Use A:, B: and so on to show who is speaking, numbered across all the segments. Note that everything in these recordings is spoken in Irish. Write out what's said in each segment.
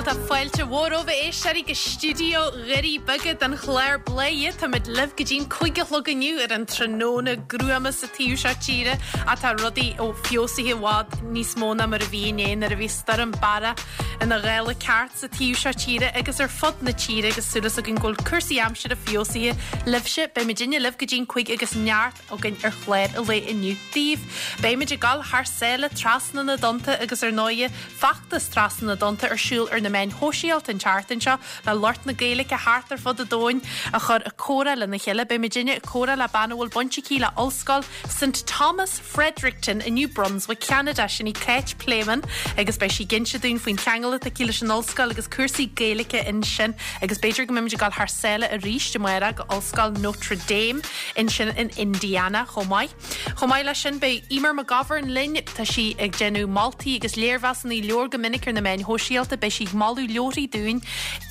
A: Bhuel tá fáilte mhór romhaibh a éisteoirí go stiúideo Dhoirí Beaga don chlár Bladhaire. Táimid libh go dtí'n 5 a chlog inniu ar an tráthnóna gruama sa taobh seo tíre ach tá rudaí ó feabhsaithe i bhfad níos mó ná mar a bhí inné nuair a bhí Stoirm Barra ina ghála ceart sa taobh seo tíre agus ar fud na tíre agus súil againn go bhfuil cúrsaí aimsire feabhsaithe libhse. Beimid inne libh go dtí'n 5 agus neart againn ar chlár an lae inniu daoibh. Beimid ag dul thar sáile trasna na dtonnta agus ar ndóighe feachtas Trasna na dTonnta ar siúl ar na meáin shóisialta an tseachtain seo le lucht na Gaeilge thart ar fud an domhain a chur ag comhrá lena chéile. Beimidinne ag comhrá le bean a bhfuil baint aici le Ollscoil St Thomas Fredericton i New Brunswick, Ceanada. Sin í Cáit Pléimeann agus beidh sí ag inse dúinn faoin cheangal atá aici leis an ollscoil agus cúrsaí Gaeilge ansin agus b'fhéidir go mbeimid ag dul thar sáile arís amárach go Ollscoil Notre Dame ansin in Indiana chomh maith. Chomh maith leis sin beidh Eimear McGovern linn. Tá sí ag déanamh moltaí agus léirmheasanna leabhar go minic ar na meáin shóisialta. Beidh sí ag moladh leabharthaí dúinn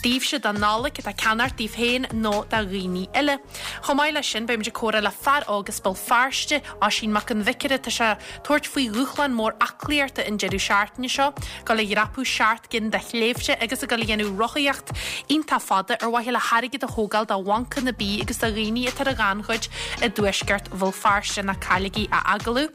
A: daoibhse don Nollaig atá le ceannacht daoibh féin nó do dhaoine eile. Chomh maith leis sin beimid ag comhrá le fear óg as Béal Feirste, Oisín Mac an Bhiocaire. Tá sé ag tabhairt faoi dhúshlán mór aclaíochta an deireadh seachtaine seo, dul a dhreapadh 7 gcinn de shléibhte agus ag dul a dhéanamh rothaíocht iontach fada ar mhaithe le hairgead a thógáil do bhancanna bídh agus do dhaoine atá ar an ghannchuid i dtuaisceart Bhéal Feirste. Ná cailligí a agallamh.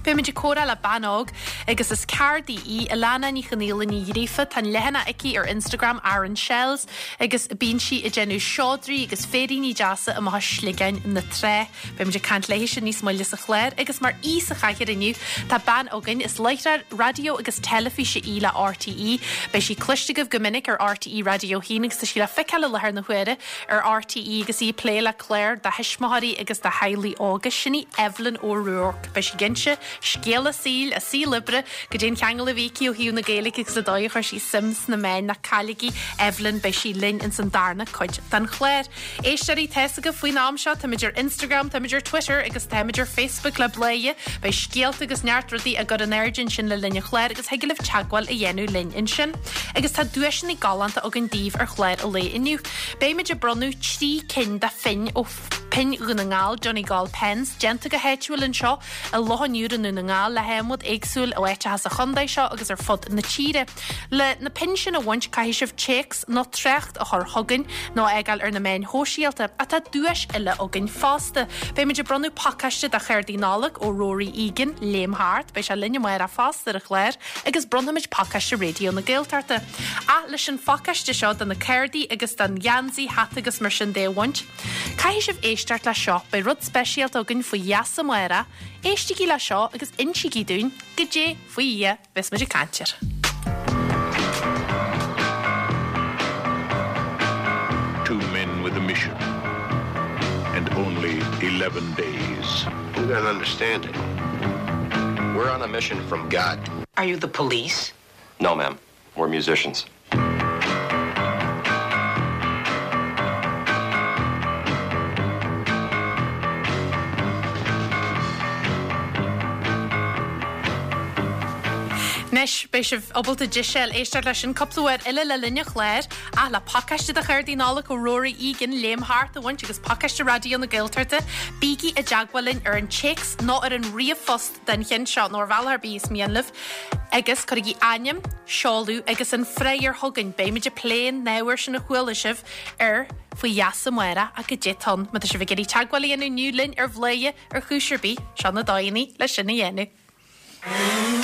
A: Beimid ag comhrá le bean óg agus is ceardaí í, Alana Ní Chonaola Ní Ghríofa. Tá an leathanach aici ar Instagram, Aran Shells, agus bíonn sí ag déanamh seodra agus féiríní deasa amach as sliogáin na trá. Beimid ag caint léithise níos moille sa chlár agus mar aoi sa chathaoir inniu tá bean againn, is láithreoir raidió agus teilifíse í le RTÉ. Beidh sí cloiste agaibh go minic ar RTÉ Raidió 1 agus tá sí le feiceáil i láthair na huaire ar RTÉ agus í ag plé le cláir do thuismitheoirí agus do theaghlaigh óga. Sin í Evelyn O'Rourke. Beidh sí ag inse scéal a saoil, a saol oibre, goidé an cheangal a bhí aici ó thaobh na Gaeilge agus an dóigh a chuir sí suim sna meáin. Ná cailligí Evelyn, beidh sí linn ins an darna cuid den chlár. Éisteoirí, tá's agaibh faoin am seo, táimid ar Instagram, táimid ar Twitter agus táimid ar Facebook le Bladhaire. Beidh scéalta agus neart rudaí á gcur in airde ansin le linn an chláir agus thig libh teagmháil a dhéanamh linn ansin. Agus tá duaiseanna galánta againn daoibh ar chlár an lae inniu. Beimid ag bronnadh 3 cinn de phinn ó Pinn Dhún na nGall, Donegal Pens, déanta go háitiúil anseo i Loch an Iúir i nDún na nGall le hadhmad éagsúil ó áiteacha sa chontae seo agus ar fud na tíre. Le na pinn sin a bhaint caithfidh sibh téacs nó trácht a chur chugainn nó a fhágáil ar na meáin shóisialta. Ach tá duais eile againn fosta. Beimid ag bronnadh pacáiste de chártaí Nollag ó Rory Egan, Léim Thart, beidh sé linn amárach fosta ar an chlár, agus bronnfaimid pacáiste Raidió na Gaeltachta. Ach leis an phacáiste seo de na cártaí agus den gheansaí, hata agus mar sin de a bhaint, caithfidh sibh éisteacht le seo, beidh rud speisialta againn faoi gheasa amárach, éistigí le seo agus insígí dúinn goidé faoi Dhia a bheas muid ag caint air.
B: Two men with a mission and only 11 days.
C: You don't understand it. We're on a mission from God.
D: Are you the police?
C: No, ma'am. We're musicians.
A: Anois, beidh sibh ábalta deis éisteacht leis sin cúpla uair eile le linn an chláir, ach le pacáiste de chártaí Nollag ó Rory Egan, Léim Thart a bhaint agus pacáiste Raidió na Gaeltachta, bígí i dteagmháil linn ar an téacs nó ar an ríomhphost den cheann seo, nó ar bhealach ar bith is mian libh, agus cuirigí ainm, seoladh agus an freagra chugainn. Beimid ag plé an ábhair sin a chuala sibh ar Faoi Gheasa amárach ach goidé atá ann. Má tá sibh ag iarraidh teagmháil a dhéanamh inniu linn ar Bhladhaire ar chúis ar bith, seo na dóigheanna le sin a dhéanamh.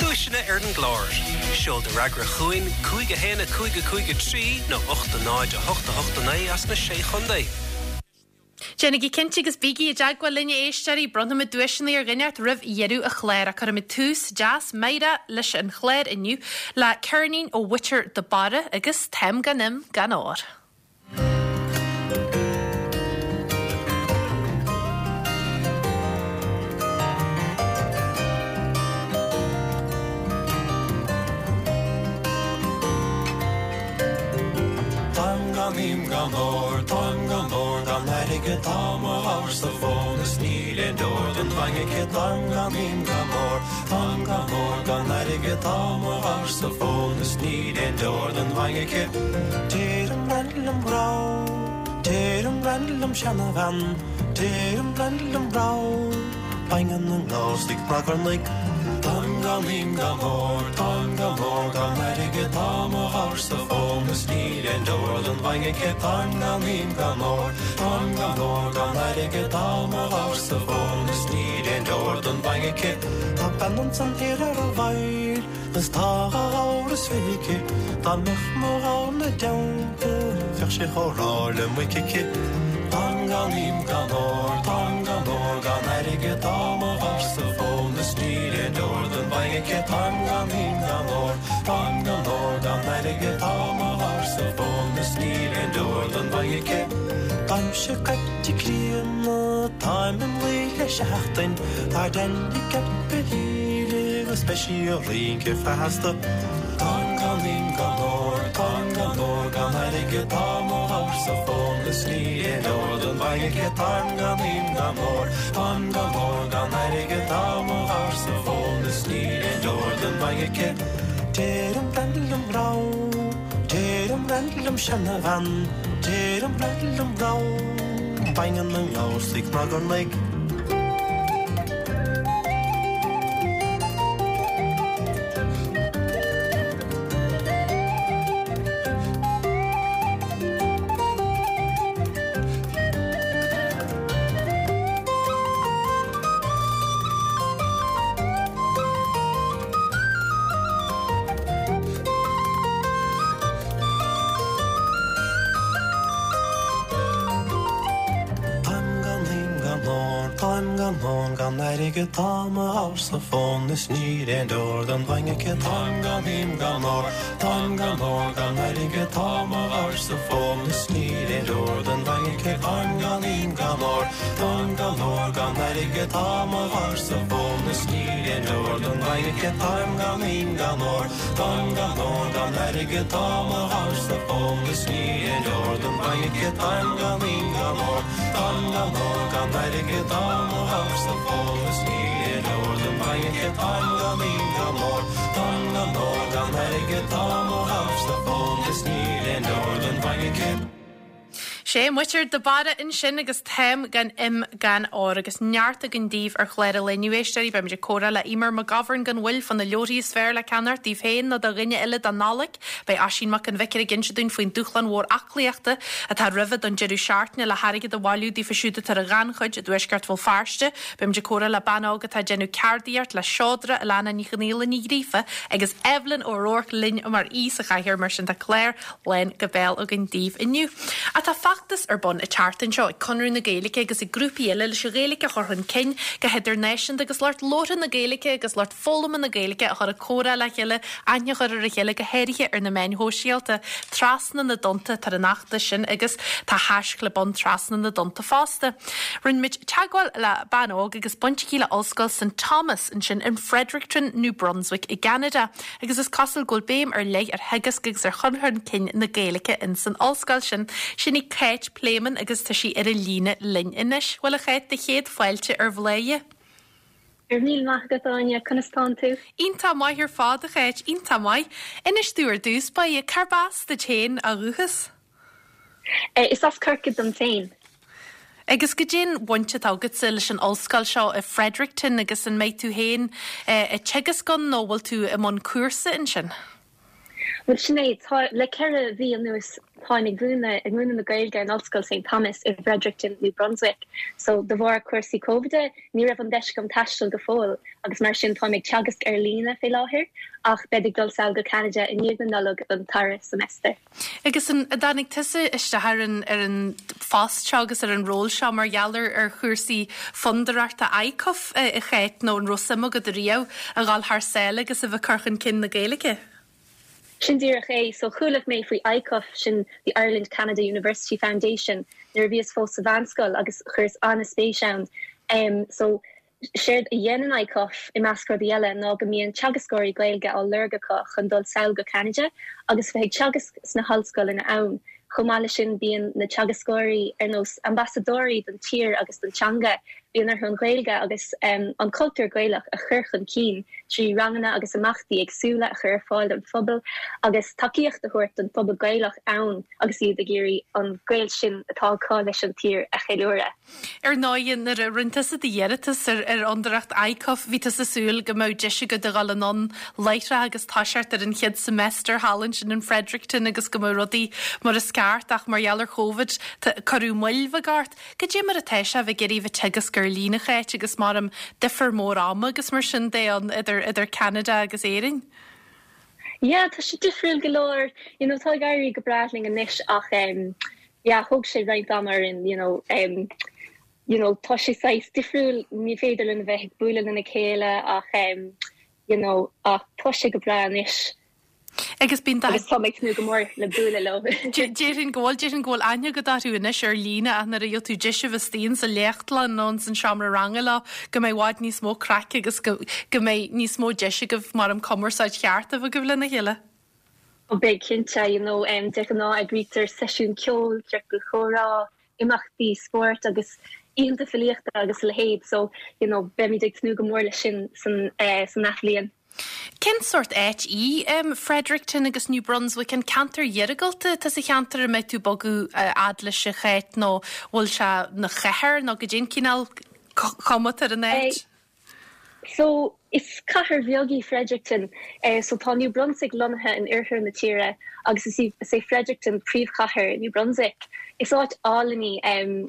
E: Duaiseanna ar an gclár. Seol do fhreagra chugainn 5 1 5 5 3 nó 8 0 8 8 9 as na Sé Chontae.
A: Déanaigí cinnte agus bígí i dteagmháil linn a éisteoirí, bronnfaimid duaiseanna ar dhuine inteacht roimh dheireadh an chláir ach cuirfimid tús deas meidhreach leis an chlár inniu le ceirnín ó Mhuintir de Barra agus Táim gan im gan ór.
F: Táim gan im gan ór, táim gan ór gan airgead, tá mo ghabhar sa mhóin is níl aon deoir don bhainne aici. Táim gan im gan ór, táim gan ór gan airgead, tá mo ghabhar sa mhóin is níl aon deoir don bhainne aici. Deirim bean liom grá, deirim bean liom seanabhean, deirim bean liom grá. Baineann an gabhar sa gcnagarnaigh. Táim gan im gan ór, táim gan ór gan airgead, tá mo ghabhar-sa fón is níl aon deor don bhainne aici. Táim gan im gan ór, táim gan ór gan airgead, tá mo ghabhar-sa fón is níl aon deor don bhainne aici. Tá bean ansan thiar ar an bhfaill is tá dha ghabhar is fiche aici, dá mbeadh mo ghabhar 'na dteannta bheadh sé chomh ráidh le muic aici. Táim gan im gan ór, táim gan ór gan airgead, tá mo ghabhar-sa fón is níl aon deor don bhainne aici. Táim gan im gan ór, táim gan ór gan airgead, tá mo ghabhar-sa fón is níl aon deor don bhainne aici. Táimse caite críonna, táim im luí le seachtain, tá Danny Capelli agus beidh sí ag rince feasta. Táim gan im gan ór, táim gan ór gan airgead, tá mo ghabhar-sa fón is níl aon deor don bhainne aici. Táim gan im gan ór, táim gan ór gan airgead, tá mo ghabhar-sa fón is níl aon deor don bhainne aici. Deirim bean liom raibh, deirim bean liom seanabhean, deirim bean liom raibh, baineann an gabhar sa gcnagarnaigh. Táim gan im gan ór, táim gan ór gan airgead, tá mo ghabhar-sa fón is níl aon deor don bhainne aici. Táim gan im gan ór, táim gan ór gan airgead, tá mo ghabhar-sa fón is níl aon deor don bhainne aici. Táim gan im gan ór, táim gan ór gan airgead, tá mo ghabhar-sa fón is níl aon deor don bhainne aici. Táim gan im gan ór, táim gan ór gan airgead, tá mo ghabhar-sa fón is níl aon deor don bhainne aici. Táim gan im gan ór, táim gan ór gan airgead, tá mo ghabhar-sa fón is níl aon deor don bhainne aici. Táim gan im gan ór, táim gan ór gan airgead, tá mo ghabhar-sa fón is níl aon deor don bhainne aici.
A: Sé muintir de Barra ansin agus Táim gan im gan ór agus neart againn daoibh ar chlár an lae inniu, a éisteoirí. Beimid ag comhrá le Eimear McGovern gan mhoill fá na leabharthaí is fearr le ceannacht daoibh féin nó do dhuine eile don Nollaig. Beidh Oisín Mac an Bhiocaire ag inse dúinn faoin dúshlán mhór aclaíochta atá roimhe don deireadh seachtaine le hairgead a bhailiú daofa siúd atá ar an ghannchuid i dtuaisceart Bhéal Feirste. Beimid ag comhrá le bean óg atá ag déanamh ceardaíocht le seodra, Alana Ní Chonghaile Ní Ghríofa agus Evelyn O'Rourke linn mar aoi sa chathaoir mar sin tá clár lán go béal againn daoibh inniu. Ach tá feachtas ar bun an tseachtain seo ag Conradh na Gaeilge agus ag grúpaí eile leis an Ghaeilge a chur chun cinn go hidirnáisiúnta agus lucht labhartha na Gaeilge agus lucht foghlama na Gaeilge a chur ag comhrá le chéile, aithne a chur ar a chéile go háirithe ar na meáin shóisialta. Trasna na dTonnta atá ar an fheachtas sin agus tá haischlib ann Trasna na dTonnta fosta. Rinne muid teagmháil le bean óg agus baint aici le Ollscoil St Thomas ansin in Fredericton, New Brunswick i gCeanada. agus is cosúil go bhfuil béim ar leith ar theagasc agus ar chur chun cinn na Gaeilge ins an ollscoil sin. Sin í Cáit Pléimeann agus tá sí ar an líne linn anois. Bhuel a Cháit, do chéad fáilte ar Bhladhaire.
D: Go raibh míle maith agat Áine, conas tánn tú?
A: Iontach maith ar fad a Cháit, iontach maith. Inis domh ar dtús báire, cárb as duit féin ó dhúchas?
D: Is as Corcaigh dom féin.
A: Agus goidé'n bhaint atá agatsa leis an ollscoil seo i Fredericton agus an mbeidh tú féin ag teagasc ann nó bhfuil tú i mbun cúrsa ansin?
D: Bhuel sin é, tá, le 4 mhí anuas táim ag múineadh, ag múineadh na Gaeilge in Ollscoil St Thomas i bhFredericton, New Brunswick. So de bharr cúrsaí Covid ní raibh an deis agam taisteal go fóill agus mar sin táim ag teagasc ar líne fé láthair ach bead ag dul sall go Ceanada i ndiaidh na Nollag don dara semester.
A: Agus an dtáinig tusa isteach ar an ar an phost seo agus ar an ról seo mar gheall ar ar chúrsaí fondúireachta ICUF a Cháit nó an raibh suim agat riamh a dhul thar sáile agus a bheith ag cur chun cinn na Gaeilge?
D: Sin díreach é. So chuala mé faoi ICUF, sin the Ireland Canada University Foundation, nuair a bhíos fós sa mheánscoil agus chuireas an-spéis ann. Em so Séard a dhéanann ICUF, i measc rudaí eile, ná go mbíonn teagascóirí Gaeilge á lorg acu chun dul sall go Ceanada agus bheith ag teagasc sna hollscoileanna ann. Chomh maith leis sin bíonn na teagascóirí ar nós ambasadóirí don tír agus don teanga. Bíonn orthu an Ghaeilge agus an cultúr Gaelach a chur chun cinn trí ranganna agus imeachtaí éagsúla a chur ar fáil don phobal agus tacaíocht a thabhairt don phobal Gaelach ann agus iad ag iarraidh an gaol sin atá acu leis an tír a cheiliúradh.
A: Ar ndóigh, nuair a rinne tusa d'iarratas ar ar Fhondúireacht ICUF, bhí tusa ag súil go mbeadh deis agat a dhul anonn láithreach agus toiseacht ar an chéad semester thall ansin in Fredericton agus go mbeadh rudaí mar is ceart ach mar gheall ar Chóvid, cuireadh moill bheag ort. Goidé mar atá sé a bheith ag iarraidh bheith ag teagasc ar líne, a Cháit, agus maram difear mór ama agus mar sin de ann idir idir Ceanada agus Éirinn?
D: Yeah, tá sé difriúil go leor. You know, tá ag éirí go breá linn anois ach em yeah, thóg sé roinnt ama orainn, you know, em you know, tá sé saghas difriúil, ní féidir linn a bheith ag bualadh lena chéile ach em you know, ach tá sé go breá anois.
A: Agus bíonn
D: Agus tá mé ag tnúth go mór le bualadh leo.
A: Déarfainn go bhfuil, déarfainn go bhfuil aithne agat orthu anois ar líne ach nuair a gheobhaidh tú deis a bheith istigh insa léachtlann nó ins an seomra ranga leo go mbeidh i bhfad níos mó craic agus go go mbeidh níos mó deis agaibh maram cumarsáid cheart a bheith agaibh lena chéile.
D: Ó beidh cinnte, you know, de ghnáth eagraítear seisiún ceoil, ciorcal comhrá, imeachtaí spóirt agus oícheanta filíochta agus a leithéid so you know beimid ag tnúth go mór leis sin san san athbhliain.
A: Cén sórt áit í Fredericton agus New Brunswick? An ceantar iargúlta atá sa cheantar a mbeidh tú ag bogadh a fhad leis a Cháit nó bhfuil sé 'na chathair nó goidé an cineál cuma atá ar an áit?
D: So, is cathair bheag í Fredericton. So, tá New Brunswick lonnaithe in oirthear na tíre agus is í, is é Fredericton príomhchathair New Brunswick. Is áit álainn í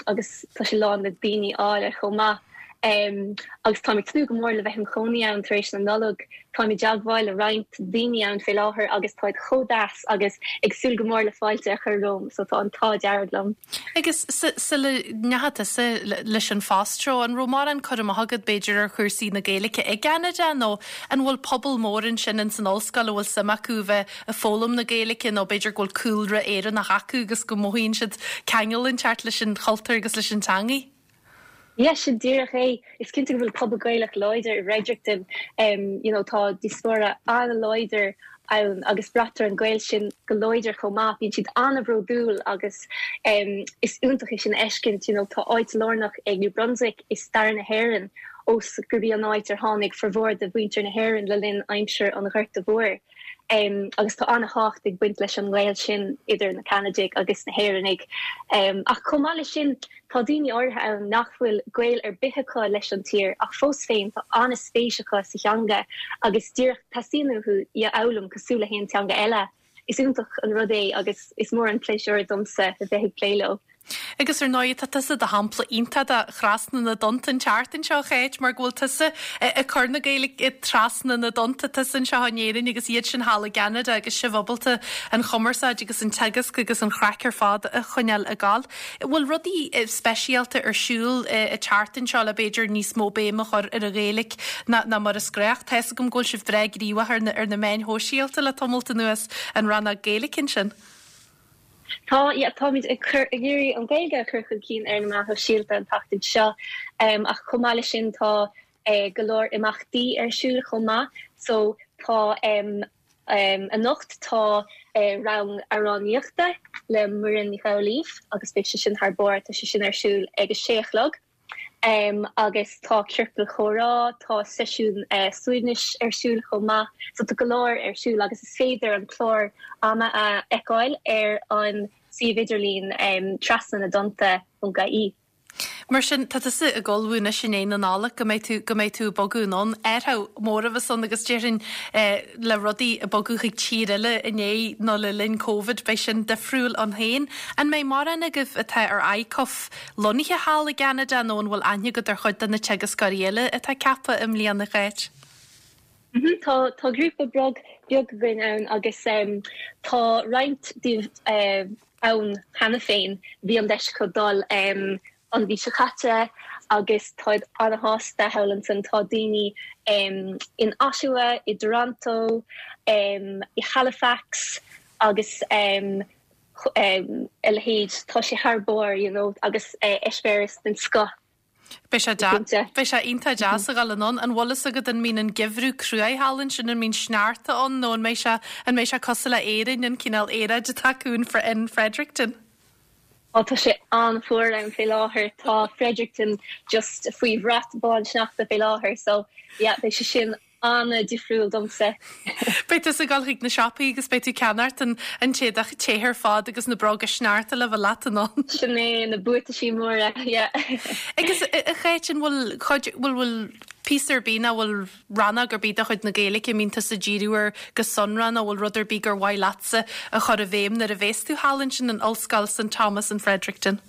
D: agus tá sé lán le daoine áille chomh maith. Agus táim ag tnúth go mór le bheith im chónaí ann tar éis na Nollag. Táim i dteagmháil le roinnt daoine ann fé láthair agus táid chomh deas agus ag súil go mór le fáilte a chur romham so tá an t-ádh dearg liom.
A: Agus sula ndeachaigh tusa leis an phost seo, an raibh mórán cur amach agat b'fhéidir ar chúrsaí na Gaeilge i gCeanada nó an bhfuil pobal mór ansin ins an ollscoil a bhfuil suim acu a bheith ag foghlaim na Gaeilge nó b'fhéidir go bhfuil cúlra Éireannach acu agus go mothaíonn siad ceangal inteacht leis an chultúr agus leis an teangaidh?
D: Yeah, sin díreach é. Is cinnte go bhfuil pobal Gaelach láidir i bhFredericton. You know, tá diaspóra an-láidir ann agus braitear an gaol sin go láidir chomh maith. Bíonn siad an-bhródúil agus is iontach é sin a fheiscint. You know, tá áit lárnach ag New Brunswick i stair na hÉireann ós gurb í an áit ar tháinig formhór de mhuintir na hÉireann le linn aimsir an Ghorta Mhóir. Agus tá an-thábhacht ag baint leis an ngaol sin idir na Ceanadaigh agus na hÉireannaigh. Ach chomh maith leis sin, tá daoine áirithe ann nach bhfuil gaol ar bith acu leis an tír ach fós féin tá an-spéis acu sa theanga agus díreach teastaíonn uathu í a fhoghlaim cosúil le haon teanga eile. Is iontach an rud é agus is mór an pléisiúr domsa a bheith ag plé leo.
A: Agus ar ndóigh, tá tusa i do shampla iontach de thrasna na dtonnta an tseachtain seo, a Cháit, mar go bhfuil tusa ag cur na Gaeilge trasna na dtonnta, tusa anseo in Éirinn agus iad sin thall i gCeanada agus sibh ábalta an chumarsáid agus an teagasc agus an chraic ar fad a choinneáil ag gabháil. Bhfuil rudaí speisialta ar siúl an tseachtain seo le b'fhéidir níos mó béim a chur ar an Ghaeilge ná mar is gnách? Tá fhios agam go bhfuil sibh breá gníomhach ar na meáin shóisialta le tamalt anuas, an rannóg Gaeilge ansin.
D: Tá, yeah, táimid ag cur, ag iarraidh an Ghaeilge a chur chun cinn ar na meáin shóisialta an tseachtain seo ach chomh maith leis sin tá go leor imeachtaí ar siúl chomh maith. So tá anocht tá rang amhránaíochta le Muireann Ní Amhlaoibh agus beidh sé sin thar barr, tá sé sin ar siúl ag a sé a chlog. Agus tá ciorcal comhrá, tá seisiún suaimhnis ar siúl chomh maith. So tá go leor ar siúl agus is féidir an clár ama a fheiceáil ar an suíomh idirlín trasna na dtonnta ponc ie.
A: Mar sin, tá tusa ag ullmhú anois i ndiaidh na Nollag go mbeidh tú, go mbeidh tú ag bogadh anonn. Athrú mór a bheas ann agus déarfainn le rudaí ag bogadh chuig tír eile i ndiaidh nó le linn Covid, beidh sin difriúil ann féin. An mbeidh mórán agaibh atá ar ICUF lonnaithe thall i gCeanada nó an bhfuil aithne agat ar chuid de na teagascóirí eile atá ceaptha i mbliana, a Cháit?
D: Tá, tá grúpa beag beag againn ann agus tá roinnt díobh ann cheana féin. Bhí an deis acu dul an mhí seo caite agus táid an-shásta thall ansin. Tá daoine in Ottawa, i dToronto, i Halifax agus a leithéid. Tá sé thar barr, you know, agus eispéireas den scoth.
A: Beidh sé deas, beidh sé iontach deas a dhul anonn. An bhfuil fhios agat an mbíonn an geimhreadh cruaidh thall ansin, an mbíonn sneachta ann nó an mbeidh sé, an mbeidh sé cosúil le Éirinn, an cineál aeráid atá acu in, in Fredericton?
D: Ó tá sé an-fhuar ann fé láthair, tá Fredericton just faoi bhrat bán sneachta fé láthair so yeah beidh sé sin an-difriúil domsa.
A: Beidh tusa ag dul chuig na siopaí agus beidh tú ag ceannacht an an t-éadach te ar fad agus na bróga sneachta le bheith leat anonn.
D: Sin é, na buataisí móra, yeah.
A: Agus a Cháit, an bhfuil cuid, bhfuil, bhfuil píosa ar bith nó bhfuil rannóg ar bith de chuid na Gaeilge a mbíonn tusa ag díriú air go sonrath nó bhfuil rud ar bith gur mhaith leatsa a chur i bhfeidhm nuair a bhéas tú thall ansin in Ollscoil St Thomas in Fredericton?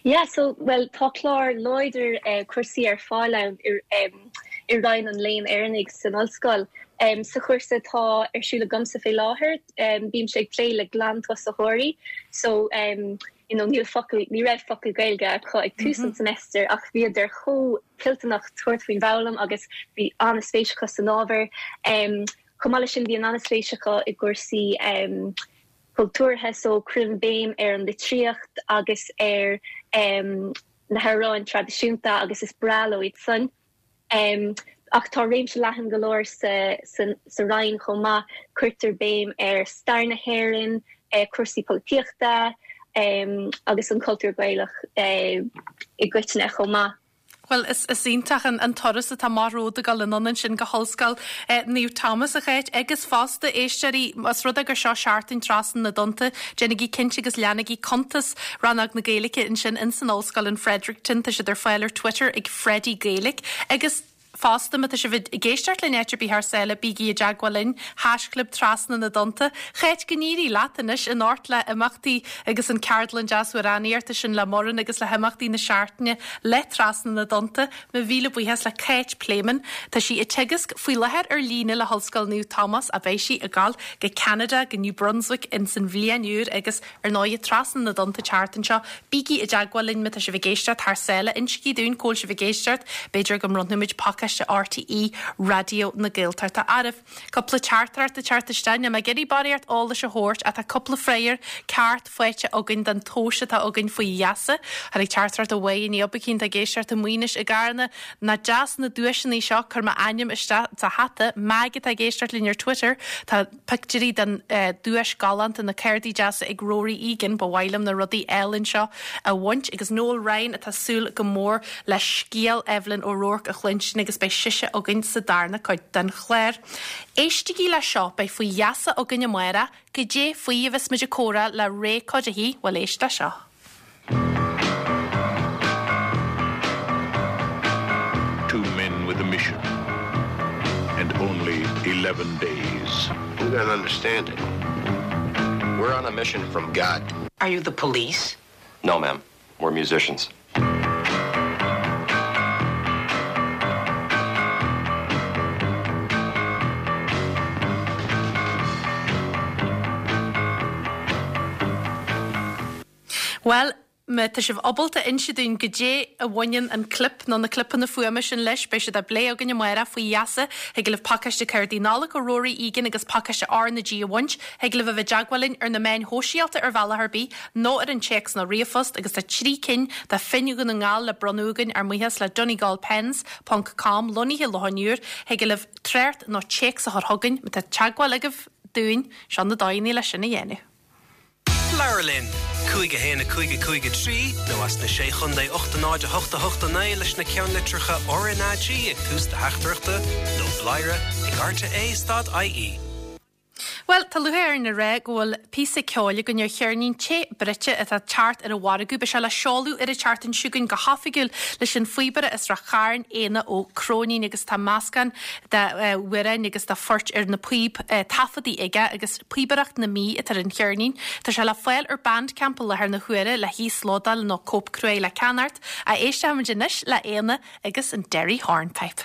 D: Yeah, so, bhuel, tá clár láidir cúrsaí ar fáil ann i Roinn an Léinn Éireannaigh san ollscoil. Sa chúrsa atá ar siúl agamsa fé láthair, bímse ag plé le glantosaitheoirí, so, you know, níl focal, ní raibh focal Gaeilge acu ag tús an semester ach bhíodar chomh toilteanach tabhairt faoin bhfoghlaim agus bhí an-spéis acu san ábhar. Chomh maith leis sin bíonn an-spéis acu i gcúrsaí cultúrtha so cuirim béim ar an litríocht agus ar na hamhráin traidisiúnta agus is breá leo iad san. Ach tá réimse leathan go leor sa Roinn chomh maith, cuirtear béim ar stair na hÉireann, cúrsaí polaitíochta agus an cultúr Gaelach i gcoitinne chomh maith.
A: Bhuel, is iontach an turas atá amach romhat ag dul anonn ansin go hOllscoil Naomh Tomás, a Cháit, agus fosta, éisteoirí, más rud é gur seo seachtain Trasna na dTonnta, déanaigí cinnte agus leanaigí cuntas Rannóg na Gaeilge ansin ins an ollscoil in Fredericton, tá siad ar fáil ar Twitter ag Freddie Gaelic agus fosta má tá sibh ag éisteacht linn áit ar bith thar sáile, bígí i dteagmháil linn, haischlib Trasna na dTonnta. Cháit, go n-éirí leat anois anocht le imeachtaí agus an ceardlann deas amhránaíochta sin le Muireann agus le himeachtaí na seachtaine le Trasna na dTonnta. Mo mhíle buíochas le Cáit Pléimeann. Tá sí ag teagasc faoi láthair ar líne le hOllscoil Naomh Tomás ach beidh sí ag gabháil go Ceanada, go New Brunswick ins an bhliain úr agus Ar ndóigh, Trasna na dTonnta an tseachtain seo, bígí i dteagmháil linn má tá sibh ag éisteacht thar sáile. Insígí dúinn cá bhfuil sibh ag éisteacht, b'fhéidir go mbronnfaimid pacáiste RTÉ Raidió na Gaeltachta oraibh. Cúpla teachtaireacht ag teacht isteach, níl mé ag iarraidh barraíocht eolais a thabhairt ach tá cúpla freagra ceart faighte againn don tomhas atá againn faoi gheasa. Tháinig teachtaireacht ó Mháire Ní Oibicín atá ag éisteacht i Maínis i gCarna. Nach deas na duaiseanna seo, cuir m'ainm isteach sa hata. Mag atá ag éisteacht linn ar Twitter, tá. Pictiúirí den duais galánta, na cárdaí deasa ag Rory Egan, ba mhaith liom na rudaí álainn seo a bhaint, agus Noel Ryan atá súil go mór le scéal Evelyn O'Rourke a chluinstin agus beidh sise againn sa darna cuid den chlár. Éistigí le seo, beidh faoi gheasa againn amárach, goidé faoi a bheas muid ag comhrá le Ray Cuddihy, bhuel éist le seo.
B: Two men with a mission and only 11 days.
C: You don't understand it. We're on a mission from God.
G: Are you the police?
C: No, ma'am. We're musicians.
A: Bhuel, má tá sibh ábalta inse dúinn goidé a bhaineann an clip nó na clipeanna fuaime sin leis, beidh siad á bplé againn amárach faoi gheasa. Thig libh pacáiste cárdaí Nollag ó Rory Egan agus pacáiste R na G a bhaint. Thig libh a bheith i dteagmháil linn ar na meáin shóisialta ar bhealach ar bith nó ar an téacs nó ríomhphost agus tá 3 cinn de phinn Dhún na nGall le bronnadh againn ár mbuíochas le Donegal Pens ponc com lonnaithe i Loch an Iúir. Thig libh trácht nó téacs a chur chugainn má tá teagmháil agaibh dúinn. Seo na dóigheanna leis sin a dhéanamh.
E: Labhair linn! 5 1 5 5 3 nó as na Sé Chontae 8 0 8 8 9 leis na ceannlitreacha RnaG ag tús do theachtaireachta nó bladhaire ag rte stad ie.
A: Bhuel, tá lúcháir orainn a rá go bhfuil píosa ceoil againn ar cheirnín te bruite atá ag teacht ar an mhargadh. Beidh sé le seoladh ar an tseachtain seo chugainn go hoifigiúil leis an phíobaire as Ráth Chairn, Éanna Ó Cróinín agus tá meascán d'amhráin agus de phoirt ar na píob taifeadtaí aige agus Píobaireacht na Mí atá ar an cheirnín. Tá sé le fáil ar Bandcamp i láthair na huaire le híoslódáil nó cóip cruaidh le ceannacht. Ach éistfimid anois le Éanna agus an Derry Hornpipe.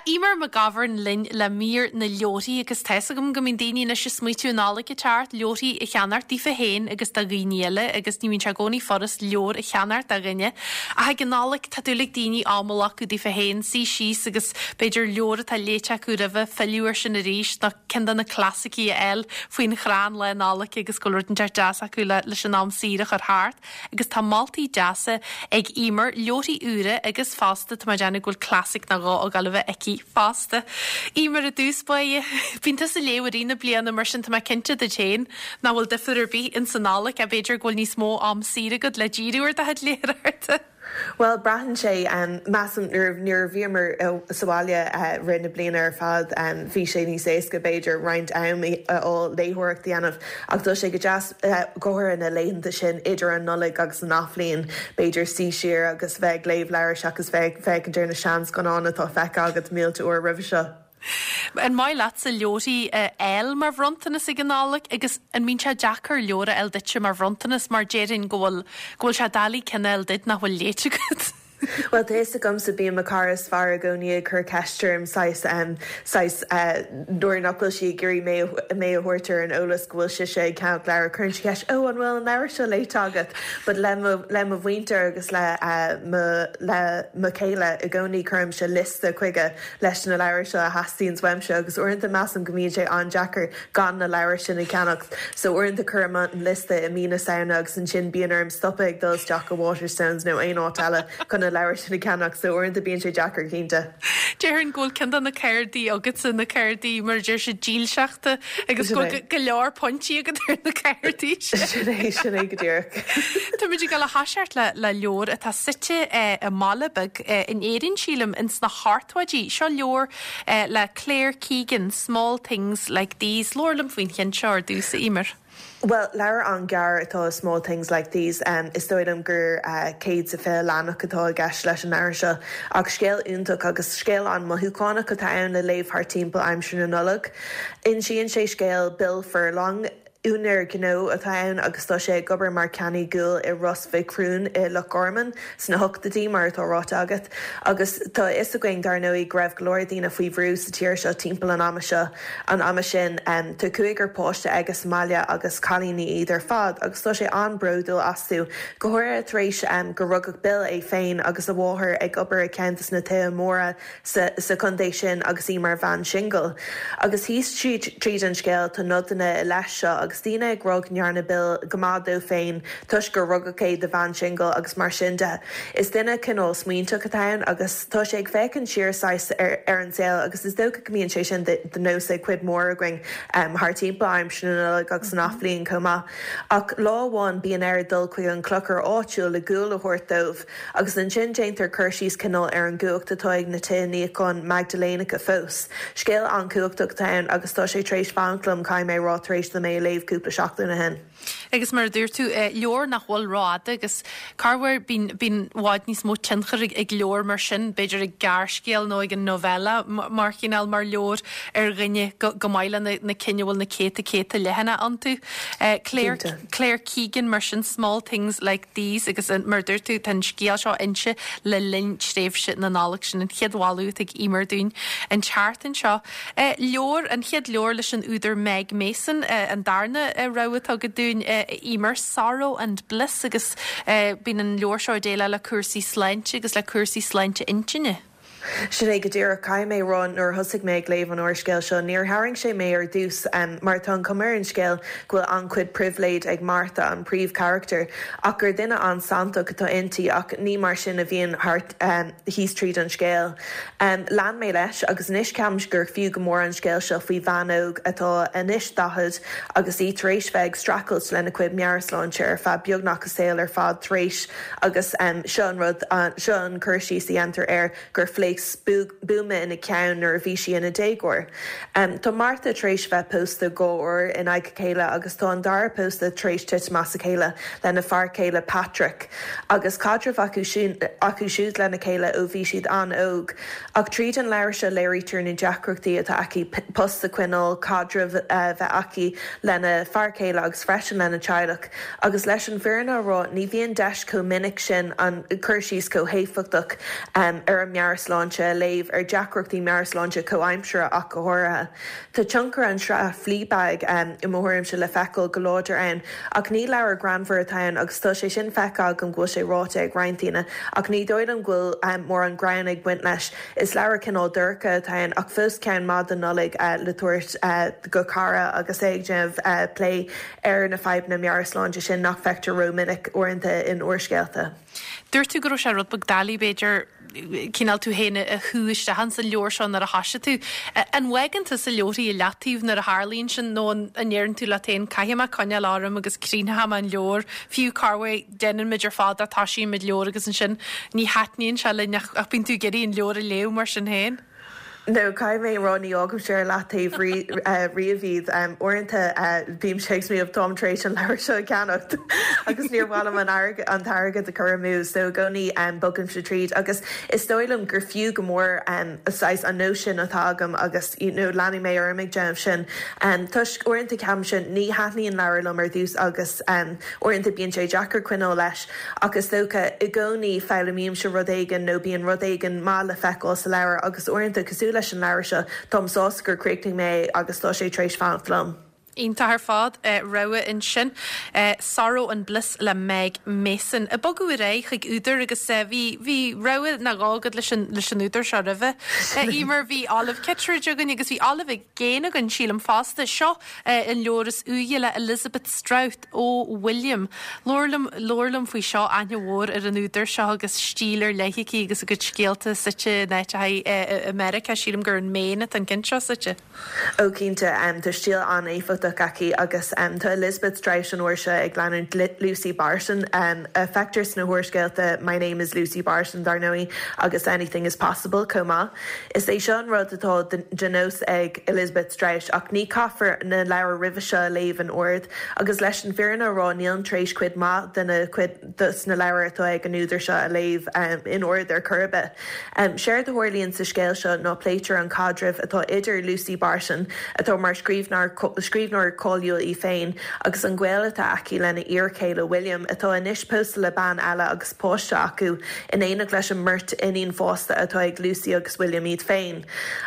A: Eimear McGovern linn le mír na leabharthaí agus tá 'fhios agam go mbíonn daoine anois ag smaoitiú an Nollaig ag teacht, leabharthaí a cheannacht daofa féin agus do dhaoine eile agus ní bhíonn sé i gcónaí furast leabhar a cheannacht do dhuine ach ag an Nollaig tá dúil ag daoine am a ghlacadh daofa féin, suí síos agus b'fhéidir leabhar atá léite acu roimhe, filleadh air sin arís nó ceann de na clasaicí a fháil faoin chrann Lá Nollag agus go bhfuil rud inteacht deas acu leis an am saor a chur thart. Agus tá moltaí deasa ag Eimear, leabharthaí úra agus fosta tá mé ag déanamh go bhfuil classic nó dhó ag dul a bheith aici fosta. Eimear i dtús báire, bíonn tusa ag léamh i rith na bliana mar sin tá mé cinnte duit féin nach bhfuil difear ar bith ins an Nollaig ach b'fhéidir go bhfuil níos mó am saor agat le díriú ar do chuid léitheoireachta.
G: Bhuel, braitheann sé. Measaim nuair a bhíomar sa bhaile rith na bliana ar fad, bhí sé níos éasca, b'fhéidir, roinnt am a fháil léitheoireacht a dhéanamh. Ach tá sé go deas, go háirithe na laethanta sin idir an Nollaig agus an Athbhliain, b'fhéidir suí siar agus bheith ag léamh leabhair seachas bheith ag féachaint ar na seanscannáin atá feicthe agat mílte uair roimhe seo.
A: An maith leatsa leabharthaí a fháil mar bhronntanas ag an Nollaig agus an mbíonn sé deacair leabhar a fháil duitse mar bhronntanas mar déarfainn go bhfuil go bhfuil sé doiligh ceann a fháil duit nach bhfuil léite agat?
G: Bhuel, tá fhios agamsa, bíonn mo chara is fearr i gcónaí ag cur ceist orm saghas, saghas nuair nach bhfuil sí ag iarraidh mé mé a thabhairt ar an eolas go bhfuil sise ag ceannach leabhar, cuireann sí ceist, 'Ó, an bhfuil an leabhar seo léite agat? But le mo le mo mhuintir agus le mo le mo chéile i gcónaí cuirimse liosta chuige leis na leabhair seo a theastaíonns uaimse agus uaireanta measaim go mbíonn sé an-deacair gan na leabhair sin a cheannacht so uaireanta cuirim an liosta i mí na Samhna agus ansin bíonn orm stopadh ag dul isteach go Waterstones nó aon áit eile chun na leabhair sin a cheannacht so uaireanta bíonn sé deacair cinnte.
A: Déarfainn go bhfuil ceann de na cártaí agatsa, na cártaí mar a deir siad dílseachta agus go bhfuil go leor pointí agat ar na cártaí
G: sin. Sin é, sin é go díreach.
A: Táimid ag dul a thoiseacht le le leabhar atá suite i mbaile beag in Éirinn, sílim, ins na hochtóidí. Seo leabhar le Claire Keegan, Small Things Like These. Labhair liom faoin cheann seo ar dtús, a Eimear.
G: Bhuel, leabhar an-ghearr atá i Small Things Like These. Is dóigh liom gur 120 leathanach atá i gceist leis an leabhar seo. Ach scéal iontach agus scéal an-mothúchánach atá ann le léamh thart timpeall aimsir na Nollag. Insíonn sé scéal Bill Furlong, Úinéir gnó atá ann agus tá sé ag obair mar cheannaí guail i Ros Mhic Thriúin i Loch Garman sna hochtóidí, mar atá ráite agat. Agus tá a fhios againn, dar ndóigh, go raibh go leor daoine faoi bhrú sa tír seo timpeall an ama seo, an ama sin. Tá cúigear páiste aige sa mbaile agus cailíní iad ar fad agus tá sé an-bhródúil astu, go háirithe tar éis gur rugadh Bill é féin agus a mháthair ag obair i gceann de na tithe móra sa sa chontae sin agus í mar bhean singil. Agus thíos tríd an scéal tá nodanna i leith seo agus daoine ag rá go ndearna Bill go maith dó féin toisc gur rugadh é do bhean singil agus mar sin de. Is duine cineál smaointeach atá ann agus tá sé ag féachaint siar saghas ar ar an saol agus is dócha go mbíonn sé sin de nós ag cuid mhór againn thar timpeall aimsir na Nollag agus an Athbhliain chomh maith. Ach lá amháin bíonn air dul chuig an clochar áitiúil le gual a thabhairt dóibh. Agus ansin déantar cur síos cineál ar an gcumhacht atá ag na tithe níocháin Maigdiléanacha fós. Scéal an-chumhachtach atá ann agus tá sé tar éis fanacht liom, caithfidh mé a rá, tar éis dom é a léamh cúpla seachtain ó shin.
A: Agus mar a dúirt tú, leabhar nach bhfuil rófhada agus corruair bíonn bíonn i bhfad níos mó tionchair ag leabhar mar sin, b'fhéidir ag gearrscéal nó ag an novella mar chineál mar leabhar ar dhuine go go maith le na cinn a bhfuil na céadta céadta leathanach iontu. Claire Claire Keegan mar sin, Small Things Like These agus mar a dúirt tú, tá an scéal seo inste le linn tréimhse na Nollag. Sin an chéad mholadh atá ag Eimear dúinn an tseachtain seo. Leabhar, an chéad leabhar leis an údar Meg Mason, an darna rogha atá agat dúinn, a Eimear, Sorrow and Bliss agus bíonn an leabhar seo ag déileáil le cúrsaí sláinte agus le cúrsaí sláinte intinne.
G: Sin é go díreach. Caithfidh mé a rá, nuair a thosaigh mé ag léamh an úrscéil seo, níor tharraing sé mé ar dtús, mar tá an chuma ar an scéal go bhfuil an-chuid pribhléid ag Martha, an príomhcharachtar, ach gur duine an-santach atá inti, ach ní mar sin a bhíonn thart thíos tríd an scéal. Lean mé leis, agus anois ceapaim gur fiú go mór an scéal seo faoi bhean óg atá anois 40 agus í tar éis bheith ag streachailt lena cuid meabhairshláinte ar feadh beagnach a saol ar fad tar éis Agus seo an rud, seo an cur síos a dhéantar air, gur phléasc buama ina ceann nuair a bhí sí ina déagóir. Tá Martha tar éis bheith pósta dhá uair in aghaidh a chéile agus tá an dara pósadh tar éis titim as a chéile lena fear céile Patrick agus caidreamh acu acu siúd lena chéile ó bhí siad an-óg. Ach tríd an leabhar seo léirítear na deacrachtaí atá aici post a choinneáil, caidreamh a bheith aici lena fear céile agus freisin lena teaghlach. Agus leis an bhfírinne a rá, ní bhíonn deis chomh minic sin an cur síos chomh héifeachtach ar an meabhairshláinte. meabhairshláinte a léamh, ar deacrachtaí meabhairshláinte comhaimseartha ach go háirithe. Tá tionchar an sraith Fleabag, i mo thuairimse, le feiceáil go láidir ann, ach ní leabhar greannmhar atá ann agus tá sé sin feicthe agam go bhfuil sé ráite ag roinnt daoine, ach ní dóigh liom go bhfuil mórán greann ag baint leis. Is leabhar cineál dorcha atá ann ach fós ceann maith don Nollaig le tabhairt go cara agus é ag déanamh plé ar na fadhbanna meabhairshláinte sin nach bhfeictear rómhinic uaireanta in úrscéalta.
A: Dúirt tú go raibh sé rud beag doiligh, b'fhéidir, cineál tú féin a shú isteach ins an leabhar seo nuair a thoisigh tú. An bhfágann tusa leabharthaí i leataobh nuair a tharlaíonn sin nó an ndeireann tú leat féin 'caithfidh mé coinneáil orm agus críochnóidh mé an leabhar', fiú corruair déanann muid ar fad é, toisíonn muid leabhar agus ansin ní thaitníonn sé linn ach bíonn tú ag iarraidh an leabhar a léamh mar sin féin.
G: No, caithfidh mé a rá, ní fhágaimse ar leataobh riamh iad. Uaireanta bímse ag smaoineamh, táim tar éis an leabhar seo a cheannacht agus níor mhaith liom an t-airgead a chur amú, so i gcónaí bogaimse tríd. Agus is dóigh liom gur fiú go mór saghas an nós sin atá agam agus you know leanfaidh mé orm ag déanamh sin. Toisc uaireanta ceapaimse ní thaitníonn leabhar liom ar dtús agus uaireanta bíonn sé deacair coinneáil leis. Ach is dócha, i gcónaí, foghlaimímse rud éigin nó bíonn rud éigin maith le feiceáil sa leabhar agus uaireanta, cosúil leis an leabhar seo, táim sásta gur chríochnaigh mé é agus tá sé tar éis fanacht liom.
A: Iontach ar fad. Rogha ansin. Sorrow and Bliss le Meg Mason. Ag bogadh ar aghaidh chuig údar agus bhí, bhí rogha nó dhó agat leis an, leis an údar seo roimhe. Emer, bhí Olive Kitteridge againn agus bhí Olive Again againn, sílim, fosta. Seo an leabhar is úire le Elizabeth Strout. Oh William. Labhair liom, labhair liom faoi seo, aithne mhór ar an údar seo agus stíl ar leith aici agus a cuid scéalta suite in áiteacha i Meiriceá, sílim gur in Maine atá an ceann seo suite.
G: Ó cinnte, tá stíl an-éifeachtach aici agus tá Elizabeth Strout an uair seo ag leanúint Lucy Barton, a feictear sna húrscéalta My Name is Lucy Barton, dar ndóigh, agus Anything is Possible chomh maith. Is é seo an rud atá de nós ag Elizabeth Strout ach ní caithfear na leabhair roimhe seo a léamh in ord agus leis an bhfírinne a rá nílim tar éis cuid mhaith de na cuid dos na leabhair atá ag an údar seo a léamh in ord ar chor ar bith. Séard a tharlaíonn sa scéal seo ná pléitear an caidreamh atá idir Lucy Barton, atá mar scríbhneoir cáiliúil í féin, agus an gaol atá aici lena iarchéile William, atá anois pósta le bean eile agus páiste acu, in éineacht leis an mbeirt iníon fásta atá ag Lucy agus William iad féin.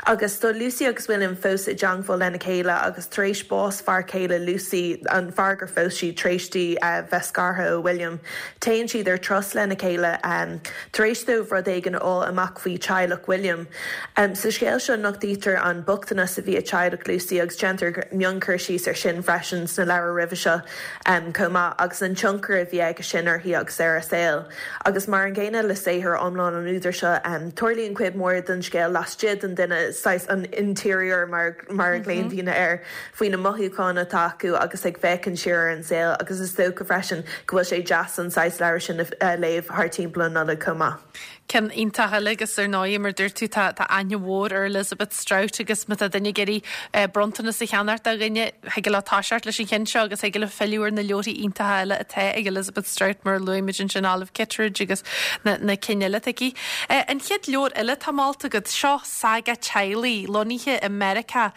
G: Agus tá Lucy agus William fós i dteangmháil lena chéile agus tar éis bás fear céile Lucy, an fear gur phós sí tar éis di bheith scartha ó William, téann siad ar turas lena chéile tar éis dóibh rud éigin a fháil amach faoi teaghlach William. Sa scéal seo nochtaítear an bochtanas a bhí ag teaghlach Lucy agus déantar mionchur síos ar sin freisin sna leabhair roimhe seo chomh maith agus an tionchar a bhí aige sin uirthi agus ar a saol. Agus mar an gcéanna le saothar iomlán an údair seo, tarlaíonn cuid mhór den scéal laistigh den duine, saghas an interior mar mar a ghlaonn daoine air, faoi na mothúcháin atá acu agus ag féachaint siar ar an saol agus is dócha freisin go bhfuil sé deas an saghas leabhar sin a léamh thar timpeall an Nollaig chomh maith.
A: Ceann iontach eile agus ar ndóigh mar dúirt tú tá tá aithne mhór ar Elizabeth Strout agus má tá duine ag iarraidh bronntanas a cheannacht do dhuine, thig leo toiseacht leis an cheann seo agus thig leo filleadh ar na leabharthaí iontacha eile atá ag Elizabeth Strout mar a luaigh muid ansin Olive Kitteridge agus na na cinn eile atá aici. An chéad leabhar eile atá molta agat, seo saga teaghlaigh lonnaithe i Meiriceá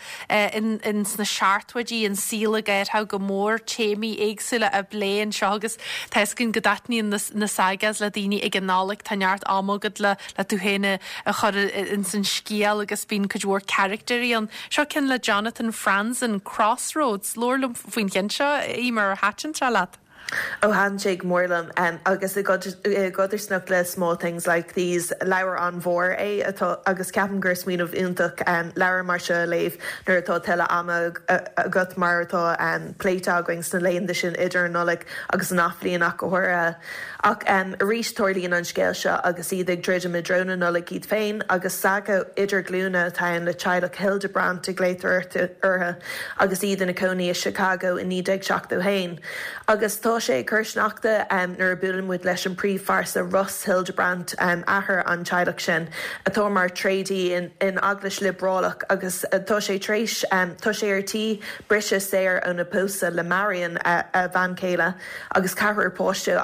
A: in in sna seachtóidí, an saol ag athrú go mór, téamaí éagsúla á bplé anseo agus tá fhios againn go dtaitníonn na na sagas le daoine ag an Nollaig, tá neart ama agat le le tú féin a a chur ins an scéal agus bíonn cuid mhór caractéirí ann. Seo ceann le Jonathan Franzen, Crossroads. Labhair liom faoin cheann seo, Eimear, ar thaitin sé leat?
G: Ó thaitin sé go mór liom agus i gcodarsnacht le Small Things Like These, leabhar an-mhór é atá agus ceapaim gur smaoineamh iontach leabhar mar seo a léamh nuair atá tuilleadh ama agat mar atá pléite againn sna laethanta sin idir an Nollaig agus an Athbhliain ach go háirithe. Ach arís tarlaíonn an scéal seo agus iad ag druidim i dtreo na Nollag iad féin agus saga idirghlúine atá ann le teaghlach Hildebrandt a ghlaotar orthu agus iad ina cónaí i Chicago i 1971. Agus tá sé ag cur sneachta nuair a buaileann muid leis an príomhphearsa Russ Hildebrandt, athair an teaghlach sin, atá mar tréadaí in eaglais liobrálach agus tá sé tar éis, tá sé ar tí briseadh saor óna pósadh le Marion, a bhean chéile. agus ceathrar páiste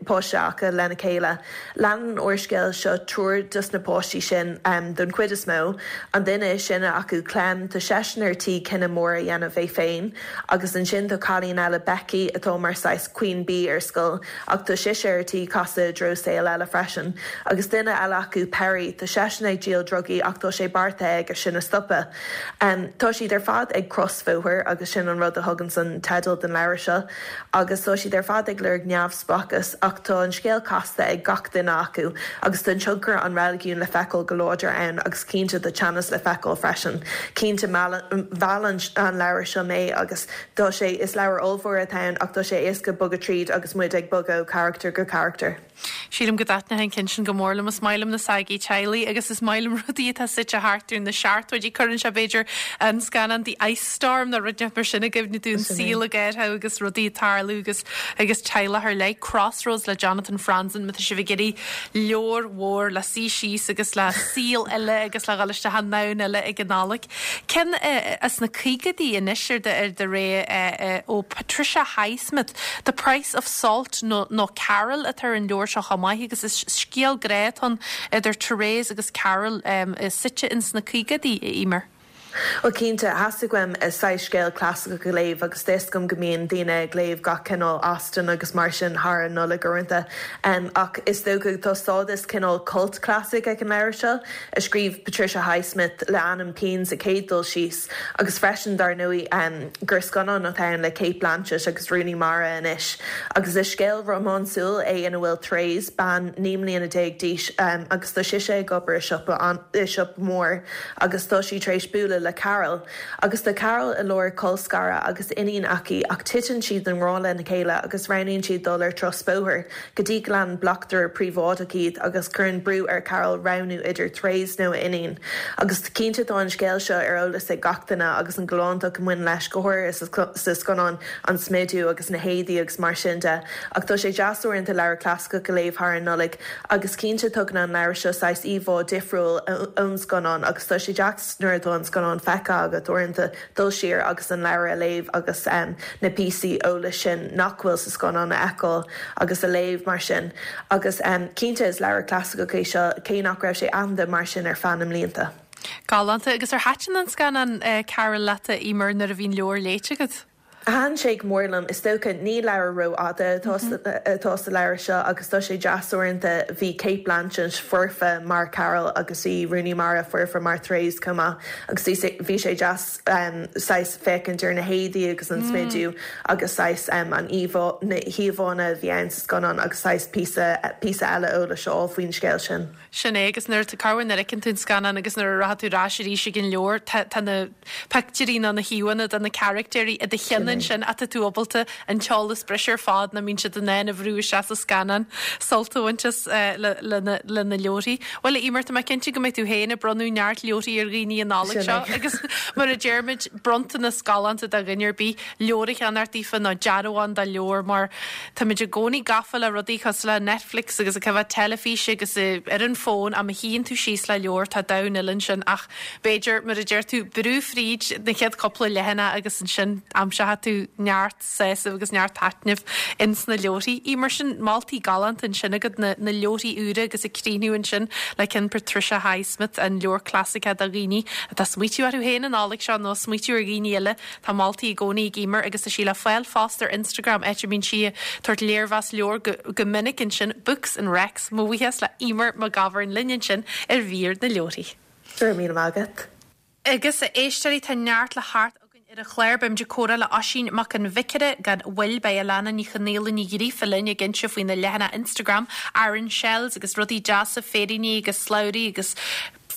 G: páiste acu lena chéile. Leanann an úrscéal seo triúr dos na páistí sin don chuid is mó. An duine is sine acu, Clem, tá seisean ar tí cinneadh mór a dhéanamh é féin. Agus ansin tá cailín eile, Becky, atá mar saghas. Queen Bee ar scoil ach tá sise ar tí casadh i dtreo saol eile freisin. Agus duine eile acu, Perry, tá seisean ag díol drugaí ach tá sé beartaithe aige sin a stopadh. Tá siad ar fad ag crosbhóthar agus sin an rud a thuganns an teideal don leabhar seo. Agus tá siad ar fad ag lorg neamhspleáchas ach tá an scéal casta ag gach duine acu agus tá tionchar an reiligiúin le feiceáil go láidir ann agus cinnte tá teannas le feiceáil freisin. Cinnte mheall an leabhar seo mé agus tá sé, is leabhar ollmhór atá ann ach tá sé éasca bogadh tríd agus muid ag bogadh ó charachtar go carachtar.
A: Sílim go dtaitneodh an ceann sin go mór liom. Is maith liom na sagaí teaghlaigh agus is maith liom rudaí atá suite thart ar na seachtóidí. Cuireann sé, b'fhéidir, an scannán The Ice Storm nó rud inteacht mar sin i gcuimhne dúinn, saol ag athrú agus rudaí ag tarlú agus agus teaghlach ar leith. Crossroads le Jonathan Franzen, má tá sibh ag iarraidh leabhar mhór le suí síos agus le saol eile agus le dhul isteach i ndomhan eile ag an Nollaig. Ceann as na caogaidí anois ar do ar do rogha ó Patricia Highsmith, The Price of Salt nó nó Carol atá ar an leabhar seo chomh maith agus is scéal grá atá ann idir Therese agus Carol suite ins na caogaidí, a Eimear.
G: Bhuel cinnte, theastaigh uaim saghas scéal clasaiceach a léamh agus tá 'fhios agam go mbíonn daoine ag léamh gach cineál Austen agus mar sin thar an Nollaig uaireanta ach is dócha tá stádas cineál cult classic ag an leabhar seo. a scríobh Patricia Highsmith le ainm pinn sa chéad dul síos, agus freisin, dar ndóigh, gur scannán atá ann le Cate Blanchett agus Rooney Mara anois. Agus is scéal rómánsúil é ina bhfuil Therese, bean 19 mbliana d'aois, agus tá sise ag obair i siopa i siopa mór agus tá sí tar éis bualadh le Carol. Agus tá Carol i lár colscaradh agus iníon aici ach titeann siad i ngrá lena chéile agus roghnaíonn siad dul ar turas bóthair. go dtí go leanann bleachtaire príobháideach iad agus cuireann brú ar Carol roghnú idir Therese nó a iníon. Agus cinnte tá an scéal seo ar eolas ag gach duine agus an galántacht a bhain leis, go háirithe sa scannán, an smidiú agus na héadaí agus mar sin de. Ach tá sé deas uaireanta leabhar clasaiceach a léamh thar an Nollaig agus cinnte tugann an leabhar seo saghas íomhá difriúil ón scannán agus tá sé deas nuair atá an scannán feicthe agat uaireanta dul siar agus an leabhar a léamh agus na píosaí eolais sin nach bhfuil sa scannán a fheiceáil agus a léamh mar sin. Agus cinnte is leabhar clasaiceach é seo, cé nach raibh sé aitheanta mar sin ar feadh na mblianta.
A: Galánta. Agus ar thaitin an scannán Carol leat, a Eimear, nuair a bhí an leabhar léite agat?
G: Thaitin sé go mór liom. Is dócha, ní leabhar rófhada atá sa leabhar seo agus tá sé deas uaireanta. Bhí Cate Blanchett foirfe mar Carol agus bhí Rooney Mara foirfe mar Therese chomh maith agus bhí sé deas saghas féachaint ar na héadaí agus an smidiú agus saghas an íomhá, na híomhánna a bhí ann sa scannán agus saghas píosa, píosa eile eolais a fháil faoin scéal sin.
A: Sin é, agus nuair, corruair nuair a fheiceann tú an scannán agus nuair a rachaidh tú ar ais arís ag an leabhar, tá, tá na pictiúirí nó na híomhánna de na caractéirí i do cheann ansin ach tá tú ábalta an t-eolas breise ar fad nach mbíonn siad in ann a bhrú isteach sa scannán, sult a bhaint as le, le na, le na leabharthaí. Bhuel, a Eimear, tá mé cinnte go mbeidh tú féin ag bronnadh neart leabharthaí ar dhaoine an Nollaig seo agus mar a deirimid, bronntanas galánta do dhuine ar bith, leabhar a cheannacht daofa nó dearbhán de leabhar mar Táimid i gcónaí gafa le rudaí cosúil le Netflix agus ag coimhéad teilifíse agus ar an bhfón ach má shuíonn tú síos le leabhar tá domhan eile ansin ach b'fhéidir, mar a deir tú, brú fríd na chéad cúpla leathanach agus ansin aimseoidh tú neart sásaimh agus neart taitnimh ins na leabharthaí. Eimear, sin moltaí galánta ansin agat, na na leabharthaí úra agus ag críochnú ansin le ceann Patricia Highsmith, an leabhar clasaiceach do dhaoine atá ag smaoitiú orthu féin an Nollaig seo nó ag smaoitiú ar dhaoine eile. Tá moltaí i gcónaí ag Eimear agus tá sí le fáil fosta ar Instagram áit a mbíonn sí ag tabhairt léirmheas leabhar go go minic ansin, Books and Recs. Mo bhuíochas le Eimear McGovern linn ansin ar mhír na leabharthaí.
G: Go raibh míle maith agat.
A: Agus a éisteoirí, tá neart le theacht againn ar an chlár. Beimid ag comhrá le Oisín Mac an Bhiocaire gan mhoill. Beidh Alana Ní Chonaola Ní Ghríofa linn ag inse faoina leathanach Instagram, Aran Shells, agus rudaí deasa, féiríní agus slabhraí agus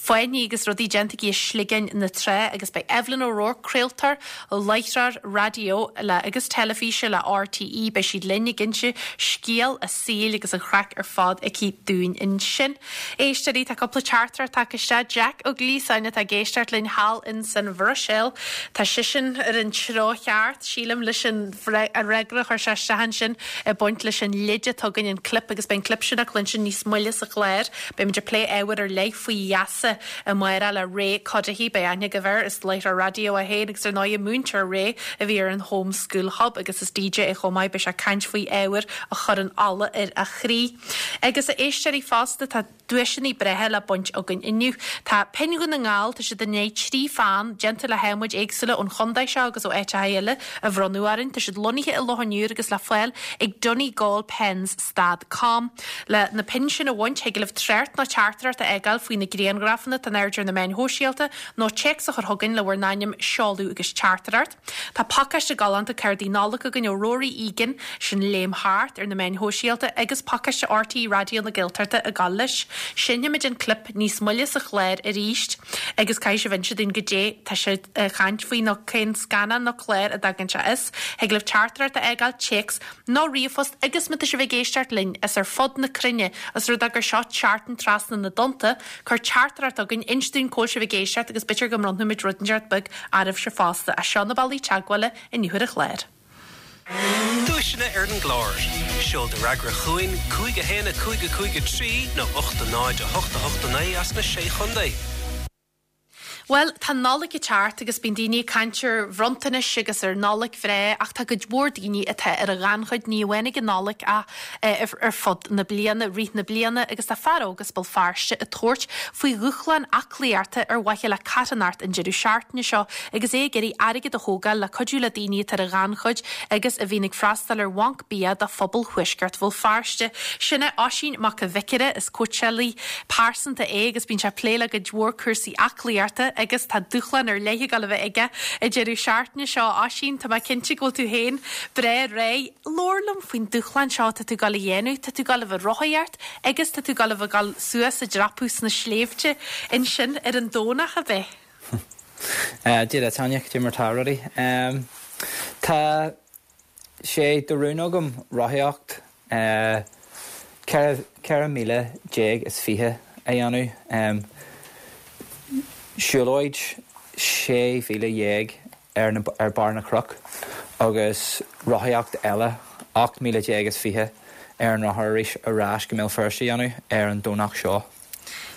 A: fáinní agus rudaí déanta aici i sligeáin na trá agus beidh Evelyn O'Rourke, craoltóir, láithreoir raidió le agus teilifíse le RTÉ, beidh sí linn ag inse scéal a saoil agus an chraic ar fad aici dúinn ansin. Éisteoirí, tá cúpla teachtaireacht tagtha isteach. Jack Ó Gliasáin atá ag éisteacht linn thall in san Bhruiséil. Tá seisean ar an treo cheart, sílim, leis an fhreagra a chuir sé isteach ansin ag baint leis an leid atá againn, an clip, agus beidh an clip sin le cluinstin níos moille sa chlár. Beimid ag plé ábhar ar leith faoi gheasa. Gaeltachta amárach le Ray Cuddihy. Beidh aithne agaibh air, is láithreoir raidió é féin agus ar ndóigh múinteoir Ray a bhí ar an Home School Hub agus is DJ é chomh maith. Beidh sé ag caint faoi ábhair a chuireann ola ar a chroí. Agus a éisteoirí fosta, tá duaiseanna breátha le baint againn inniu. Tá Pinn Dhún na nGall, tá siad i ndiaidh 3 pheann, déanta le hadhmaid éagsúla ón chontae seo agus ó áiteacha eile, a bhronnadh orainn. Tá siad lonnaithe i Loch an Iúir agus le fáil ag Donegalpens stad com. Le na pinn sin a bhaint, thig libh trácht nó teachtaireacht a fhágáil faoi na grianghrafanna atá in airde ar na meáin shóisialta nó téacs a chur chugainn le bhur n-ainm, seoladh agus teachtaireacht. Tá pacáiste galánta cártaí Nollag againn ó Rory Egan, sin Léim Thart ar na meáin shóisialta, agus pacáiste RTÉ Raidió na Gaeltachta ag gabháil leis. Seinnfimid an clip níos moille sa chlár arís agus caithfidh sibh inse dúinn goidé tá sé ag caint faoi nó cén scannán nó clár a dtagann sé as. Thig libh teachtaireacht a fhágáil, téacs nó ríomhphost agus má tá sibh ag éisteacht linn as ar fud na cruinne, os rud é gur seo seachtain trasna na dtonnta, Cuir teachtaireacht chugainn, inis dúinn cá bhfuil sibh ag éisteacht agus b'fhéidir go mbronnfaimid rud inteacht beag oraibhse fosta. Seo na bealaí teagmhála inniu ar an chlár.
E: Duaiseanna ar an gclár. Seol do fhreagra chugainn, 5 1 5 5 3 nó 8 0 8 8 9 as na Sé Chontae.
A: Bhuel, tá an Nollaig ag teacht agus bíonn daoine ag caint ar bhronntanais agus ar Nollaig bhreá ach tá cuid mhór daoine atá ar an ghannchuid, ní amháin ag an Nollaig ach ar fud na bliana, rith na bliana agus tá fear óg as Béal Feirste ag tabhairt faoi dhúshlán aclaíochta ar mhaithe le carthanacht an deireadh seachtaine seo agus é ag iarraidh airgead a thógáil le cuidiú le daoine atá ar an ghannchuid agus a bhíonn ag freastal ar bhanc bia do phobal thuaisceart Bhéal Feirste. Sin é Oisín Mac a' Bhiocaire, is cóitseálaí pearsanta é agus bíonn sé ag plé le cuid mhór cúrsaí aclaíochta agus tá dúshlán ar leith ag dul a bheith aige an deireadh seachtaine seo. Oisín, tá mé cinnte go bhfuil tú féin breá réidh. Labhair liom faoin dúshlán seo atá tú ag dul a dhéanamh. Tá tú ag dul a bheith ag rothaíocht agus tá tú ag dul a bheith ag dul suas ag dreapadh sna sléibhte ansin ar an Domhnach, ab
H: ea? Dia duit, Áine, cad é mar tá rudaí? Tá sé de rún agam rothaíocht 14 míle is 20 a dhéanamh, siúlóid 16 mhíle ar ar barr na gcnoc agus rothaíocht eile 18 míle is 20 ar an rothar arís ar ais go mBéal Feirste a dhéanamh ar an Domhnach seo.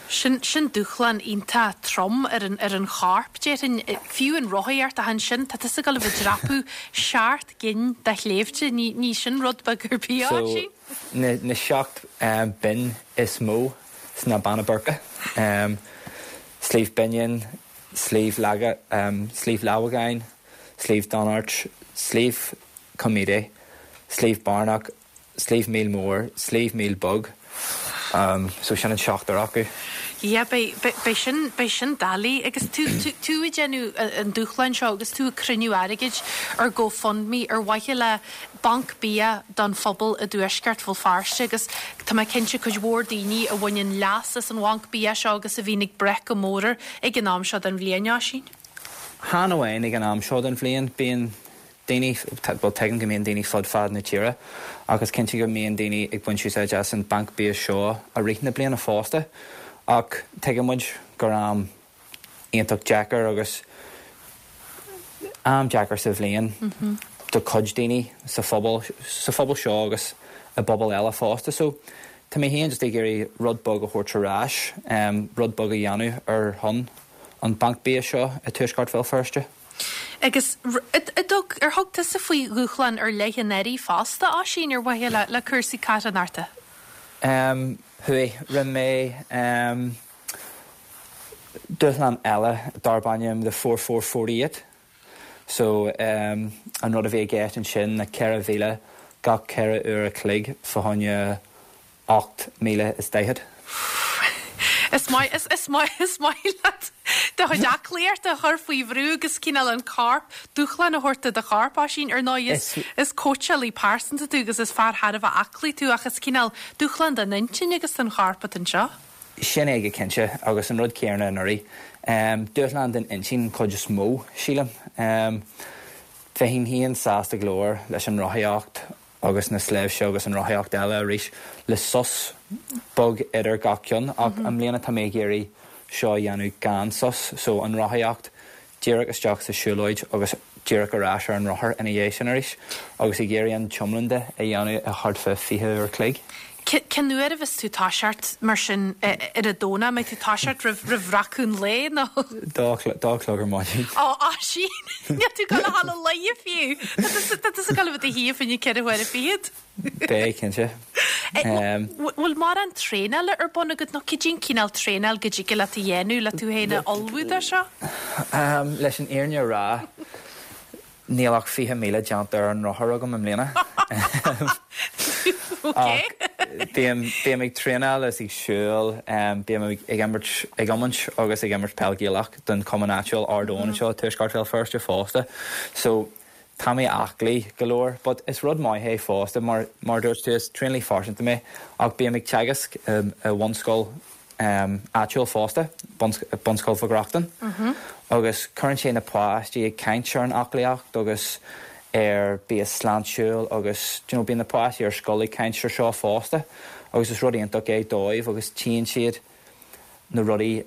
A: Sin, sin dúshlán iontach trom ar an, ar an chorp, déarfainn. Fiú an rothaíocht ach ansin tá tusa ag dul a bheith ag dreapadh seacht gcinn de shléibhte, ní, ní sin rud beag ar bith,
H: So, Oisín. na, na seacht binn is mó sna Beanna Boirche, Sliabh Binneáin, Sliabh Laga, Sliabh Lámhagáin, Sliabh Donairt, Sliabh Com Míde, Sliabh Bearnach, Sliabh Míl Mór, Sliabh Míl Beag, so sin an seachtar acu.
A: Yeah, beidh, beidh sin, beidh sin doiligh. Agus tú, tú, tú ag déanamh an dúshláin seo agus tú ag cruinniú airgid ar GoFundMe ar mhaithe le banc bia don phobal i dtuaisceart Bhéal Feirste agus tá mé cinnte cuid mhór daoine a bhaineann leas as an bhanc bia seo agus a bhíonn ag brath go mór air ag an am seo den bhliain, Oisín.
H: Chan amháin ag an am seo den bhliain, bíonn daoine, bhuel tuigim go mbíonn daoine fud fad na tíre ach is cinnte go mbíonn daoine ag baint úsáid as an banc bia seo i rith na bliana fosta ach tuigeann muid gur am iontach deacair agus am deacair sa bhliain do chuid daoine sa phobal, sa phobal seo agus i bpobail eile fosta so tá mé féin just ag iarraidh rud beag a thabhairt ar ais, rud beag a dhéanamh ar shon an banc bia seo i dtuaisceart Bhéal Feirste.
A: Agus ar thug tusa faoi dhúshlán ar leith anuraidh fosta, Oisín, ar mhaithe le cúrsaí carthanachta?
H: Chuaigh. Rinne mé dúshlán eile darb ainm The 4448. So an rud a bhí i gceist ansin ná 4,000 gach 4 uair a chloig fá choinne 48,040.
A: Is maith, is, is maith, is maith leat do chuid aclaíochta a chur faoi bhrú agus cineál an corp, dúshlán a thabhairt do do chorp, Oisín. Ar ndóigh, is, is cóitseálaí pearsanta tú agus is fear thar a bheith aclaí tú ach is cineál dúshlán don intinn agus don chorp atá anseo.
H: Sin é go cinnte, agus an rud céanna anuraidh. Dúshlán don intinn an chuid is mó, sílim. Bheinn féin sásta go leor leis an rothaíocht agus na sléibhte agus an rothaíocht eile arís le sos beag idir gach ceann ach i mbliana tá mé ag iarraidh seo a dhéanamh gan sos so an rothaíocht díreach isteach sa siúlóid agus díreach ar ais ar an rothar ina dhiaidh sin arís agus ag iarraidh an t-iomlán de a dhéanamh i thart fá 20 uair a chloig.
A: Cén uair a bheas tú toiseacht mar sin ar an Domhnach? An mbeidh tú toiseacht roimh roimh bhreacadh an lae nó?
H: Dó dó a chlog ar maidin.
A: Ó Oisín! Níl tú ag dul a dhul a luí fiú! Tá tusa tá tusa ag dul a bheith i do shuí fá choinne 4 huaire fichead.
H: Beidh, cinnte.
A: Bhfuil mórán traenála ar bun agat nó cad é an cineál traenáil go dtig leat a dhéanamh le tú féin a ullmhú dó seo?
H: Leis an fhírinne a rá, níl ach 20,000 déanta ar an rothar agam i mbliana. Ach bím, bím ag traenáil is ag siúl, bím ag imirt, ag iomáint agus ag imirt peil Gaelach don chumann áitiúil Ard Eoin anseo i Tuaisceart Bhéal Feirste fosta. So, Tá mé aclaí go leor, but is rud maith é fosta, mar mar a dúirt tú, is traenálaí phearsanta mé, ach bím ag teagasc i bhunscoil áitiúil fosta, Bunscoil Mhic Reachtain, agus cuireann sé na páistí ag caint ar an aclaíocht agus ar bia sláintiúil agus do you know bíonn na páistí ar scoil ag caint ar seo fosta agus is rud iontach é dóibh agus tchíonn siad na rudaí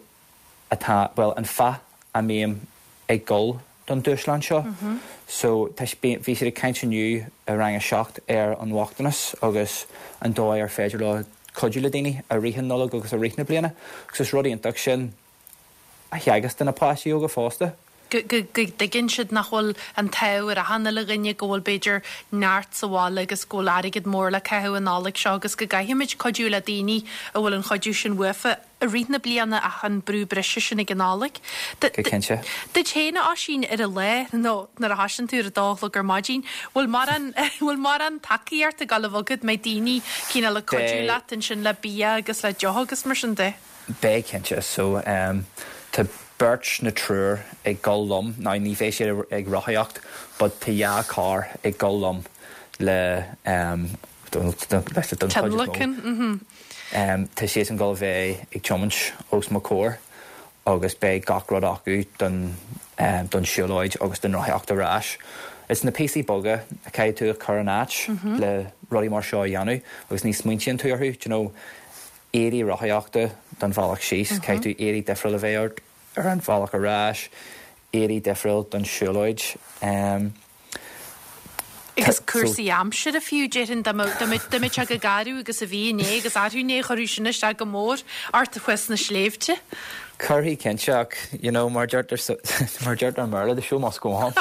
H: atá, bhuel, an fáth a mbím ag dul don dúshlán seo. So, tá, bhí siad ag caint inniu i rang a 7 ar an bhochtanas agus an dóigh ar féidir leo cuidiú le daoine i rith an Nollag agus i rith na bliana. Agus is rud iontach sin a theagasc do na páistí óga fosta.
A: go dtuigeann siad nach bhfuil an t-ádh ar achan uile dhuine, go bhfuil b'fhéidir neart sa bhaile agus go bhfuil airgead mór le caitheamh an Nollaig seo agus go gcaithfimid cuidiú le daoine a bhfuil an chuidiú sin uafa i rith na bliana ach an brú breise sin ag an Nollaig.
H: Go cinnte.
A: Duit féin, a Oisín, ar an lá nó nuair a thoisíonn tú ar a dó a chlog ar maidin, bhfuil mórán bhfuil mórán tacaíocht ag dul a bheith agat, mbeidh daoine cineál ag cuidiú leat ansin le bia agus le deoch agus mar sin de?
H: Beidh, cinnte. So, tá beirt nó triúr ag dul liom. Now, ní bheidh siad ag rothaíocht but tá dhá carr ag dul liom le, don chuid is mó.
A: Tionlacan, mhm.
H: Tá siadsan ag dul a bheith ag tiomáint os mo chomhair agus beidh gach rud acu don, don siúlóid agus don rothaíocht ar ais. Is na píosaí beaga a chaithfidh tú a chur in áit le rudaí mar seo a dhéanamh agus ní smaointíonn tú orthu, do you know. éadaí rothaíochta don bhealach síos, caithfidh tú éadaí difriúil a bheith ort ar an bhealach ar ais, éadaí difriúil don siúlóid.
A: Agus cúrsaí aimsire fiú, déarfainn, dá mbeadh sé chomh garbh agus a bhí inné agus arú inné, chuirfeadh sin isteach go mór ort thuas sna sléibhte.
H: Cuirfidh cinnte ach, you know, mar deirtear mar deirtear i mBéarla, the show must go on.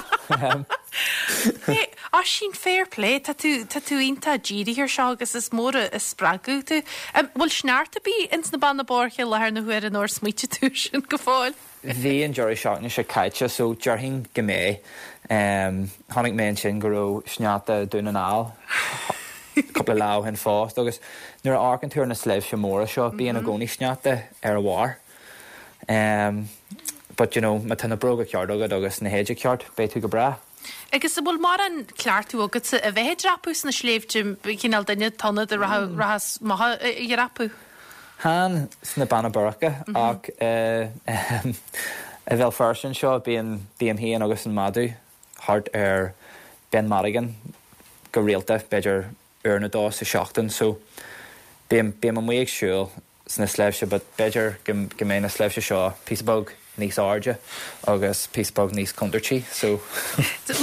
A: Oisín, fair play, tá tú, tá tú iontach dírithe ar seo agus is mór an spreagadh tú. Bhfuil sneachta ar bith ins na Beanna Boirche i láthair na huaire nó ar smaoitigh tú air sin go fóill?
H: Bhí an deireadh seachtaine seo caite so déarfainn go mbeidh. Chonaic mé ansin go raibh sneachta i Dún na nGall cúpla lá ó shin fosta agus nuair a amharcann tú ar na sléibhte móra seo bíonn i gcónaí sneachta ar a bharr. But you know má tá na bróga ceart agat agus na héide ceart beidh tú go breá.
A: Agus an bhfuil mórán cleachtadh agatsa a bheith ag dreapadh sna sléibhte, cineál duine atá ann a rachas amach a dhreapadh?
H: Chan sna Beanna Boirche ach i Bhéal Feirste anseo bíonn, bím féin agus an madadh thart ar Ben Madigan go rialta, b'fhéidir uair nó dó sa seachtain so bím, bím amuigh ag siúl sna sléibhte but b'fhéidir go go mbeidh na sléibhte seo píosa beag níos airde agus píosa beag níos contúirtí so.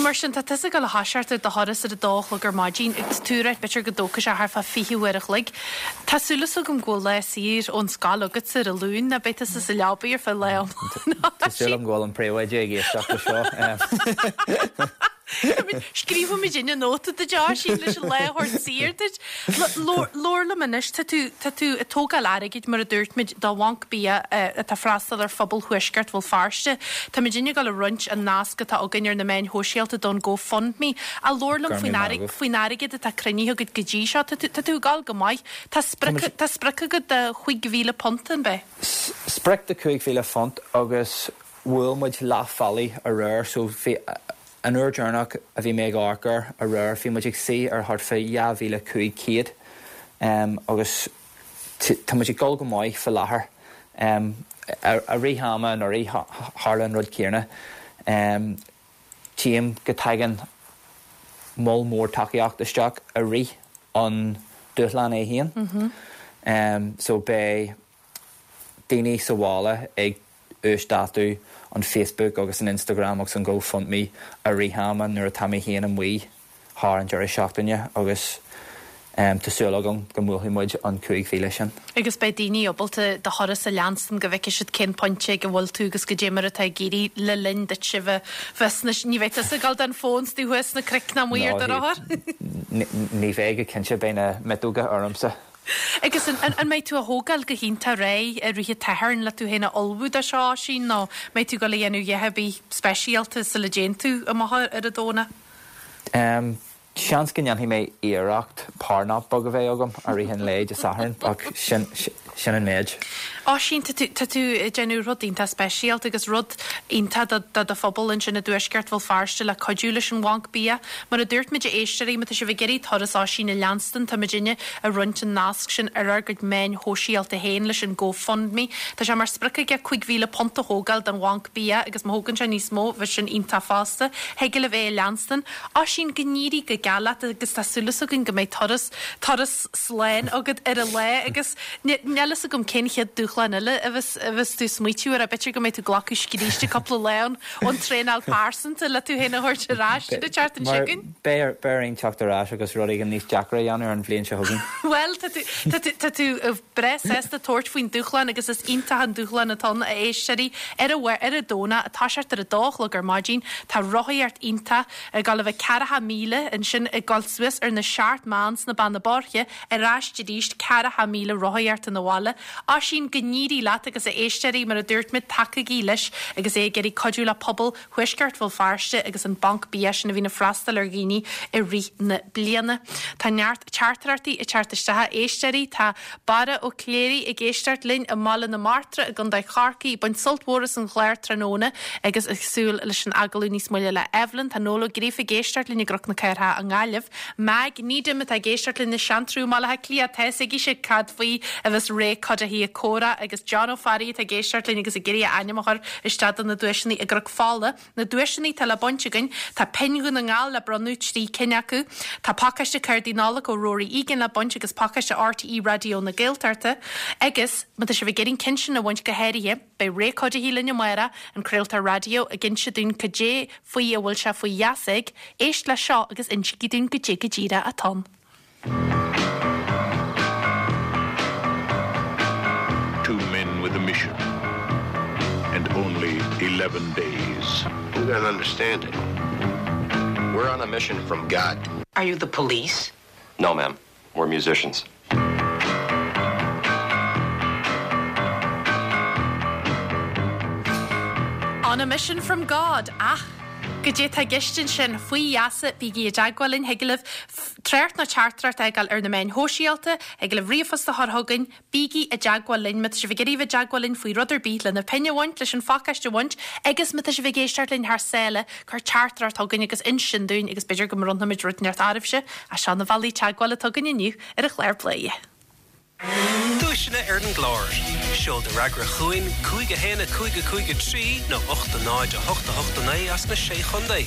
A: Mar sin, tá tusa ag dul a thoiseacht ar do thuras ar a dó a chlog ar maidin agus tú ag ráit b'fhéidir go dtógfaidh sé thart fá 20 uair a chloig. Tá súil agam go bhfuil lá saor ón scoil agatsa ar an Luan, ná beidh tusa sa leabaidh ar feadh lá
H: iomlán. Tá súil agam go bhfuil an príomhoide ag éisteacht le seo.
A: Scríobfaimid inne nóta duit, Oisín, leis an lá a thabhairt saor duit. Labhair liom anois, tá tú, tá tú ag tógáil airgid, mar a dúirt muid, do Bhanc Bia atá ag freastal ar phobal Thuaisceart Bhéal Feirste. Táimid ag gabháil a roinnt an nasc atá againn ar na meáin shóisialta don GoFundMe. Ach labhair liom faoin airgead, faoin airgead atá cruinnithe agat go dtí seo. Tá tú, tá tú ag gabháil go maith. Tá sprioc, tá sprioc agat de £5,000, an b'ea?
H: Sprioc de £5,000 agus bhuail muid leath bealaigh aréir so bhí, An uair deireanach a bhí mé ag amharc air aréir bhí muid ag suí ar thart fá 2,500 agus tá muid ag dul go maith fá láthair. I rith ama anuraidh tharla an rud céanna. Tchím go dtagann moll mór tacaíocht isteach i rith an dúshlán é féin. So beidh daoine sa bhaile ag uasdátú an Facebook agus an Instagram agus an GoFundMe i rith ama nuair atá mé féin amuigh thar an deireadh seachtaine agus. Tá súil agam go mbuailfidh muid an 5,000 sin.
A: Agus beidh daoine ábalta do thuras a leanstan go bhfeicfidh siad cén pointe ag a bhfuil tú agus goidé mar atá ag éirí le linn duit a bheith sna, ní bheidh tusa ag dul don fón 's tú thuas sna cnoic ná amuigh ar do rothar.
H: Ní bheidh go cinnte, beidh na miotóga ormsa.
A: Agus an mbeidh tú á thógáil go hiontach réidh i rith an tSathairn le tú féin a ullmhú do seo, Oisín, nó mbeidh tú ag dul a dhéanamh a dhath ar bith speisialta sula dtéann tú amach ar an Domhnach?
H: Seans go ndéanfaidh mé iarracht power nap beag a bheith agam i rith an lae Dé Sathairn ach sin sin an méid.
A: Oisín, tá tú tá tú ag déanamh rud iontach speisialta agus rud iontach do do do phobal ansin i dTuaisceart Bhéal Feirste le cuidiú leis an Bhanc Bia. Mar a dúirt muid a éisteoirí, má tá sibh ag iarraidh turas Oisín a leanstan, tá muidinne ag roinnt an nasc sin ar ár gcuid meáin shóisialta féin leis an GoFundMe. Tá sé mar sprioc aige £5,000 a thógáil don Bhanc Bia agus má thógann sé níos mó, bheadh sin iontach fosta. Thig libh é a leanstan. Oisín, go n-éirí go geal leat agus tá súil againn go mbeidh turas, turas slán agat ar an lá agus níl fhios agam cén chéad dúshlán eile a bheas, a bheas tú ag smaoitiú air, b'fhéidir go mbeidh tú ag glacadh scríste cúpla lá ón, ón traenáil pearsanta le tú féin a thabhairt ar ais an tseachtain seo chugainn.
H: Beidh, beidh orainn teacht ar ais agus rud éigin níos deacra a dhéanamh ar an bhliain seo chugainn.
A: Bhuel, tá tú, tá tú, tá tú breá sásta tabhairt faoin dúshlán agus is iontach an dúshlán atá ann, a éisteoirí. Ar an, ar an Domhnach, ag toiseacht ar a dó a chlog ar maidin, tá rothaíocht iontach ag dul a bheith ceathracha míle, ansin ag dul suas ar na Seacht mBeann sna Beanna Boirche, ar ais arís, ceathracha míle rothaíocht 'na bhaile. Oisín, go n-éirí leat agus a éisteoirí, mar a dúirt muid, tacaígí leis agus é ag iarraidh cuidiú le pobal Thuaisceart Bhéal Feirste agus an Banc Bia sin a bhíonn ag freastal ar dhaoine i rith na bliana. Tá neart teachtaireachtaí ag teacht isteach a éisteoirí. Tá Barra Ó Cléirigh ag éisteacht linn i mBaile na Martra i gContae Chorcaí ag baint sult mhór as an chlár tráthnóna agus ag súil leis an agallamh níos moille le Evelyn. Tá Noel Ó Gríofa ag éisteacht linn i gCnoc na Cathrach i nGaillimh. Mag Needham atá ag éisteacht linn i Seantrú i mBaile Átha Cliath. Tá fhios aici cad faoi a bheas Ray Cuddihy ag comhrá agus John Ó Fearraigh atá ag éisteacht linn agus ag iarraidh a ainm a chur isteach do na duaiseanna i gCnoc Fola. Na duaiseanna atá le baint againn, tá pinn Dhún na nGall le bronnadh, 3 cinn acu. Tá pacáiste cártaí Nollag ó Rory Egan le baint agus pacáiste RTÉ Raidió na Gaeltachta. Agus, má tá sibh ag iarraidh an ceann sin a bhaint go háirithe, beidh Ray Cuddihy linn amárach, an craoltóir raidió, ag inse dúinn cad é faoi a bhfuil sé faoi gheasa ag. Éist leis seo agus insígí dúinn goidé go díreach atá ann.
B: Two men with a mission and only 11 days.
C: You don't understand it. We're on a mission from God.
I: Are you the police?
C: No, ma'am. We're musicians.
A: On a mission from God, ach goidé tá i gceist ansin, faoi gheasa, bígí i dteagmháil linn, thig libh trácht nó teachtaireacht a fhágáil ar na meáin shóisialta, thig libh ríomhphost a chur chugainn, bígí i dteagmháil linn má tá sibh ag iarraidh bheith i dteagmháil linn faoi rud ar bith, lena pinn a bhaint, leis an phacáiste a bhaint, agus má tá sibh ag éisteacht linn thar sáile, cuir teachtaireacht chugainn agus inis dúinn agus b'fhéidir go mbronnfaimid rud inteacht oraibhse. Ach seo na bealaí teagmhála atá againn inniu ar an chlár Bladhaire.
E: Duaiseanna ar an gclár. Seol do fhreagra chugainn, 5 1 5 5 3 nó 8 0 8 8 9 as na Sé Chontae.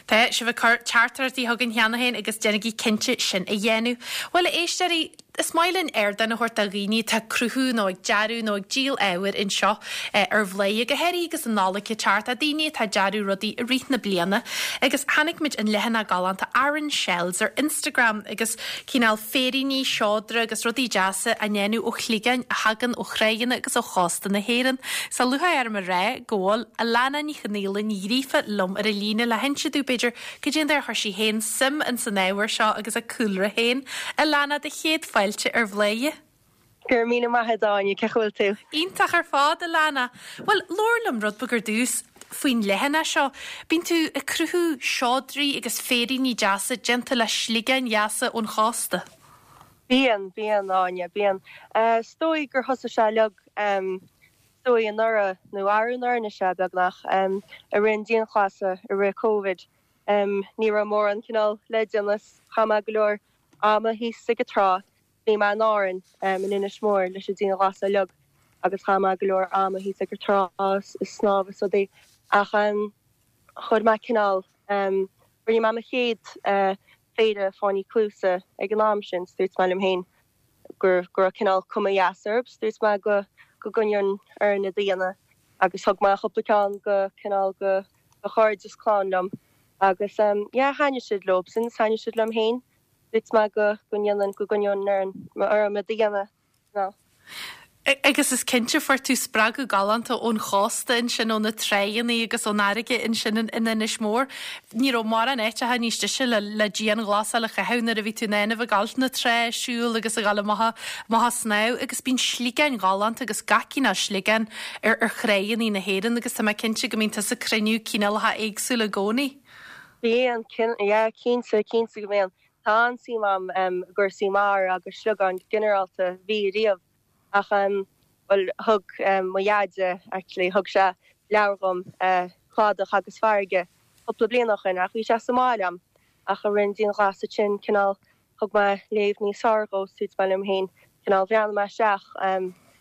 A: Tá sibh ag cur teachtaireachtaí chugainn cheana féin agus déanaigí cinnte sin a dhéanamh. Bhuel, a éisteoirí, is maith linn ardán a thabhairt do dhaoine atá ag cruthú nó ag dearadh nó ag díol ábhair anseo ar Bhladhaire, go háirithe agus an Nollaig ag teacht, daoine atá ag dearadh rudaí i rith na bliana. Agus chonaic muid an leathanach galánta Aran Shells ar Instagram agus cineál féiríní, seodra agus rudaí deasa á ndéanamh ó shligeáin a thagann ó thráigheanna agus ó chósta na hÉireann. Tá lúcháir orm a rá go bhfuil Alana Ní Chonaola Ní Ghríofa liom ar an líne le hinse domh, b'fhéidir, cad é an dóigh ar chuir sí féin suim ins an ábhar seo agus a cúlra féin. Alana, do chéad fáilte ar Bhladhaire.
J: Go raibh míle maith agat, Áine, cén chaoi a bhfuil tú?
A: Iontach ar fad, Alana. Bhuel, labhair liom rud beag ar dtús faoin leathanach seo. Bíonn tú ag cruthú seodraí agus féiríní deasa déanta le sligeáin dheasa ón chósta.
J: Bíonn, bíonn, Áine, bíonn. Is dóigh gur thosaigh sé uilig, is dóigh anuraidh, nó arú anuraidh anois é, beagnach, i rith an dianghlasála, i rith Covid. Ní raibh mórán cineál le déanamh 's chaith mé go leor ama thíos ag an trá. Bhí mé in Árainn, in Inis Mór, leis an dianghlasáil uilig agus chaith mé go leor ama thíos ag an trá ag snámh is rudaí ach chuir mé cineál, rinne mé mo chéad phéire fáinní cluasa ag an am sin, 's dúirt mé liom féin go raibh cineál cuma dheas orthu, 's dúirt mé go go gcoinneoinn orainn iad a dhéanamh agus thug mé cúpla ceann go cineál go do chairde is clann liom agus yeah thaitnigh siad leobsan 's thaitnigh siad liom féin. Dúirt mé go go ndéanfainn, go gcoinneoinn orm iad a dhéanamh, ná.
A: Agus is cinnte fuair tú spreagadh galánta ón chósta ansin, ó na tráigheanna agus ón fharraige ansin in Inis Mór. Ní raibh mórán áiteacha níos deise le le dianghlasáil a chaitheamh nuair a bhí tú in ann a bheith ag gabháil na trá ag siúl agus a ghabháil amach amach ag snámh agus bíonn sliogáin ghalánta agus gach cineál sliogán ar ar thráigheanna na hÉireann agus tá mé cinnte go mbíonn tusa ag cruinniú cineálacha éagsúla i gcónaí.
J: Bíonn, yeah, cinnte, cinnte go mbíonn. Tá an-suim a'm i gcúrsaí mara agus sliogáin go ginearálta, bhí riamh. Ach, bhuel, thug mo dheaide, actually, thug sé leabhar dhom, Cladach agus Farraige, cúpla bliain ó shoin ach bhí sé sa mbaile a'm. Ach i rith an dianghlasáil sin, cineál, thug mé léamh níos fearr dhó, is dúirt mé liom féin, cineál, bhreathnaigh mé isteach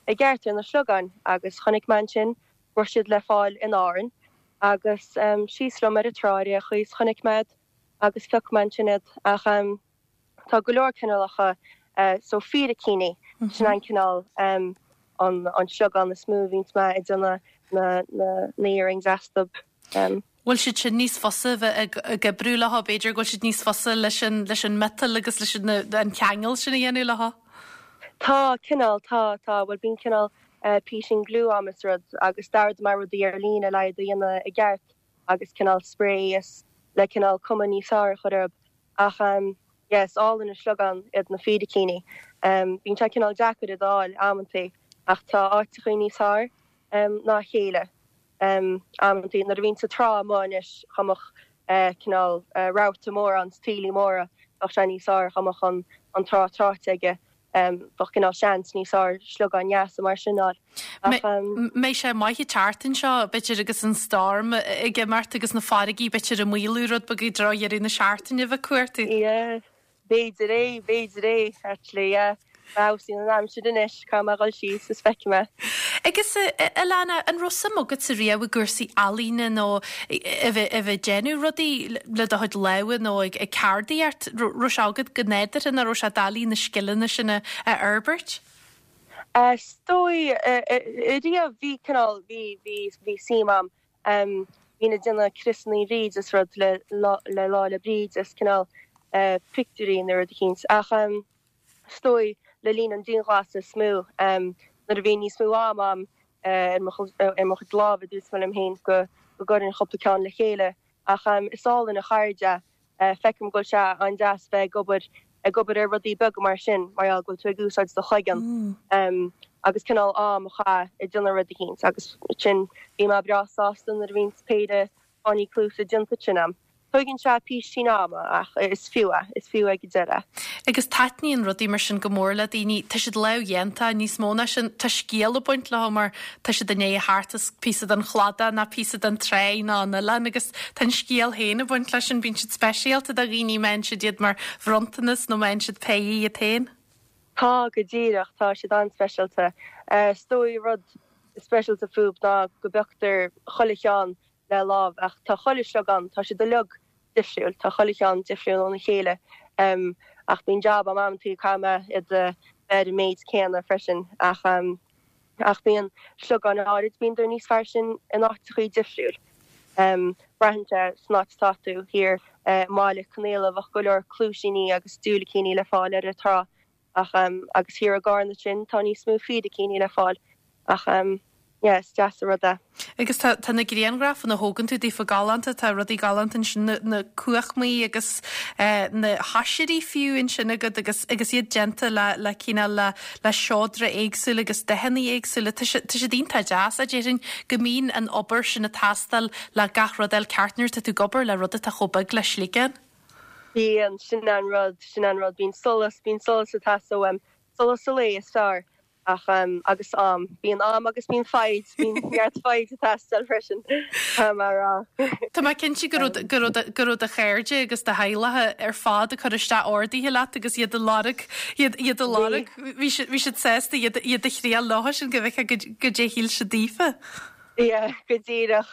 J: i gceart ar na sliogáin agus chonaic mé ansin go raibh siad le fáil in Árainn agus síos liom ar an trá ar aon chaoi is chonaic mé iad agus phioc mé ansin iad. Ach tá go leor cineálacha so fíricíní, sin an cineál an an sliogán is mó a bhíonns mé ag déanamh na na earrings astu.
A: Bhfuil siad sin níos fusa a bheith ag oibriú leo, b'fhéidir go bhfuil siad níos fusa leis an leis an miotal agus leis an an ceangal sin a dhéanamh leo?
J: Tá, cineál, tá, tá, bhuel bíonn cineál písín glue a'm is rud agus d'ordaigh mé rudaí ar líne le iad a dhéanamh i gceart agus cineál spray is le cineál cuma níos fearr a chur orthu. Ach yeah, is álainn an sliogán iad na fíricíní. Bíonn sé cineál deacair iad a fháil amantaí ach tá áiteachaí níos fearr ná a chéile amantaí. Nuair a bhíonn sa trá amuigh anois dá mbeadh cineál rabharta mór ann, taoillí móra, bheadh sé níos fearr dá mbeadh an trá tráite aige. Bheadh cineál seans níos fearr sliogáin dheasa mar sin a fháil.
A: Ach. Mbeidh sé maith an tseachtain seo, b'fhéidir, agus an storm ag imeacht agus na farraigí b'fhéidir ag maolú rud beag i dtreo dheireadh na seachtaine a bheith ag cuartú.
J: Yeah, b'fhéidir é, b'fhéidir é, actually, yeah. Má fheabhsaíonn an aimsir anois, caithfidh mé a dhul síos is feicfidh mé.
A: Agus, a Alana, an raibh suim agatsa riamh i gcúrsaí ealaíne nó a bheith a bheith ag déanamh rudaí le do chuid lámha nó ag ceardaíocht? Raibh sé agat go nádúrtha nó raibh sé doiligh na scileanna sin a fhorbairt?
J: Is dóigh, riamh bhí cineál, bhí, bhí, bhí suim a'm. Bhínn ag déanamh criosannaí Bhríde is rud le, le Lá 'le Bríde is cineál pictiúirí nó rud eicínt. Ach is dóigh le linn an dianghlasála is mó, nuair a bhí níos mó ama a'm ar mo, ar mo chuid lámha, dúirt mé liom féin go, go gcuirfinn cúpla ceann le chéile. Ach is álainn an cheird é. Feicim go bhfuil sé an-deas bheith ag obair ag obair ar rudaí beaga mar sin mar gheall go bhfuil tú ag úsáid do chloigeann agus cineál am a chaitheamh ag déanamh rud eicínt agus sin bhí mé breá sásta nuair a bhíonns péire fáinní cluasa déanta sin a'm. Tóigeann sé písín ama ach is fiú é, is fiú ag an deireadh.
A: Agus taitníonn rudaí mar sin go mór le daoine. Tá siad lámhdhéanta, níos mó ná sin, tá scéal ag baint leo mar tá siad i ndiaidh a theacht as píosa den chladach ná píosa den tráigh ná an oileán agus tá an scéal féin ag baint leis sin. Bíonn siad speisialta do dhaoine, má fhaigheann siad iad mar bhronntanas nó má fhaigheann siad péire iad féin.
J: Tá, go díreach, tá siad an-speisialta. Is dóigh rud speisialta fúb ná go bpioctar chuile cheann le lámh ach tá chuile shliogán, tá siad uilig difriúil, tá chuile cheann difriúil óna chéile ach bíonn jab a'm amantaí caithfidh mé iad a bheith ar an méid céanna freisin ach ach bíonn sliogáin áirid, bíonn níos fearr sin in áiteachaí difriúil. Braitheann sé san áit atá tú, thiar i mBaile Conaola bheadh go leor cluaisíní agus diúilicíní le fáil ar an trá Ach agus thiar i gCarna ansin tá níos mó fíricíní le fáil ach yeah is deas an rud é.
A: Agus tá tá na grianghrafanna a thógann tú daofa galánta, tá rudaí galánta ansin, na na cuachmaí agus na hoisrí fiú ansin agat agus agus iad déanta le le cineál le le seodra éagsúla agus dathanna éagsúla. Tá sé tá siad iontach deas, a déarfainn go mbíonn an obair sin ag teastáil le gach rud a fháil ceart nuair atá tú ag obair le rud atá chomh beag le sliogán.
J: Bíonn, sin an rud, sin an rud, bíonn solas, bíonn solas ag teastáil uaim, solas an lae is fearr ach em agus am, bíonn am agus bíonn foighid, bíonn neart foighid ag teastáil freisin, tá mé a rá.
A: Tá mé cinnte go raibh, go raibh, go raibh do chairde agus do theaghlach ar fad ag cur isteach orduithe leat agus iad ag lorg, iad, iad ag lorg, bhí siad, bhí siad sásta iad, iad a thriail leo sin go bhfeicfeá goidé a shíl siad daofa.
J: Yeah, go díreach,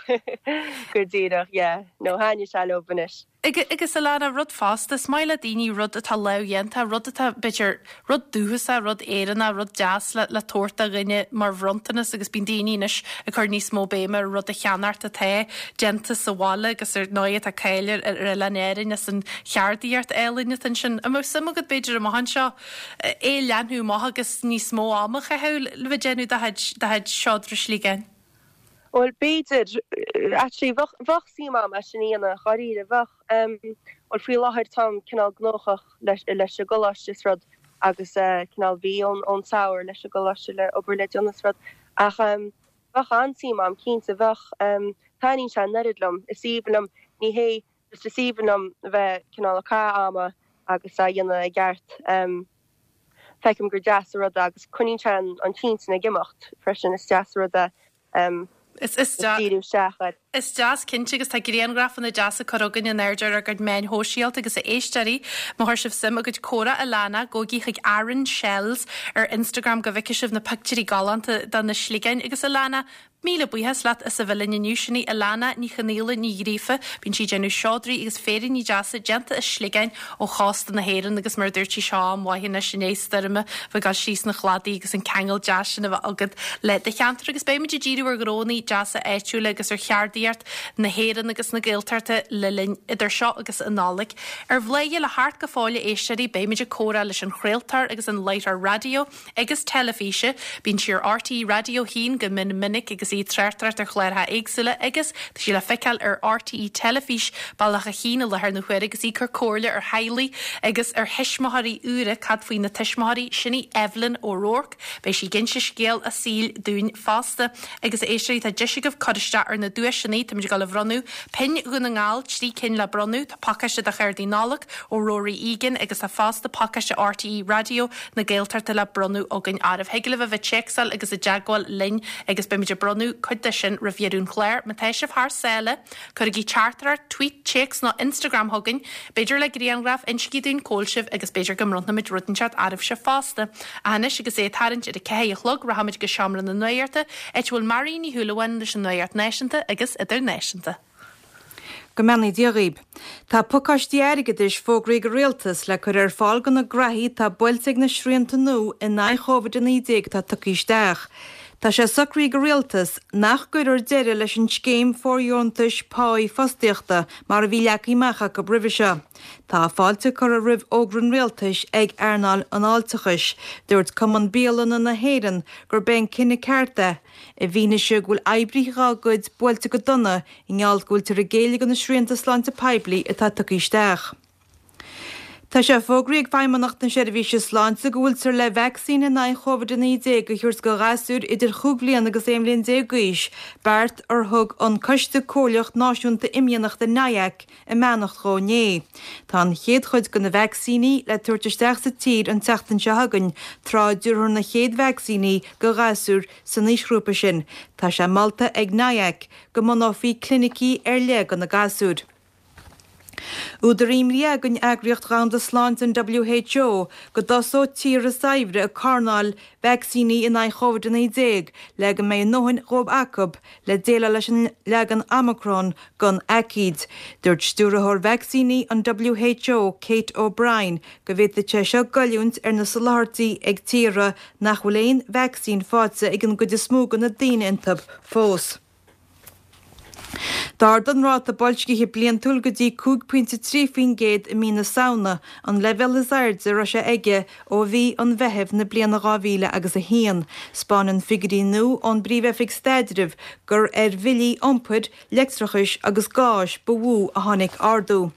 J: go díreach, yeah. No, thaitnigh sé leob anois.
A: Agus Alana, rud fosta, is maith le daoine rud atá lámhdhéanta, rud atá, b'fhéidir, rud dúchasach, rud Éireannach, rud deas le le tabhairt do dhuine mar bhronntanas agus bíonn daoine anois ag cur níos mó béime ar rud a cheannacht atá déanta sa bhaile agus ar ndóigh tá cáil ar ar Oileán Árainn as an cheardaíocht álainn atá ansin. An mbeadh suim agat b'fhéidir amach anseo é a leathnú amach agus níos mó ama a chaitheamh le bheith ag déanamh do chuid do chuid seodra sligeáin?
J: Bhuel, b'fhéidir. Actually, bheadh, bheadh suim agam é sin a dhéanamh, dháiríre, bheadh. Bhuel, faoi láthair táim cineál gnóthach leis, leis an gcoláiste is rud agus cineál bhí ón, ón samhradh leis an gcoláiste le obair le déanamh is rud. Ach bheadh an-suim agam, cinnte, bheadh. Taitníonn sé an oiread liom, is aoibhinn liom, ní hé, just is aoibhinn liom bheith cineál ag caitheamh ama agus á dhéanamh i gceart. Feicim gur deas an rud é agus coinníonn sé an t-intinn ag imeacht freisin, is deas an rud é díriú isteach air.
A: Is deas cinnte agus tá grianghrafanna deasa curtha againn in airde ar ár gcuid meáin shóisialta agus a éisteoirí, má chuir sibh suim i gcuid comhrá Alana, gabhaigí chuig Aran Shells ar Instagram go bhfeicfidh sibh na pictiúirí galánta de na sligeáin agus Alana, Míle buíochas leat as a bheith linn inniu. Sin í Alana Ní Chonaola Ní Ghríofa. Bíonn sí ag déanamh seodraí agus féiríní deasa déanta as sligeáin ó chósta na hÉireann agus mar a dúirt sí seo am mhaith anois i ndiaidh stoirme bheith ag dul síos na chladaí agus an ceangal deas sin a bheith agat le do cheantar agus beimid ag díriú ar ghnónna deasa áitiúla agus ar cheardaíocht na hÉireann agus na Gaeltachta le linn idir seo agus an Nollaig. Ar Bhladhaire le theacht go fóill a éisteoirí beimid ag comhrá leis an chraoltóir agus an láithreoir raidió agus teilifíse. Bíonn sí ar RTÉ Raidió 1 go mion minic agus í ag tráchtaireacht ar chláracha éagsúla agus tá sí le feiceáil ar RTÉ Teilifís Bealach a' Chinn i láthair na huaire agus í ag cur comhairle ar theaghlaigh agus ar thuismitheoirí úra. Cad faoi na tuismitheoirí? Sin í Evelyn O'Rourke. Beidh sí ag inse scéal a saoil dúinn fosta. Agus a éisteoirí, tá deis agaibh cur isteach ar na duaiseanna. Táimid ag dul a bhronnadh pinn Dhún na nGall, 3 cinn le bronnadh. Tá pacáiste de chártaí Nollag ó Rory Egan agus tá fosta pacáiste RTÉ Raidió na Gaeltachta le bronnadh againn oraibh. Thig libh a bheith ag téacsáil agus i dteagmháil linn agus beimid ag bronnadh cuid de sin roimh dheireadh an chláir. Má tá sibh thar sáile, cuirigí teachtaireacht, tweet, téacs nó Instagram chugainn, b'fhéidir le grianghraf, insígí dúinn cá bhfuil sibh agus b'fhéidir go mbronnfaimid rud inteacht oraibhse fosta. Ach anois agus é ag tarraingt ar a ceathair a chlog, rachaimid go seomra na nuachta, áit a bhfuil Marion Ní Shúilleabháin leis an nuacht náisiúnta agus idirnáisiúnta.
I: Go mbeannaí Dia dhaoib. Tá pacáistí airgeadais fógraithe ag an Rialtas le cur ar fáil do na gnaithí atá buailte ag na srianta nua in aghaidh Chóvid-19 atá tugtha isteach. Tá sé socraithe ag an Rialtas nach gcuirfear deireadh leis an scéim fóirdheontais páí fostaíochta mar a bhí leagtha amach acu roimhe seo. Tá fáilte curtha roimh fhógra an Rialtais ag earnáil an fháilteachais. Dúirt Cumann Bialanna na hÉireann gurb é an cinneadh ceart é. I bhfianaise go bhfuil oibrithe dhá gcuid buailte go dona i ngeall go bhfuiltear ag géilleadh do na srianta sláinte poiblí atá tugtha isteach. Tá sé fógraithe ag Feidhmeannacht na Seirbhíse Sláinte go bhfuiltear le vacsaín in aghaidh Chóvid-19 a thabhairt do ghasúir idir chúig bhliana agus 11 bhliain d'aois, beart ar thug an Coiste Comhairleach Náisiúnta Imdhíonachta, NIAC, a mbeannacht dhó inné. Tá an chéad chuid de na vacsaíní le tabhairt isteach sa tír an tseachtain seo chugainn, tráth a dtabharfar na chéad vacsaíní do ghasúir san aoisghrúpa sin. Tá sé molta ag NIAC go mbunófaí clinicí ar leith do na gasúir. Údar imní ag an Eagraíocht Dhomhanda Sláinte, an WHO, go dtosóidh tíortha saibhre ag carnáil vacsaíní in aghaidh Chóvid-19 le go mbeidh a ndóthain dhóibh acu le déileáil leis an leagan Omicron den aicíd. Dúirt Stiúrthóir Vacsaíní an WHO, Kate O'Brien, go bhféadfadh sé seo goilliúint ar na soláthairtí ag tíortha nach bhfuil aon vacsaín faighte ag an gcuid is mó de na daoine iontu fós. D'ardaigh an ráta boilscithe bliantúil go dtí 5.3% i mí na Samhna, an leibhéal is airde a raibh sé aige ó mhí an Mheithimh na bliana 2000 agus 1. 'Spáineann figiúirí nua ón bPríomh-Oifig Staidrimh gur ar bhillí iompair, leictreachais agus gáis ba mhó a tháinig ardú.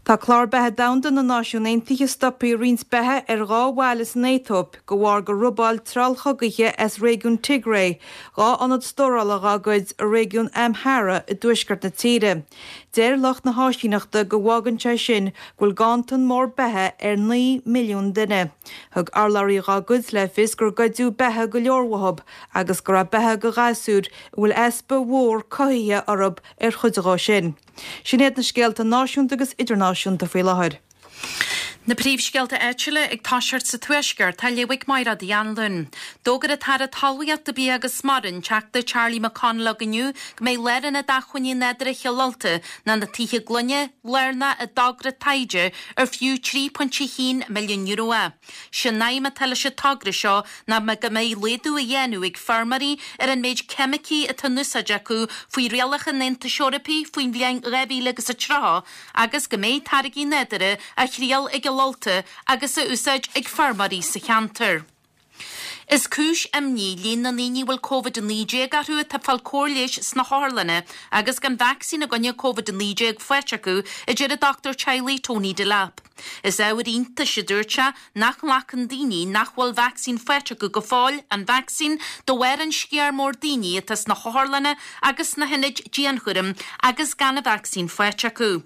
I: Tá Clár Beatha Domhanda na Náisiún Aontaithe stoptha ag roinnt beatha ar dhá bhaile san Aetóip de bharr gur robáil treallchogaithe as réigiún Tigray 2 ionad stórála dhá gcuid i réigiún Amhara i dtuaisceart na tíre. Deir lucht na háisíneachta go bhfágann sé sin go bhfuil ganntan mór beatha ar 9 milliún duine. Thug urlabhraí dhá gcuid le fios gur goideadh beatha go leor uathub agus go raibh beatha do ghasúir a bhfuil easpa mhór cothaithe orthub ar chuid dhó sin. Sin iad na scéalta náisiúnta agus idirnáisiúnta faoi láthair.
A: Na príomhscéalta áitiúla ag toiseacht sa Tuaisceart á léamh ag Máire Uí Anluain. D'fhógair an tAire Talmhaíochta, Bia agus Mara, an Teachta Charlie McConalogue inniu go mbeidh Lárionad Acmhainní Nádúrtha Chill Ulta, nó na Tithe Gloine, lárnach i dtogra taighde ar fiú €3.1 milliún é. Sé an aidhm atá leis an togra seo ná go mbeidh laghdú á dhéanamh ag feirmeoirí ar an méid ceimicí atá in úsáid acu faoi rialacha an Aontais Eorpaigh faoin bhliain 2030 agus go mbeidh táirgí nádúrtha á thriail i gCill Ulta agus á úsáid ag feirmeoirí sa cheantar. Is cúis imní líon na ndaoine a bhfuil Covid-19 orthu atá ag fáil cóir leighis sna hotharlanna agus gan vacsaín i gcoinne Covid-19 faighte acu, a deir an dochtúir teaghlaigh Tony Delap. Is ábhar iontais, a dúirt sé, nach nglacann daoine nach bhfuil vacsaín faighte acu go fóill an vacsaín de bharr an sciar mór daoine atá sna hotharlanna agus sna hionaid dianchúraim agus gan an vacsaín faighte acu.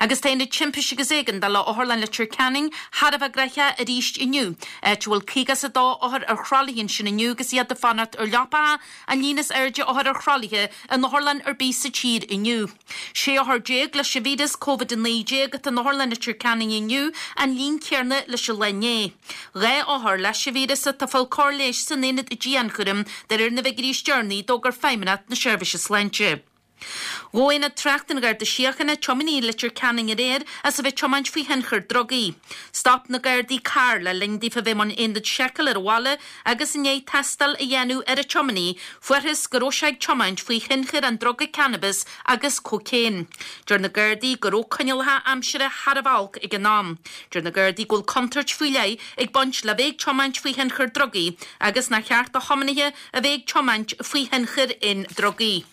A: Agus tá Aonad Timpiste agus Éigeandála Otharlann Leitir Ceanainn thar a bheith gnoitheach arís inniu, áit a bhfuil 52 othar ar thralaithe ansin inniu agus iad ag fanacht ar leapacha, an líon is airde othar ar thralaithe in otharlann ar bith sa tír inniu. 16 othar leis an víreas Covid-19 atá in Otharlann Leitir Ceanainn inniu, an líon céanna leis an lá inné. 2 othar leis an víreas atá ag fáil cóir leighis san aonad dianchúraim, de réir na bhfigiúirí is deireanaí a d'fhógair Feidhmeannacht na Seirbhíse Sláinte. Ghabh Aonad Tráchta an Gharda Síochána tiománaí i Leitir Ceanainn aréir as a bheith ag tiomáint faoi thionchar drugaí. Stop na Gardaí carr le linn daofa bheith i mbun aonad seiceáil ar an bhaile agus i ndiaidh tástáil a dhéanamh ar an tiománaí, fuarthas go raibh sé ag tiomáint faoi thionchar an druga cannabis agus cócaon. Deir na Gardaí go raibh coinníollacha aimsire thar a bheith olc ag an am. Deir na Gardaí go bhfuil contúirt faoi leith ag baint le bheith ag tiomáint faoi thionchar drugaí agus nár cheart do thiománaithe a bheith ag tiomáint faoi thionchar aon drugaí.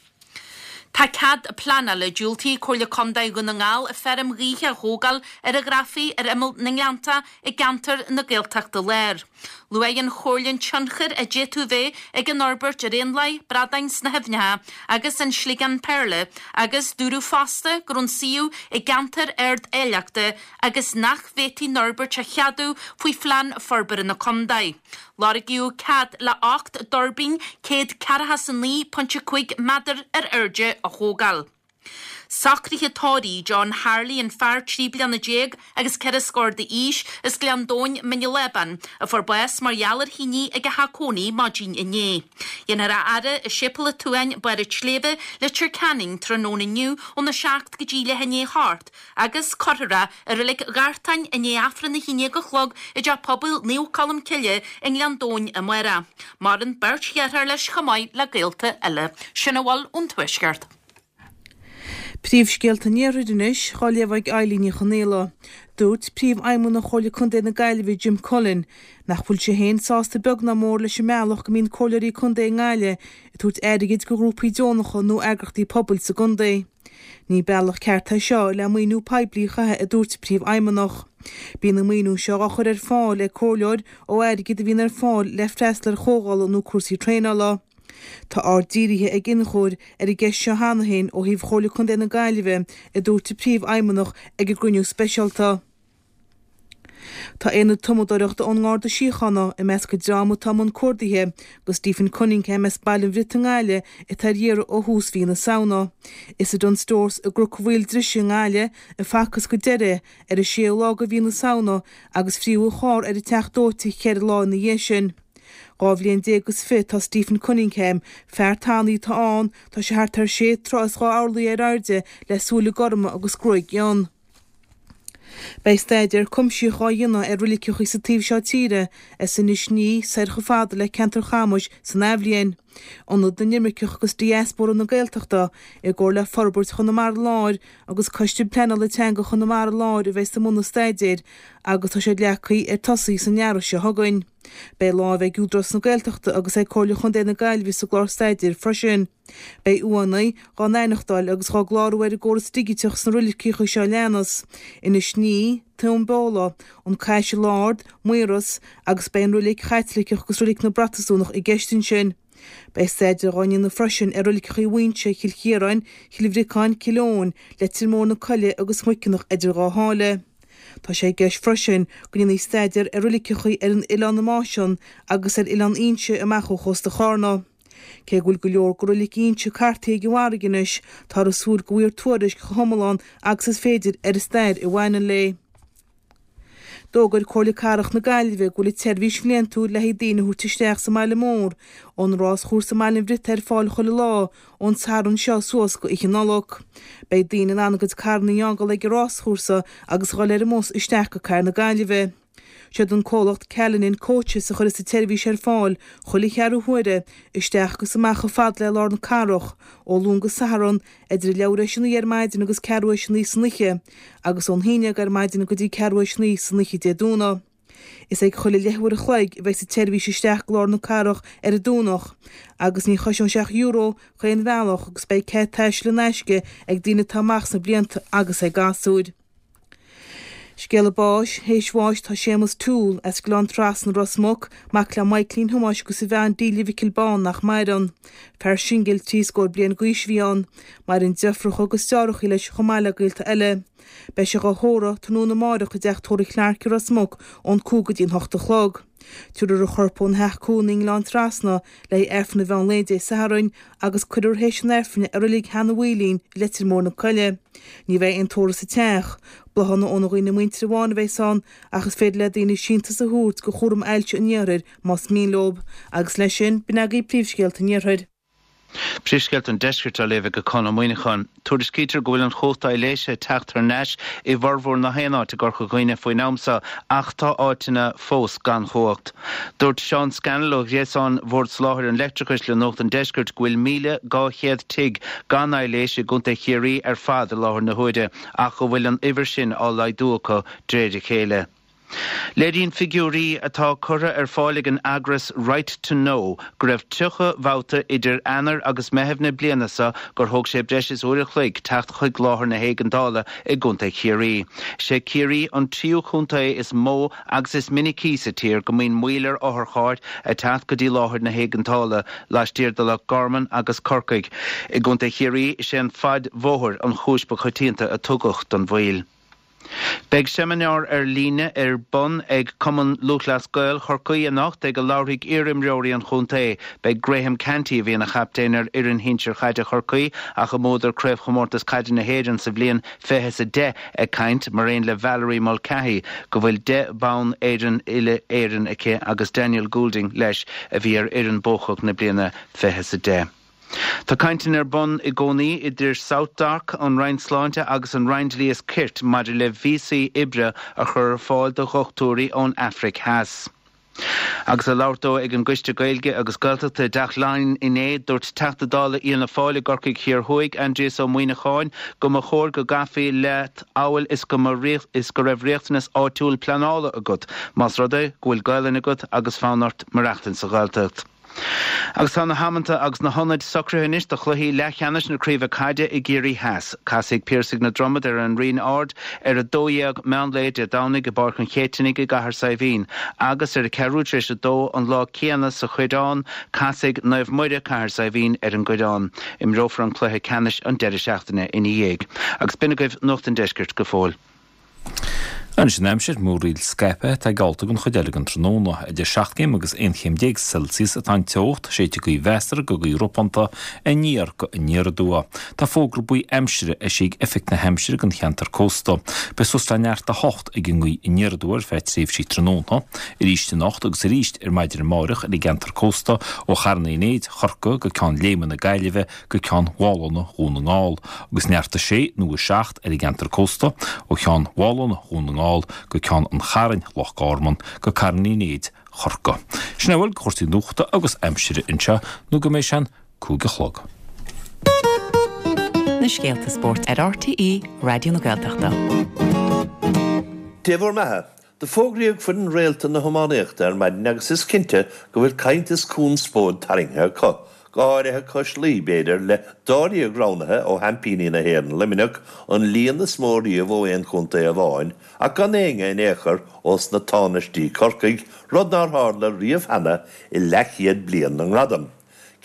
A: Tá cead pleanála diúltaithe ag Comhairle Contae Dhún na nGall feirm ghaoithe a thógáil ar an Ghrafaidh ar imeall na nGleannta i gceantar na Gaeltachta Láir. Luaigh an Chomhairle an tionchar a d'fhéadfadh bheith ag an fhorbairt ar éanlaith, bradáin sna haibhneacha agus an sliogán péarla agus dúradh fosta go raibh an suíomh i gceantar ard-áilleachta agus nach bhféadfaí an fhorbairt a cheadú faoi Phlean Forbartha na Contae. Lorgaíodh cead le 8 dtuirbín 149.5 méadar ar airde a thógáil. Socruithe tórraimh John Harley, an fear 13 bliana agus ceithre scór d'aois as Gleann Domhain, Mín an Lábáin, a fuair bás mar gheall ar thine ag a theach cónaí maidin inné. Dhéanfar a fhaire i Séipéal an tSuain, Barr an tSléibhe, Leitir Ceanainn tráthnóna inniu óna 7 go dtí leath i ndiaidh a hocht agus cuirfear é i Reilig Ghartáin i ndiaidh Aifreann 11 a chlog i dTeach Pobail Naomh Colm Cille i nGleann Domhain amárach. Maireann beirt dheartháir leis chomh maith le gaolta eile. Sin a bhfuil ón Tuaisceart.
I: Príomhscéalta an Iarthair anois, á léamh ag Eilín Ní Chonaola. Dúirt Príomhfheidhmeannach Chomhairle Contae na Gaillimhe, Jim Cullen, nach bhfuil sé féin sásta beag ná mór leis an mbealach go mbíonn comhairleoirí contae i nGaillimh ag tabhairt airgid go ghrúpaí deonacha nó eagrachtaí pobail sa gcontae. Ní bealach ceart é seo le maoiniú poiblí a chaitheamh a dúirt an Príomhfheidhmeannach. Bíonn an maoiniú seo á chur ar fáil ag comhairleoir ó airgead a bhíonn ar fáil le freastal ar chomhdhála nó cúrsaí traenála. Tá aird dírithe ag iniúchóir ar an gceist seo cheana féin ó thaobh Chomhairle Contae na Gaillimhe, a dúirt an Príomhfheidhmeannach ag an gcruinniú speisialta. Tá aonad tumadóireachta ón nGarda Síochána i measc an dream atá i mbun cuardaithe do Stephen Cunningham as Baile an Bhriotaigh i nGaillimh atá ar iarraidh ó thús mhí na Samhna. Is i Dunnes Stores i gCnoc Mhaoil Drise i nGaillimh a facthas go deireadh é ar an séú lá de mhí na Samhna agus fríothadh a charr ar an Teach Dóite cheithre lá ina dhiaidh sin. 12 bhliain is fiche tá Stephen Cunningham, fear tanaí atá ann, tá sé thart ar sé troigh is dhá orlaí ar airde le súile gorma agus gruaig fhionn. Beidh staidéar cuimsitheach á dhéanamh ar roiliceacha sa taobh seo tíre, as Inis Ní soir chomh fada le ceantar Chamais san athbhliain. Ionad na nImirceach agus Diaspóra na Gaeltachta, i gcomhar le Forbairt Chonamara Láir agus Coiste Pleanála Teanga Chonamara Láir a bheas i mbun an staidéir agus tá sé leagtha ar tosaí san earrach seo chugainn. Beidh lámh ag Údarás na Gaeltachta agus ag Comhairle Chontae na Gaillimhe sa gclár staidéir freisin. Beidh uaigheanna dhá n-aithneachtáil agus dhá gclárú ar an gcóras digiteach sna roiliceacha seo a leanas, Inis Ní, Tóin Bheola, An Caiseal Ard, Maoras, agus beidh an roilig Chaitliceach agus roilig na bProtastúnach i gceist ansin. Beidh staidéar dhá ndéanamh freisin ar roiliceacha Mhuinseo, Chill Chiaráin, Chill Bhriocáin, Cill Eoin, Leitir Móir na Coille agus Muiceanach idir dhá sháile. Tá sé i gceist freisin go ndéanfaí staidéar ar roiliceacha ar an Oileán na Máisean agus ar Oileán Fhínse amach ó chósta Chárna. Cé go bhfuil go leor de roilig Fhínse cartaithe ag an bhfarraige anois, táthar ag súil go bhfaighfear tuairisc chomh hiomlán agus is féidir ar an stair a bhaineann léi.
K: D'fhógair Comhairle Cathrach na Gaillimhe go bhfuil an tseirbhís bhliantúil le haghaidh daoine a thabhairt isteach sa mbaile mór ón ráschúrsa i mBaile an Bhriotaigh ar fáil chuile lá ón Satharn seo suas go Oíche Nollag. Beidh daoine in ann a gcuid carranna a fhágáil ag an ráschúrsa agus a dhul ar an mbus isteach go Cathair na Gaillimhe. Siad an comhlacht Callanan Coaches a chuirfeas an tseirbhís ar fáil chuile cheathrú huaire, isteach agus amach chomh fada le lár na cathrach, ó Luan go Satharn, idir a leathuair théis a naoi ar maidin agus ceathrú théis a naoi san oíche, agus ón haon dhéag ar maidin go dtí ceathrú théis a naoi san oíche Dé Domhnaigh. Is ag chuile leathuair a chloig a bheidh an tseirbhís isteach go lár na cathrach ar an Domhnach, agus ní chosnóidh sé ach euro chaon bhealach agus beidh cead taistil in aisce ag daoine atá amach sna blianta agus ag gasúir. Scéala báis, Théis bháis tá Séamus Toole, as Gleann Trasna, Ros Muc, mac le Michaelín Thomáis agus a bhean Delia Mhicil Bán nach maireann. Fear singil trí scór bliain d'aois a bhí ann. Maireann deirfiúracha agus deartháireacha leis chomh maith le gaolta eile. Beidh sé dhá thórramh tráthnóna amáireach i dteach tórraimh Clarke i Ros Muc ón 5 go dtí an 8 a chlog. Tabharfar a chorp óna theach cónaí i nGleann Trasna le haghaidh Aifreann an mheán lae Dé Sathairn agus cuirfear théis an Aifrinn i Reilig Sheanadh Mhaoilín i Leitir Móir na Coille. Ní bheidh aon tórramh sa teach. Bláthanna óna dhaoine muinteartha amháin a bheas ann ach is féidir le daoine síntiús a thabhairt go Chúram Ailse an Iarthair más mian leo. Agus leis sin, b'in agaibh príomhscéalta an Iarthair.
L: Príomhscéalta an Deiscirt á léamh ag Conn Ó Muíneacháin. Tuairiscítear go bhfuil an chumhacht aibhléise ag teacht thar n-ais i bhformhór na haon áit i gCorca Dhuibhne faoin am seo ach tá áiteanna fós gan chumhacht. Dúirt Seán Scannell ó ghréasán Bhord Soláthair an Leictreachais le Nuacht an Deiscirt go bhfuil 1,200 tigh gan aibhléis i gContae Chiarraí ar fad i láthair na huaire ach go bhfuil an uimhir sin á laghdú acu de réir a chéile. Léiríonn figiúirí atá curtha ar fáil ag an eagras Right to Know go raibh 30 babhta idir Eanáir agus Meitheamh na bliana seo gur thóg sé breis is uair a chloig teacht chuig láthair na héigeandála i gContae Chiarraí. Is é Ciarraí an tríú contae is mó agus is minicí sa tír go mbíonn moill ar otharchairr ag teacht go dtí láthair na héigeandála, laistiar de Loch Garman agus Corcaigh. I gContae Chiarraí, is é an faid bhóthair an chúis ba choitianta a tugadh don mhoill. Beidh seimineár ar líne ar bun ag Cumann Lúthchleas Gael Chorcaí anocht ag a labharfaidh iar-imreoirí an chontae. Beidh Graham Canty, a bhí ina chaptaen ar fhoireann shinsir chaide Chorcaí ach a mbuadar Craobhchomórtas Caide na hÉireann sa bhliain 2010, ag caint, mar aon le Valerie Mulcahy, go bhfuil 10 bonn Éireann uile-Éireann aici agus Daniel Goulding leis a bhí ar fhoireann buacach na bliana 2010. Tá cainteanna ar bun i gcónaí idir SouthDoc, an Roinn Sláinte agus an Roinn Dlí is Cirt maidir le víosaí oibre a chur ar fáil do dhochtúirí ón Afraic Theas. Agus ag labhairt dó ag an gCoiste Gaeilge agus Gaeltachta i dTeach Laighean inné, dúirt Teachta Dála Fhianna Fáil i gCorcaigh Thiar Thuaidh, Aindrias Ó Muíneacháin, go mba chóir go gcaithfí leat amhail is go mba is go raibh riachtanas áitiúil pleanála agat, más rud é go bhfuil Gaelainn agat agus fonn ort maireachtaint sa Ghaeltacht. Agus tá na hamanta agus na hionaid socraithe anois do chluichí leathcheannais na Craoibhe Caide i gCiarraí Theas. Casfaidh Piarsaigh na Dromad ar an Rinn Ard ar 12 meán lae Dé Domhnaigh i bPáirc an Chéitinnigh i gCathair Saidhbhín agus ar a ceathrú tar éis a dó an lá céanna sa Choireán, casfaidh Naomh Muire, Cathair Saidhbhín ar an gCoireán. Imreofar an cluiche ceannais an deireadh seachtaine ina dhiaidh. Agus b'in agaibh Nuacht an Deiscirt go fóill.
M: Anois an aimsir, múraíl scaipthe atá geallta don chuid eile den tráthnóna. Idir 7 gcéim agus 11 chéim Celsius atá an teocht, séidfidh gaoth mheasartha go gaoth ropánta aniar go aniar aduaidh. Tá fógra buí aimsire eisithe ag Oifig na hAimsire don cheantar cósta. Beidh suas le neart 8 ag an ngaoth aniar aduaidh ar feadh tréimhsí tráthnóna, arís anocht agus arís ar maidin amárach ar an gceantar cósta ó Charn Uí Néid, Chorcaí go Ceann Léime na Gaillimhe go Ceann Mhálanna Dhún na nGall, agus neart 6 nó 7 ar an gceantar cósta, ó Cheann Mhálanna Dhún na nGall go Ceann an Chairn, Loch Garman, go Carn Uí Néid, Chorcaí. Sin é a bhfuil de chúrsaí nuachta agus aimsire anseo nó go mbeidh sé an 5 a chlog.
N: Na scéalta spóirt ar RTÉ Raidió na Gaeltachta.
O: Dé bhur mbeatha. Do fógraíodh foireann réalta na hiománaíochta ar maidin agus is cinnte go bhfuil caint is conspóid tarraingthe acu, go háirithe cois Laoi, b'fhéidir, le dáréag roghnaithe ó sheaimpíní na hÉireann, Luimneach, an líon is mó riamh ó aon chontae amháin, ach gan éinne in aon chor ós na tánaistí Corcaigh, rud nár tharla riamh cheana i leathchéad bliain na ngradam.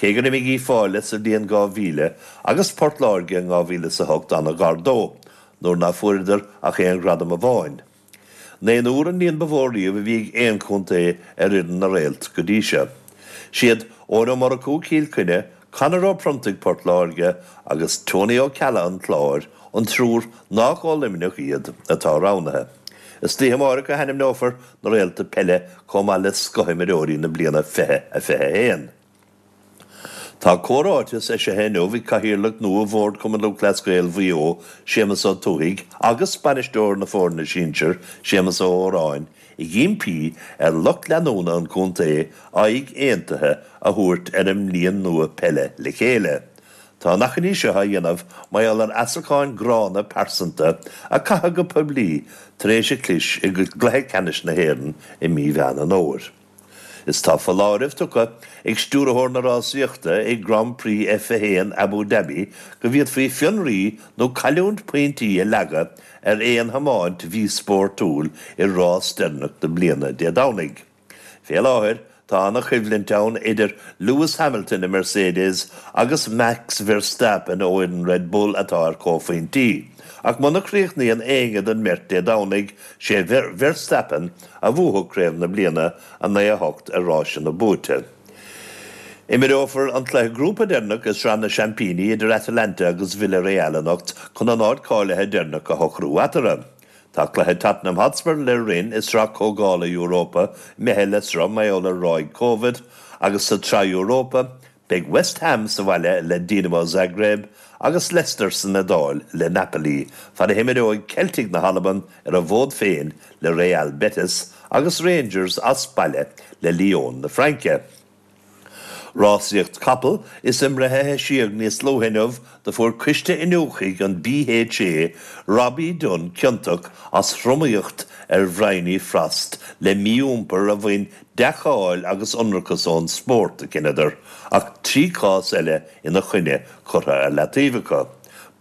O: Cé gur imigh Uíbh Fhailí sa bhliain 2000 agus Port Láirge in 2008 an-ghar dó, nuair ná fuaireadar ach aon ghradam amháin. Naonúr an líon ba mhó riamh a bhí ag aon chontae ar fhoireann na Réalt go dtí seo. Siad Eoin Ó Murchú, Cill Chainnigh, Conor Ó Pronntaigh, Port Láirge, agus Tony Ó Ceallaigh an Chláir, an triúr nách ó Luimneach iad, atá roghnaithe. Istoíche amárach a hainmneofar na réalta peile chomh maith le scothimreoirí na bliana 2021. Tá comhráiteas eisithe inniu ag Cathaoirleach nua Bhord Chumann Lúthchleas Gael Mhaigh Eo, Séamus Ó Tuathaigh, agus bainisteoir na foirne sinsir, Séamus Ó Hóráin, ag impí ar lucht leanúna an chontae aghaidh aontaithe a thabhairt ar an mbliain nua peile le chéile. Tá an achainí seo á dhéanamh mar gheall ar asarcáin gránna pearsanta a caitheadh go poiblí tar éis an chlis i gcluiche ceannais na hÉireann i mí Mheán an Fhómhair. Is tá foláireamh tugtha ag stiúrthóir na rásaíochta ag Grand Prix F1 Abu Dhabi go bhféadfaí fionraí nó cailliúint pointí a leagadh ar aon thiomáint mhíspórtúil i rás deireanach na bliana Dé Domhnaigh. Fé láthair tá ana-choimhlint ann idir Lewis Hamilton i Mercedes agus Max Verstappen ó fhoireann Red Bull atá ar comhphointí. Ach muna chríochnaíonn éinne den mbeirt Dé Domhnaigh, sé Verstappen a bhuafadh craobh na bliana 9 8 ar ráiseanna buaite. Imreofar an cluiche grúpa deireanach i Sraith na Seaimpíní idir Atalanta agus Villarreal anocht chun an áit cáilithe deireanach a shocrú eatarthu. Tá cluiche Tottenham Hotspur le Rennes i Sraith Comhdhála Europa imithe le sruth mar gheall ar ráig Covid agus sa tSraith Europa Beidh West Ham sa bhaile le Dinamo Zagreb agus Leicester san Iodáil le Napoli, fad a himreoidh Celtic na hAlban ar a bhfód féin le Real Betis agus Rangers as baile le Lyon na Fraince. Rásaíocht capall is i mbreith a heisíodh níos luaithe inniu do fuair coiste iniúchaidh an BHA Robbie Dunne ciontach as thromaíocht ar Bhryony Frost le mí-iompar a bhain dea-cháil agus ionracas ón spórt, a chinneadar, ach 3 chás eile ina choinne curtha ar leataobh acu.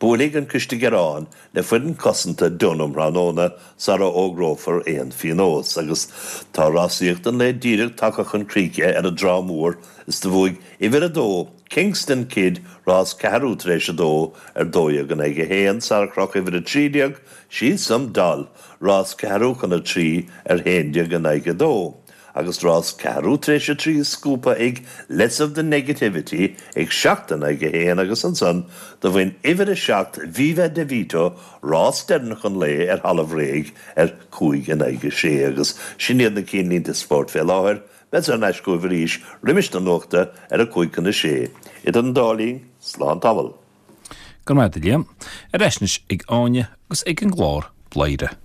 O: Buailfidh an Coiste Gearán le foireann cosanta Dunne um thráthnóna sara fhógrófar aon phionós. Agus tá rásaíocht an lae díreach tagtha chun críche ar an dTrá Mhór is do bhuaigh uimhir a dó, Kingston Kid, rás ceathrú tar éis a dó ar 12 in aghaidh 1, sara chroch uimhir a 13, She's Some Doll, Rás ceathrú chun a 3 ar 11 in aghaidh 2, agus rás ceathrú tar éis a 3 scuabtha ag Less of the Negativity ag 7 in aghaidh 1 agus ansan do bhain uimhir a 7 Viva De Vito rás deireanach an lae ar thalamh réidh ar 5 in aghaidh 6 agus sin iad na cinnlínte spóirt fé láthair. Beadsa thar n-ais chugaibh arís roimis na nuachta ar a 5 chun a 6. Idir an dá linn, slán tamall.
M: Go raibh maith agat a Liam. Ar ais anois ag Áine agus ag an gclár Bladhaire.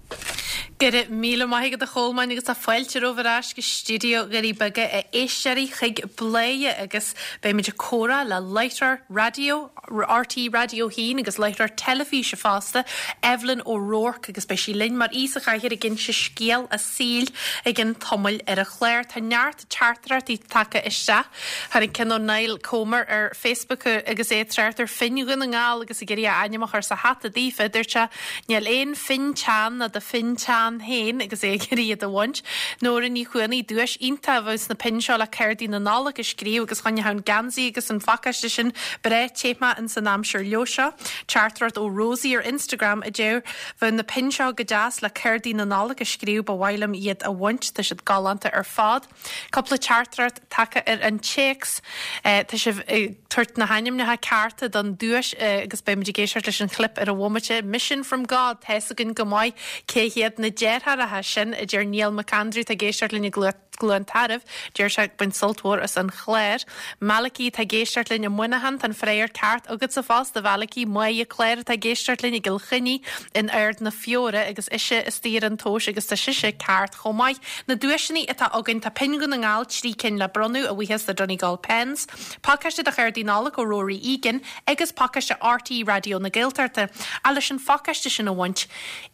A: Go raibh míle maith agat a Cholmáin agus tá fáilte romhaibh ar ais go stiúideo Dhoirí Beaga a éisteoirí chuig Bladhaire agus beimid ag comhrá le láithreoir raidió RTÉ Raidió 1 agus láithreoir teilifíse fosta, Evelyn O'Rourke agus beidh sí linn mar aoi sa chathaoir ag inse scéal a saoil i gcionn tamaill ar an chlár. Tá neart teachtaireachtaí tagtha isteach. Tháinig ceann ó Niall Comer ar Facebook agus é ag trácht ar phinn Dhún na nGall agus ag iarraidh a ainm a chur sa hata daofa. Dúirt sé, Níl aon phinn teann ná do phinn teann féin agus é ag iarraidh iad a bhaint. Nóra Ní Chuanaigh, Duais iontach a bheadh sna pinn seo le cártaí na Nollag a scríobh agus choinneodh an geansaí agus an phacáiste sin breá te ins an aimsir leo seo. Teachtaireacht ó Rosie ar Instagram a deir, Bheadh na pinn seo go deas le cártaí na Nollag a scríobh, ba mhaith liom iad a bhaint, tá siad galánta ar fad. Cúpla teachtaireacht tagtha ar an téacs. Tá sibh ag tabhairt na hainmneacha cearta don duais agus beimid ag éisteacht leis an chlip ar an bhomaite. Mission from God, tá's againn go maith cé hiad na deartháireacha sin, a deir Niall McAndrew, atá ag éisteacht linn i gCluain Tarbh. Deir sé ag baint sult mhór as an chlár. Malachy atá ag éisteacht linn i Muineachán, tá an freagra ceart agatsa fosta, a Mhalachy. Máire Claire atá ag éisteacht linn i gCill Chainnigh in Ard na Feoire agus ise istigh ar an tomhas agus tá sise ceart chomh maith. Na duaiseanna atá againn, tá pinn Dhún na nGall, 3 cinn le bronnadh, a bhuíochas le Donegal Pens, pacáiste de chártaí Nollag ó Rory Egan agus pacáiste RTÉ Raidió na Gaeltachta. Ach leis an phacáiste sin a bhaint,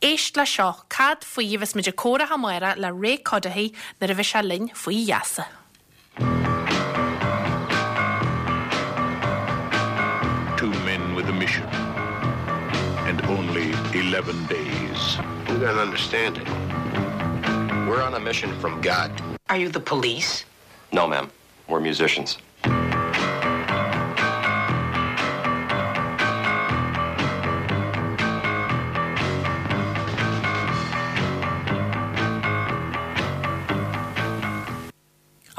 A: éist le seo, cad faoi a bheas muid ag comhrá amárach le Ray Cuddihy nuair a bheidh sé linn faoi gheasa.
B: Two men with a mission and only 11 days.
C: You gotta understand it. We're on a mission from God.
P: Are you the police?
C: No, ma'am. We're musicians.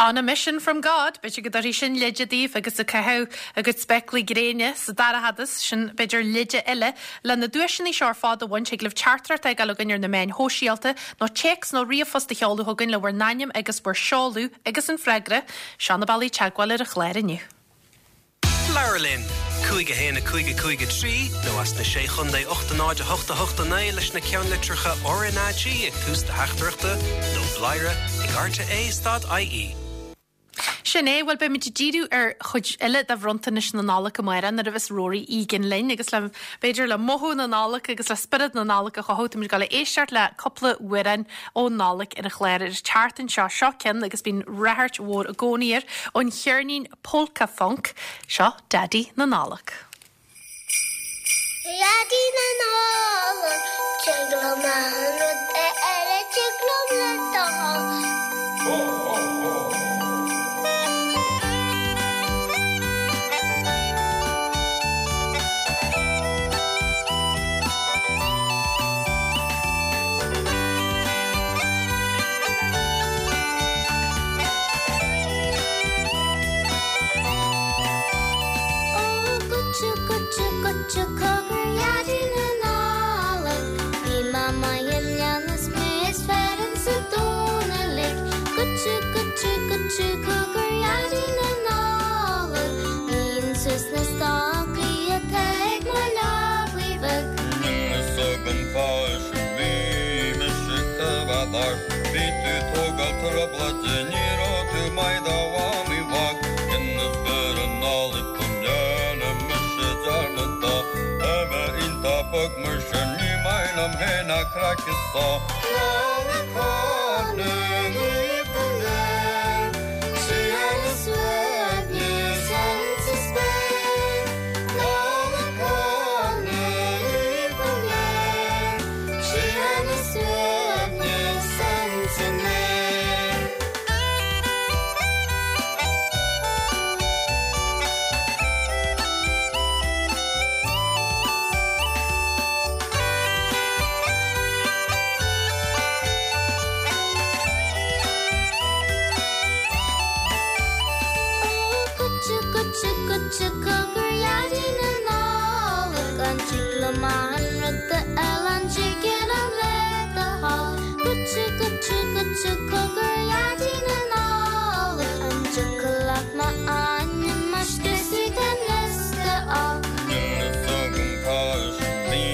A: On a mission from God, b'fhéidir go dtabharfaidh sin leide daoibh agus ag caitheamh a gcuid spéaclaí gréine sa dara fhad is, sin b'fhéidir leide eile. Le na duaiseanna seo ar fad a bhaint, thig libh teachtaireacht a fhágáil chugainn ar na meáin shóisialta, nó téacs nó ríomhphost a sheoladh chugainn le bhur n-ainm agus bhur seoladh agus an freagra. Seo na bealaí teagmháil ar an chlár inniu.
E: Labhair linn! 5 1 5 5 3 nó as na Sé Chontae 8 0 8 8 9 leis na ceannlitreacha RnaG ag tús do theachtaireachta nó bladhaire ag rte stad ie.
A: Sin é, bhuel beimid ag díriú ar chuid eile de bhronntanais na Nollag amárach nuair a bheas Rory Egan linn agus le, b'fhéidir le mothú na Nollag agus le spiorad na Nollag a chothú, táimid ag dul a éisteacht le cúpla amhrán ón Nollaig ar an chlár ar an tseachtain seo. Seo ceann agus bíonn ráchairt mhór i gcónaí air ón cheirnín Polka Funk, seo Daidí na Nollag.
P: Daidí na Nollag, tig liom achan rud a eile tig liom le do thoil. Ó goitse, goitse, goitse, cogar Dhaidí na Nollag Bhí Mamá i mbliana is mé is fearr insa domhan uilig Goitse, goitse, goitse, cogar Dhaidí na Nollag Líon suas na stocaí atá ag mo leabaidh bheag.
Q: Níl fhios agam fáis bhí mise coimhead ort Bhí tú tógáil trioblóide ní raibh tú maith do mhamaí bheag Dheineas beoir an Nollaig go ndearna mise dearmad dó Tá mé iontach bog mar sin ní maith liom féin ach craic is só Nollaig shona dhaoibh go léir Síocháin is suaimhneas insa spéir Nollaig shona dhaoibh go léir Síocháin is suaimhneas insan aer.
P: Ó, goitse, goitse, goitse, cogar Dhaidí na Nollag, an dtig liom achan rud a fháil, an dtig liom le do thoil? Goitse, goitse, goitse, cogar Dhaidí na Nollag, an dtiocfadh leat m'ainm a scriosadh den liosta á?
Q: Níl fhios agam cá bhí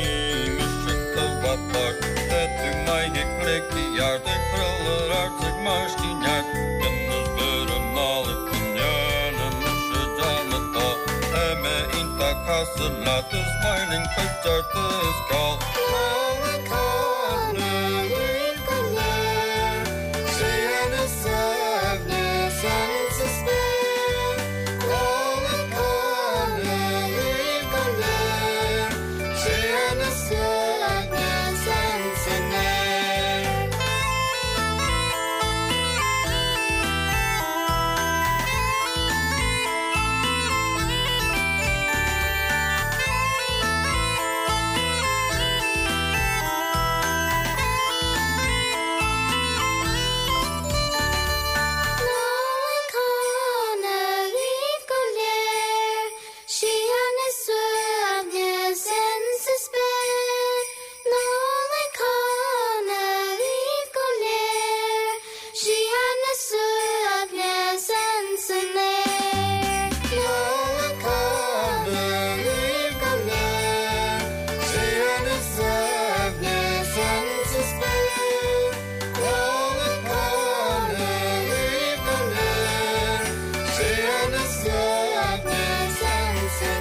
Q: mise coimhead ort Tá tú maith ag pleidhcí ard ag craoladh ard ag máistí neart Dheineas beoir an Nollaig go ndearna mise dearmad dó Tá mé iontach cosúil leat is maith linn cuideachta is ceol Nollaig shona dhaoibh go léir Síocháin is suaimhneas insa spéir Nollaig shona dhaoibh go léir Síocháin is suaimhneas insan aer.
P: Nollaig shona dhaoibh go léir, Síocháin is suaimhneas insa spéir, Nollaig shona dhaoibh go léir, Síocháin is suaimhneas insan aer.
Q: Nollaig shona dhaoibh go léir, Síocháin is suaimhneas insa spéir, Nollaig shona dhaoibh go léir, Síocháin is suaimhneas insan aer.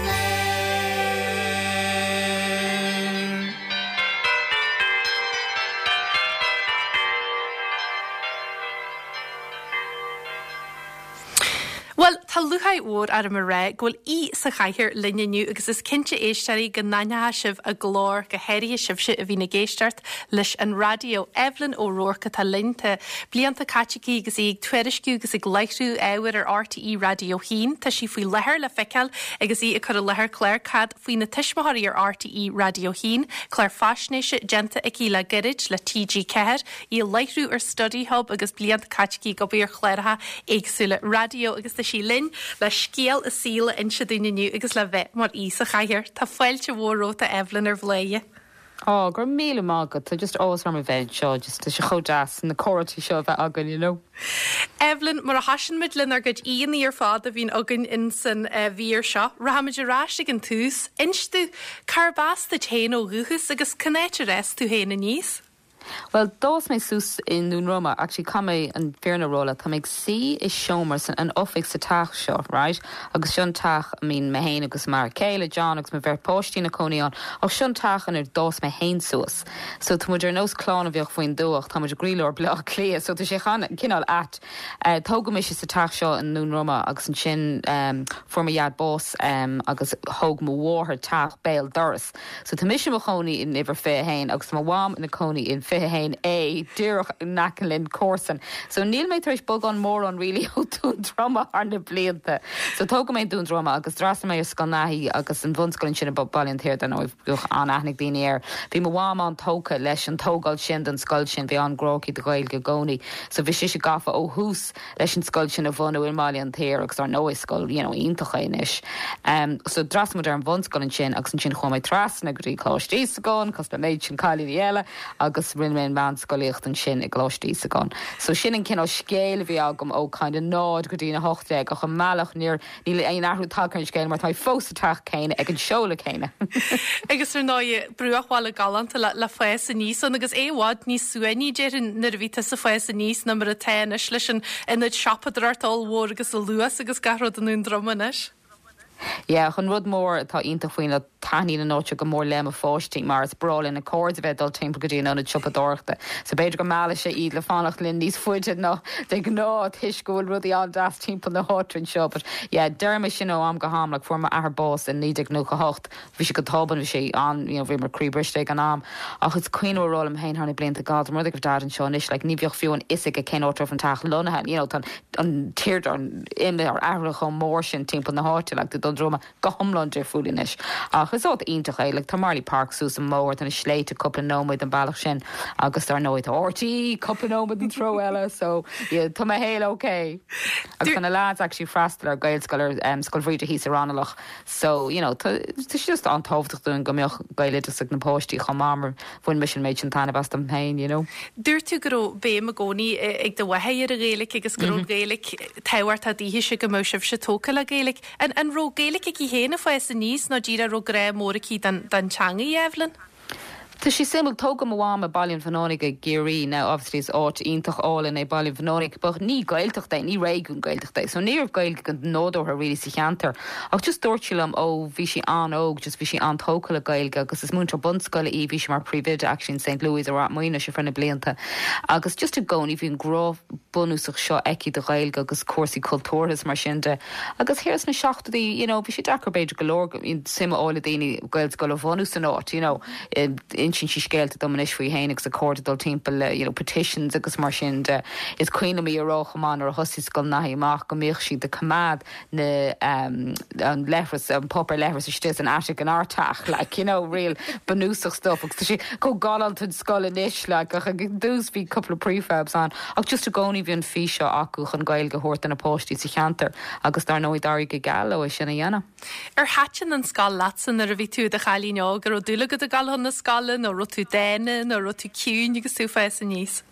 A: Tá lúcháir mhór orm a rá go bhfuil aoi sa chathaoir linn inniu agus is cinnte éisteoirí go n-aithneoidh sibh a glór, go háirithe sibhse a bhíonn ag éisteacht leis an raidió. Evelyn O'Rourke atá linn. Tá blianta caite aici agus í ag tuairisciú agus ag láithriú ábhair ar RTÉ Raidió 1. Tá sí faoi láthair le feiceáil agus í ag cur i láthair clár Cad faoi na Tuismitheoirí ar RTÉ Raidió 1, clár faisnéise déanta aici le gairid le TG4, í ag láithriú ar Study Hub agus blianta caite aici ag obair ar chláracha éagsúla raidió agus tá sí linn le scéal a saoil a inse dúinn inniu agus le bheith mar aoi sa chathaoir. Tá fáilte mhór romhat a Evelyn ar Bhladhaire.
R: Á, go raibh míle maith agat, tá just áthas orm a bheith anseo, just tá sé chomh deas na comhráití seo a bheith againn, you know.
A: Evelyn, mar a thosaíonn muid lenár gcuid aíonna ar fad a bhíonn againn in san mhír seo, rachaimid ar ais ag an tús. Inis domh, cárb as duit féin ó dhúchas agus cén áit ar fhás tú féin aníos?
R: Bhuel, d'fhás mé suas i nDún Droma. Actually, caithfidh mé an fírinne a rá leat, tá mé ag suí i seomra san an oifig sa teach seo, right? Agus seo an teach a mbíonn mé féin agus m'fhear céile, John, agus mo bheirt páistí ina cónaí ann. Ach seo an teach inar d'fhás mé féin suas. So tá muid ar nós clann a bheadh faoin dtuath ach tá muid i gcroílár Bhaile Átha Cliath, so tá sé cineál ait. Tógadh mise sa teach seo i nDún Droma agus ansin fuair mo dhaid bás agus thóg mo mháthair teach béal dorais. So tá mise i mo chónaí in uimhir 21 agus tá mo mham ina cónaí in 21A, díreach in aice linn, comharsan. So níl mé tar éis bogadh mórán really ó Dún Droma thar na blianta. So tógadh mé i nDún Droma agus d'fhreastail mé ar Scoil Naithí agus an bhunscoil ansin i Baile an tSaoir, dar ndóigh, bheadh an-aithne ag daoine air. Bhí mo mham an-tógtha leis an tógáil sin don scoil sin, bhí an-ghrá aici do Ghaeilge i gcónaí. So bhí sise gafa ó thús leis an scoil sin a bhunú i mBaile an tSaoir agus dar ndóigh is scoil you know iontach é anois. So d'fhreastail muid ar an bhunscoil ansin agus ansin chuaigh mé trasna go dtí Coláiste Íosagáin cosúil le méid sin cailíní eile agus rinne mé an mheánscolaíocht ansin i gColáiste Íosagáin. So sin an cineál scéal a bhí agam ó kind of 0 go dtí an 18 ach i mbealach níor Níl aon athrú tagtha ar an scéal mar tá mé fós sa teach céanna ag an seoladh céanna.
A: Agus ar ndóigh, bruachbhaile galánta le fás aníos ann agus é i bhfad níos suaimhní, déarfainn, nuair a bhí tusa ag fás aníos ná mar atá anois leis an ionad siopadóireachta ollmhór agus an Luas agus gach rud i nDún Droma anois.
R: Yeah, ach an rud mór atá iontach faoin ná taitníonn an áit seo go mór le mo pháistí mar is breá lena cairde bheith ag dul timpeall go dtí an ionad siopadóireachta. So b'fhéidir go meallfaidh sé iad le fanacht linn níos faide ná de ghnáth toisc go bhfuil rudaí an-deas timpeall na háite anseo. But yeah, deirim é sin ó am go ham, like fuair m'athair bás in 1998, bhí sé go tobann, bhí sé an, you know, bhíomar croíbhriste ag an am. Ach is cuimhin liom a rá liom féin thar na blianta, God, dá mba rud é go raibh Dad anseo anois, like ní bheadh fiú an fhios aige cén áit a raibh an teach lonnaithe, you know, tá an tírdreach imithe athraithe chomh mór sin timpeall na háite, like tá Dún Droma go hiomlán difriúil anois. Ach is áit iontach é, like tá Marlay Park suas an mbóthar, tá na sléibhte cúpla nóiméad an bealach sin agus dar ndóigh tá RTÉ cúpla nóiméad an treo eile so yeah tá mo shaol ok. Agus tá na lads actually freastal ar Gaelscoil ar um, Scoil Bhríde thíos i Raghnallach so you know tá tá sé just an-tábhachtach dúinn go mbeadh Gaeloideachas ag na páistí chomh maith mar bhain mise an méid sin taitneamh as dom féin you know.
A: Dúirt tú go raibh béim i gcónaí ag do mháthair ar an Ghaeilge agus go raibh an Ghaeilge tábhachtach daoithese go mbeadh sibhse tógtha le Gaeilge. An an raibh Gaeilge aici féin ag fás aníos nó díreach raibh grá mór aici don don teangaidh, Evelyn?
R: Tá sé suimiúil, tógadh mo mham i Baile an Bhuannánaigh i gCiarraí, now obviously is áit iontach álainn é Baile an Bhuannánaigh but ní Gaeltacht é, ní réigiún Gaeltachta é, so ní raibh Gaeilge go nádúrtha really sa cheantar. Ach just dúirt sí liom ó bhí sí an-óg just bhí sí an-tógtha le Gaeilge agus is múinteoir bunscoile í, bhí sí mar phríomhoide actually in St Louis i Ráth Maonais ar feadh na blianta agus just i gcónaí bhí an grá bunúsach seo aici do Ghaeilge agus cúrsaí cultúrtha is mar sin de. Agus thiar sna seachtóidí, you know, bhí sé deacair b'fhéidir go leor suim a fháil i daoine Gaelscoil a bhunú san áit, you know. Insíonn sí scéalta dom anois faoi féin agus a cairde dul timpeall le, you know, petitions agus mar sin de. Is cuimhin liom í a rá chomh maith nuair a thosaigh Scoil Naithí amach go mbíodh siad ag coimeád na, an leithreas, an páipéar leithris istigh san attic inár teach, like, you know, real bunúsach stuff agus tá sé chomh galánta an scoil anois, like, ach ag an dtús bhí cúpla prefabs ann ach just i gcónaí bhí an fís seo acu chun Gaeilge a thabhairt do na páistí sa cheantar agus dar ndóigh d'éirigh go geal leo é sin a dhéanamh.
A: Ar thaitin an scoil leatsa nuair a bhí tú i do chailín óg? An raibh dúil agat ag dul chun na scoile nó raibh tú dána nó raibh tú ciúin agus tú ag fás aníos?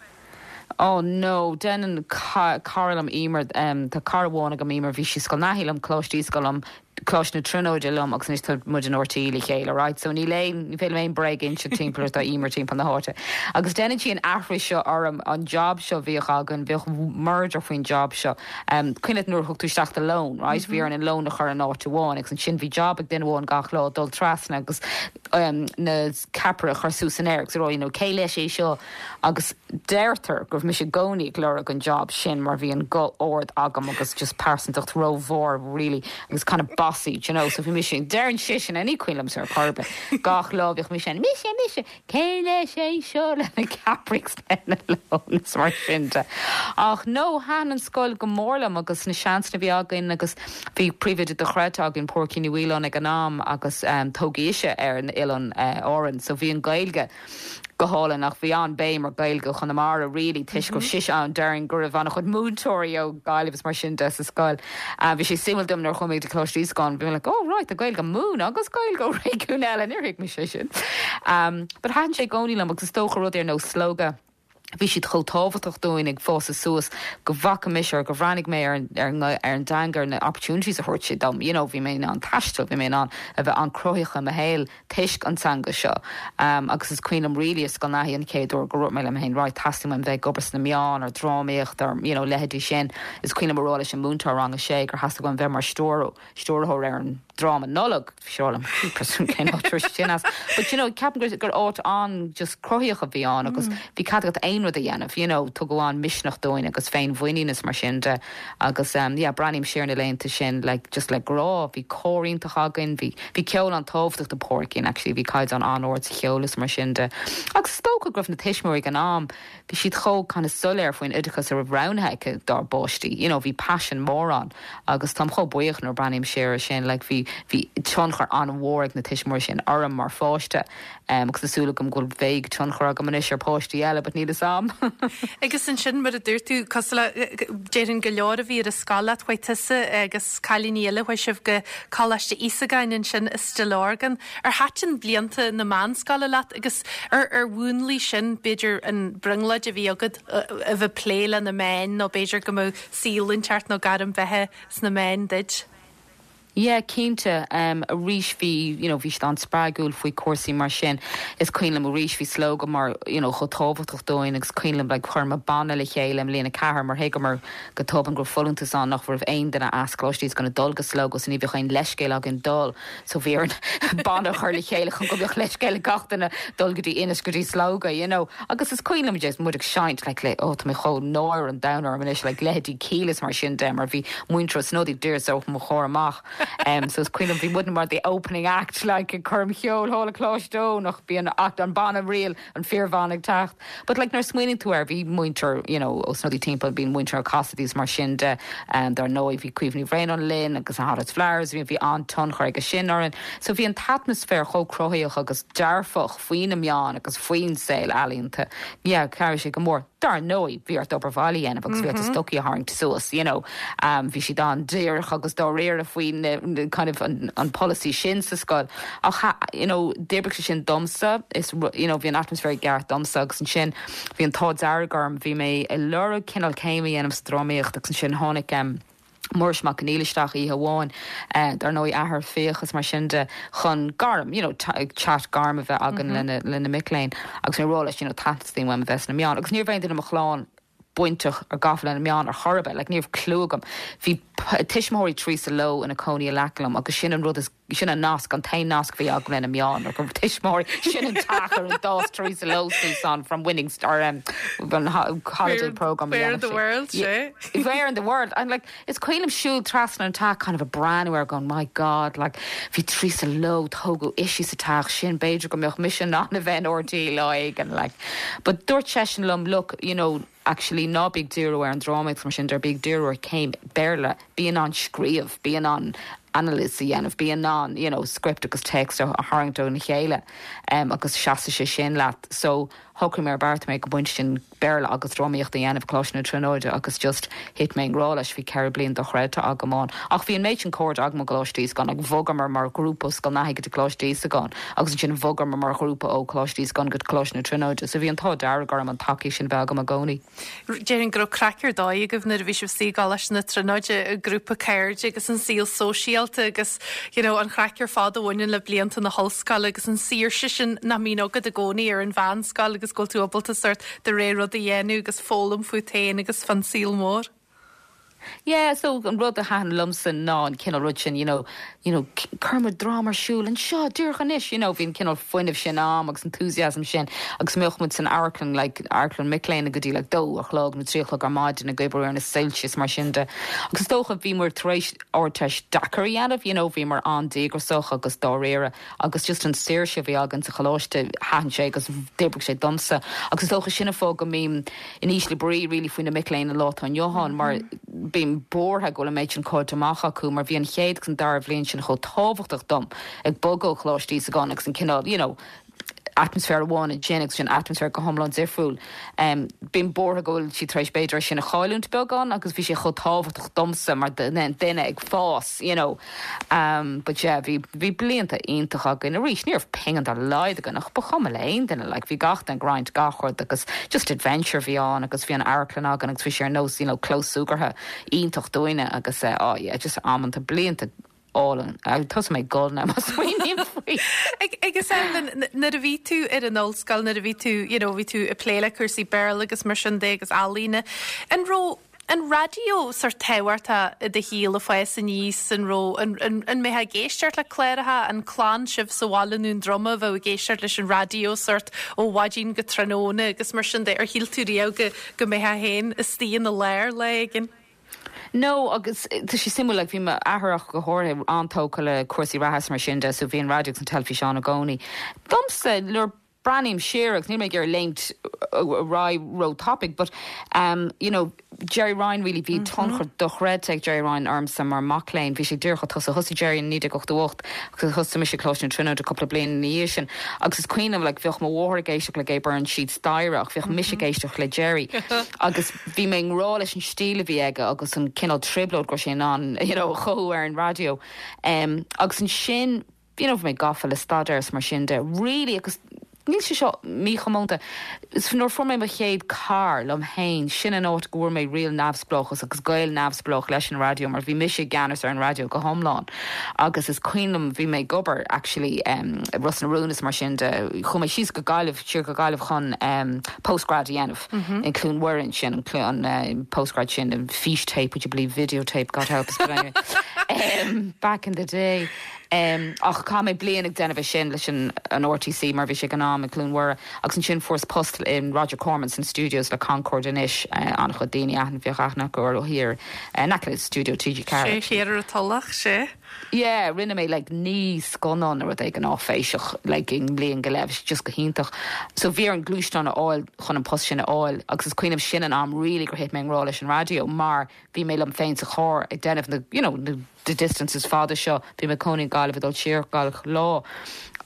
R: Oh no, déanann cara liom Emer, tá cara amháin agam Emer, bhí sí i Scoil Naithí liom, Coláiste Íosagáin liom, Coláiste na Tríonóide liom agus anois tá muid in RTÉ le chéile, right? So níl aon, ní féidir liom aon bréag a inse timpeall ar tá Emer timpeall na háite. Agus déanann sí an aithris seo orm, an job seo a bhíodh againn, bhíodh murder faoin job seo. Cuimhin leat nuair a thug tú isteach do lón, right? Bhí orainn an lón a chur in áit amháin agus ansin bhí job ag duine amháin gach lá dul trasna agus na ceapaire a chur suas san aer agus a rá, you know, cé leis é seo? Agus deirtear go raibh mise i gcónaí ag lorg an job sin mar bhí an guth ard agam agus just pearsantacht rómhór really agus kind of bossy, do you know, so bhí mise, deireann sise, ní cuimhin liomsa ar chor ar bith, gach lá bhíodh mise ann, mise, mise, cé leis é seo le na ceapairí agus lena lón is mar sin de. Ach no, thaitin an scoil go mór liom agus na seansanna a bhí againn agus bhí príomhoide dochreidte againn, Pádraigín Ní Mhaoláin ag an am agus tógadh ise ar an oileán Árann so bhí an Ghaeilge go hálainn ach bhí an-béim ar Ghaeilge Chonamara really toisc go raibh sise ann, déarfainn go raibh an-chuid múinteoirí ó Ghaillimh is mar sin de sa scoil. Bhí sé suimiúil dom nuair a chuaigh mé go dtí Coláiste Íosagáin, bhí mé like oh right tá Gaeilge á múineadh agus Gaeilge ó réigiún eile, níor thuig mise sin. But thaitin sé i gcónaí liom agus is dócha rudaí ar nós Slógadh, bhí siad chomh tábhachtach dúinn ag fás suas go bhfaca mise or go bhreathnaigh mé ar an ar an dteanga ar na opportunities a thabhairt sé dom, you know bhí mé in ann taisteal, bhí mé in ann a bheith an-cruthaitheach i mo shaol toisc an teanga seo. Agus is cuimhin liom really i Scoil Naithí an chéad uair gur dhúirt mé liom féin right teastaíonn uaim bheith ag obair sna meáin or drámaíocht or you know leithéidí sin. Is cuimhin liom a rá leis an múinteoir rang a sé gur theastaigh uaim bheith mar stiúrthóir ar an dráma Nollag. Bhí sé ag rá liom jeepers cén áit a raibh sé sin as. But you know ceapaim gur gur áit an just cruthaíoch a bhí ann agus bhí cead agat aon rud a dhéanamh you know tugadh an misneach dúinn agus féinmhuinín is mar sin de. Agus yeah, breathnaím siar ar na laethanta sin like just le grá, bhí cór iontach againn, bhí, bhí ceol an-tábhachtach do Phádraigín actually, bhí caighdeán an-ard sa cheol is mar sin de. Agus is dócha go raibh na tuismitheoirí ag an am, bhí siad chomh kind of soiléir faoin oideachas a raibh roghnaithe acu dár bpáistí, you know, bhí paisean mór ann agus táim chomh buíoch nuair a breathnaím siar ar sin, like bhí, bhí tionchar an-mhór ag na tuismitheoirí sin orm mar pháiste. Agus tá súil agam go bhfuil bheidh tionchar agam anois ar pháistí eile, but níl fhios a'm.
A: Agus ansin, mar a dúirt tú, cosúil le, déarfainn go leor a bhí ar an scoil leat, chuaigh tusa agus cailíní eile, chuaigh sibh go Coláiste Íosagáin ansin i Stigh Lorgan. Ar thaitin blianta na meánscoile leat agus ar ar mhúnlaigh sin, b'fhéidir, an brionglóid a bhí agat a bheith ag plé le na meáin nó b'fhéidir go mbeadh saol inteacht nó gairm bheatha sna meáin duit?
R: Yeah, cinnte. Arís bhí, you know, bhí siad an-spreagúil faoi cúrsaí mar sin. Is cuimhin liom arís bhí Slógadh mar, you know, chomh tábhachtach dúinn agus cuimhin liom like chuireamar banna le chéile i mbliain a ceathair mar thuigeamar go tobann go raibh folúntas ann nach raibh aon duine as Coláiste Íosagáin ag dul go Slógadh so ní bheadh aon leithscéal againn dul so bhí orainn banna a chur le chéile chun go mbeadh leithscéal ag gach duine dul go dtí Inis go dtí Slógadh, you know. Agus is cuimhin liom just muid ag seinnt like le, oh tá mé chomh náire an domhan orm anois like leithéidí Kíla is mar sin de mar bhí muintir Ó Snodaigh díreach os mo chomhair amach. So is cuimhin liom bhí muidne mar the opening act like ag coirm cheoil thall i Coláiste Eoin ach bhí an act an banna real an fíorbhanna ag teacht. But like nuair a smaoiníonn tú air bhí muintir you know Ó Snodaigh timpeall bhí muintir Cassidy's mar sin de dar ndóigh bhí Caoimhe Ní Bhraonáin linn agus na Hottest Flowers bhí bhí an-tionchar aige sin orainn. So bhí an t-atmaisféar chomh cruthaitheach agus dearfach faoi na meáin agus faoin saol ealaíonta. Yeah, chabhraigh sé go mór. Dar ndóigh, bhí ort obair bhaile a dhéanamh agus bhí ort do stocaí a tharraingt suas, you know. Bhí siad an-díreach agus dáiríre faoi na kind of an an polasaí sin sa scoil. Ach you know, d'oibrigh sé sin domsa, is you know, bhí an atmaisféar i gceart domsa agus ansin bhí an t-ádh dearg orm, bhí mé ag lorg cineál céim a dhéanamh sa drámaíocht agus ansin tháinig Muiris Mac Conghail isteach oíche amháin, dar ndóigh athair Fiach is mar sin de, chun gairm, you know, chat gairm a bheith againn lena, lena mic léinn agus mé ag rá leis, you know, teastaíonn uaim a bheith sna meáin agus ní raibh aon duine i mo chlann bainteach or gafa le na meáin ar chor ar bith, like ní raibh clue agam. Bhí tuismitheoirí Teresa Lowe ina cónaí in aice liom agus sin an rud is, sin an nasc, an t-aon nasc a bhí agam lena meáin, ná go raibh tuismitheoirí, sin an teach ar ar d'fhás Teresa Lowe suas ann from Winning Star, um, an holiday programme a
A: Where in
R: dhéanamh
A: the
R: sí.
A: world, sé?
R: Where in the world? And like, is cuimhin liom siúl trasna an teach kind of ag breathnú air going, my God, like, bhí Teresa Lowe, tógadh ise sa teach sin, b'fhéidir go mbeadh mise in ann a bheith in RTÉ lá éigin, like. But dúirt seisean liom, look, you know, actually ná bí ag díriú ar an drámaíocht mar sin de, bí ag díriú ar chéim Béarla, bí in ann scríobh, bí in ann anailís a dhéanamh, bí in ann you know script agus text a tharraingt óna chéile agus seasfaidh sé sin leat. So Shocraigh mé ar bheartaigh mé ag an bpointe sin Béarla agus drámaíocht a dhéanamh i gColáiste na Tríonóide agus just thit mé i ngrá leis, bhí 4 bliain dochreidte agam ann. Ach bhí an méid sin cairde agam i gColáiste Íosagáin, like bhogamar mar ghrúpa ó Scoil Naithí go dtí Coláiste Íosagáin agus ansin bhogamar mar ghrúpa ó Choláiste Íosagáin go Coláiste na Tríonóide so bhí an t-ádh dearg orm an tacaíocht sin bheith agam i gcónaí.
A: Déarfainn go raibh craic ar dóigh agaibh nuair a bhí sibh istigh i gColáiste na Tríonóide, i grúpa cairde agus an saol sóisialta agus you know an chraic ar fad a bhaineann le blianta na hollscoile agus an saoirse sin nach mbíonn agat i gcónaí ar an mheánscoil agus go bhfuil tú ábalta sórt do rogha rud a dhéanamh agus foghlaim fút féin agus fán saol mór.
R: Yeah, so an rud a thaitin liomsa ná an cineál rud sin, you know, you know, cuirfidh muid dráma ar siúl anseo díreach anois, you know, bhí an cineál fuinnimh sin a'm agus enthusiasm sin agus mbeadh muid san amharclann, like, amharclann mic léinn go dtí like dó a chlog nó trí a chlog ar maidin ag oibriú ar na soilse is mar sin de. Agus is dócha bhíomar tar éis Ardteist deacair a dhéanamh, you know, bhíomar an-díograsach agus dáiríre agus just an saoirse a bhí againn sa choláiste, thaitin sé agus d'oibrigh sé domsa. Agus is dócha sin an fáth go mbím in ísle brí really faoi na mic léinn an lá atá inniu ann mar bím buartha go bhfuil an méid sin caillte amach acu mar bhí an chéad agus an dara bhliain sin chomh tábhachtach dom ag bogadh ó Choláiste Íosagáin agus an cineál, you know, atmaisféar amháin ansin agus sin atmaisféar go hiomlán difriúil. Bím buartha go bhfuil siad tar éis b'fhéidir é sin a chailliúint beagán agus bhí sé chomh tábhachtach domsa mar duine ag fás, you know. But yeah, bhí, bhí blianta iontach againn. Arís, ní raibh pingin dá laghad againn ach ba chuma le aon duine, like bhí gach duine ag roinnt gach rud agus just adventure a bhí ann agus bhí an amharclann againn agus bhí sé ar nós, you know, clós súgartha iontach dúinne agus eh, oh yeah, just amanta, blianta álainn. Thosaigh mé ag gol now má smaoiním faoi.
A: Agus Evelyn, nuair a bhí tú ar an ollscoil, nuair a bhí tú, you know, bhí tú ag plé le cúrsaí Béarla agus mar sin de agus ealaíne, an raibh an raidió sórt tábhachtach i do shaol ag fás aníos, an raibh, an, an, an mbeifeá ag éisteacht le cláracha, an clann sibh sa bhaile i nDún Droma a bheadh ag éisteacht leis an raidió sórt ó mhaidin go tráthnóna agus mar sin de, ar shíl tú riamh go, go mbeifeá féin istigh ina lár lá éigin?
R: No, agus tá sé suimiúil, like bhí m'athair ach go háirithe an-tógtha le cúrsaí reatha is mar sin de, so bhí an raidió agus an teilifís ann i gcónaí. Domsa, nuair breathnaím siar, agus níl mé ag iarraidh léimt ar aghaidh ró-tapaidh, but um, you know, Gerry Ryan really, bhí tionchar dochreidte ag Gerry Ryan ormsa mar mac léinn, bhí sé díreach ag tosú, thosaigh Gerry in 1988 agus thosaigh mise ag Coláiste na Tríonóide cúpla bliain ina dhiaidh sin, agus is cuimhin liom, like, bheadh mo mháthair ag éisteacht le Gay Byrne síd staighre ach bheadh mise ag éisteacht le Gerry agus Bhí mé i ngrá leis an stíl a bhí aige agus an cineál trioblóid go raibh sé in ann you know a chothú ar an raidió. Agus ansin you know bhí mé gafa le staidéar is mar sin de really agus níl sé seo míchomónta. Nuair a fuair mé mo chéad carr liom féin, sin an áit go bhfuair mé real neamhspleáchas agus gaol neamhspleách leis an raidió mar bhí mise i gceannas ar an raidió go hiomlán. Agus is cuimhin liom bhí mé ag obair actually i Ros na Rún is mar sin de, chuaigh mé síos go Gaillimh, siar go Gaillimh chun postgrad a dhéanamh. In Cluain Mhuire ansin, an postgrad sin, an fís tape, would you believe, video tape, God help us, but anyway, back in the day. Ach chaith mé bliain ag déanamh é sin leis an RTC mar bhí sé ag an am i gCluain Mhuire agus ansin fuaireas post in Roger Corman san studios le Concorde anois, an-chuid daoine aithne, bheadh aithne acu orthu thiar in aice le stiúideo
A: TG4. Sé thiar ar an Tulach, sé.
R: Yeah, rinne mé like 9 scannán nó rud éigin áiféiseach like i mbliain go leith, bhí sé just go hiontach. So bhí orm gluaisteán a fháil chun an post sin a fháil agus is cuimhin liom sin an am really gur thit mé i ngrá leis an raidió mar bhí mé liom féin sa charr ag déanamh na you know na the distances fada seo, bhí mé ag cónaí i nGaillimh ag dul siar gach lá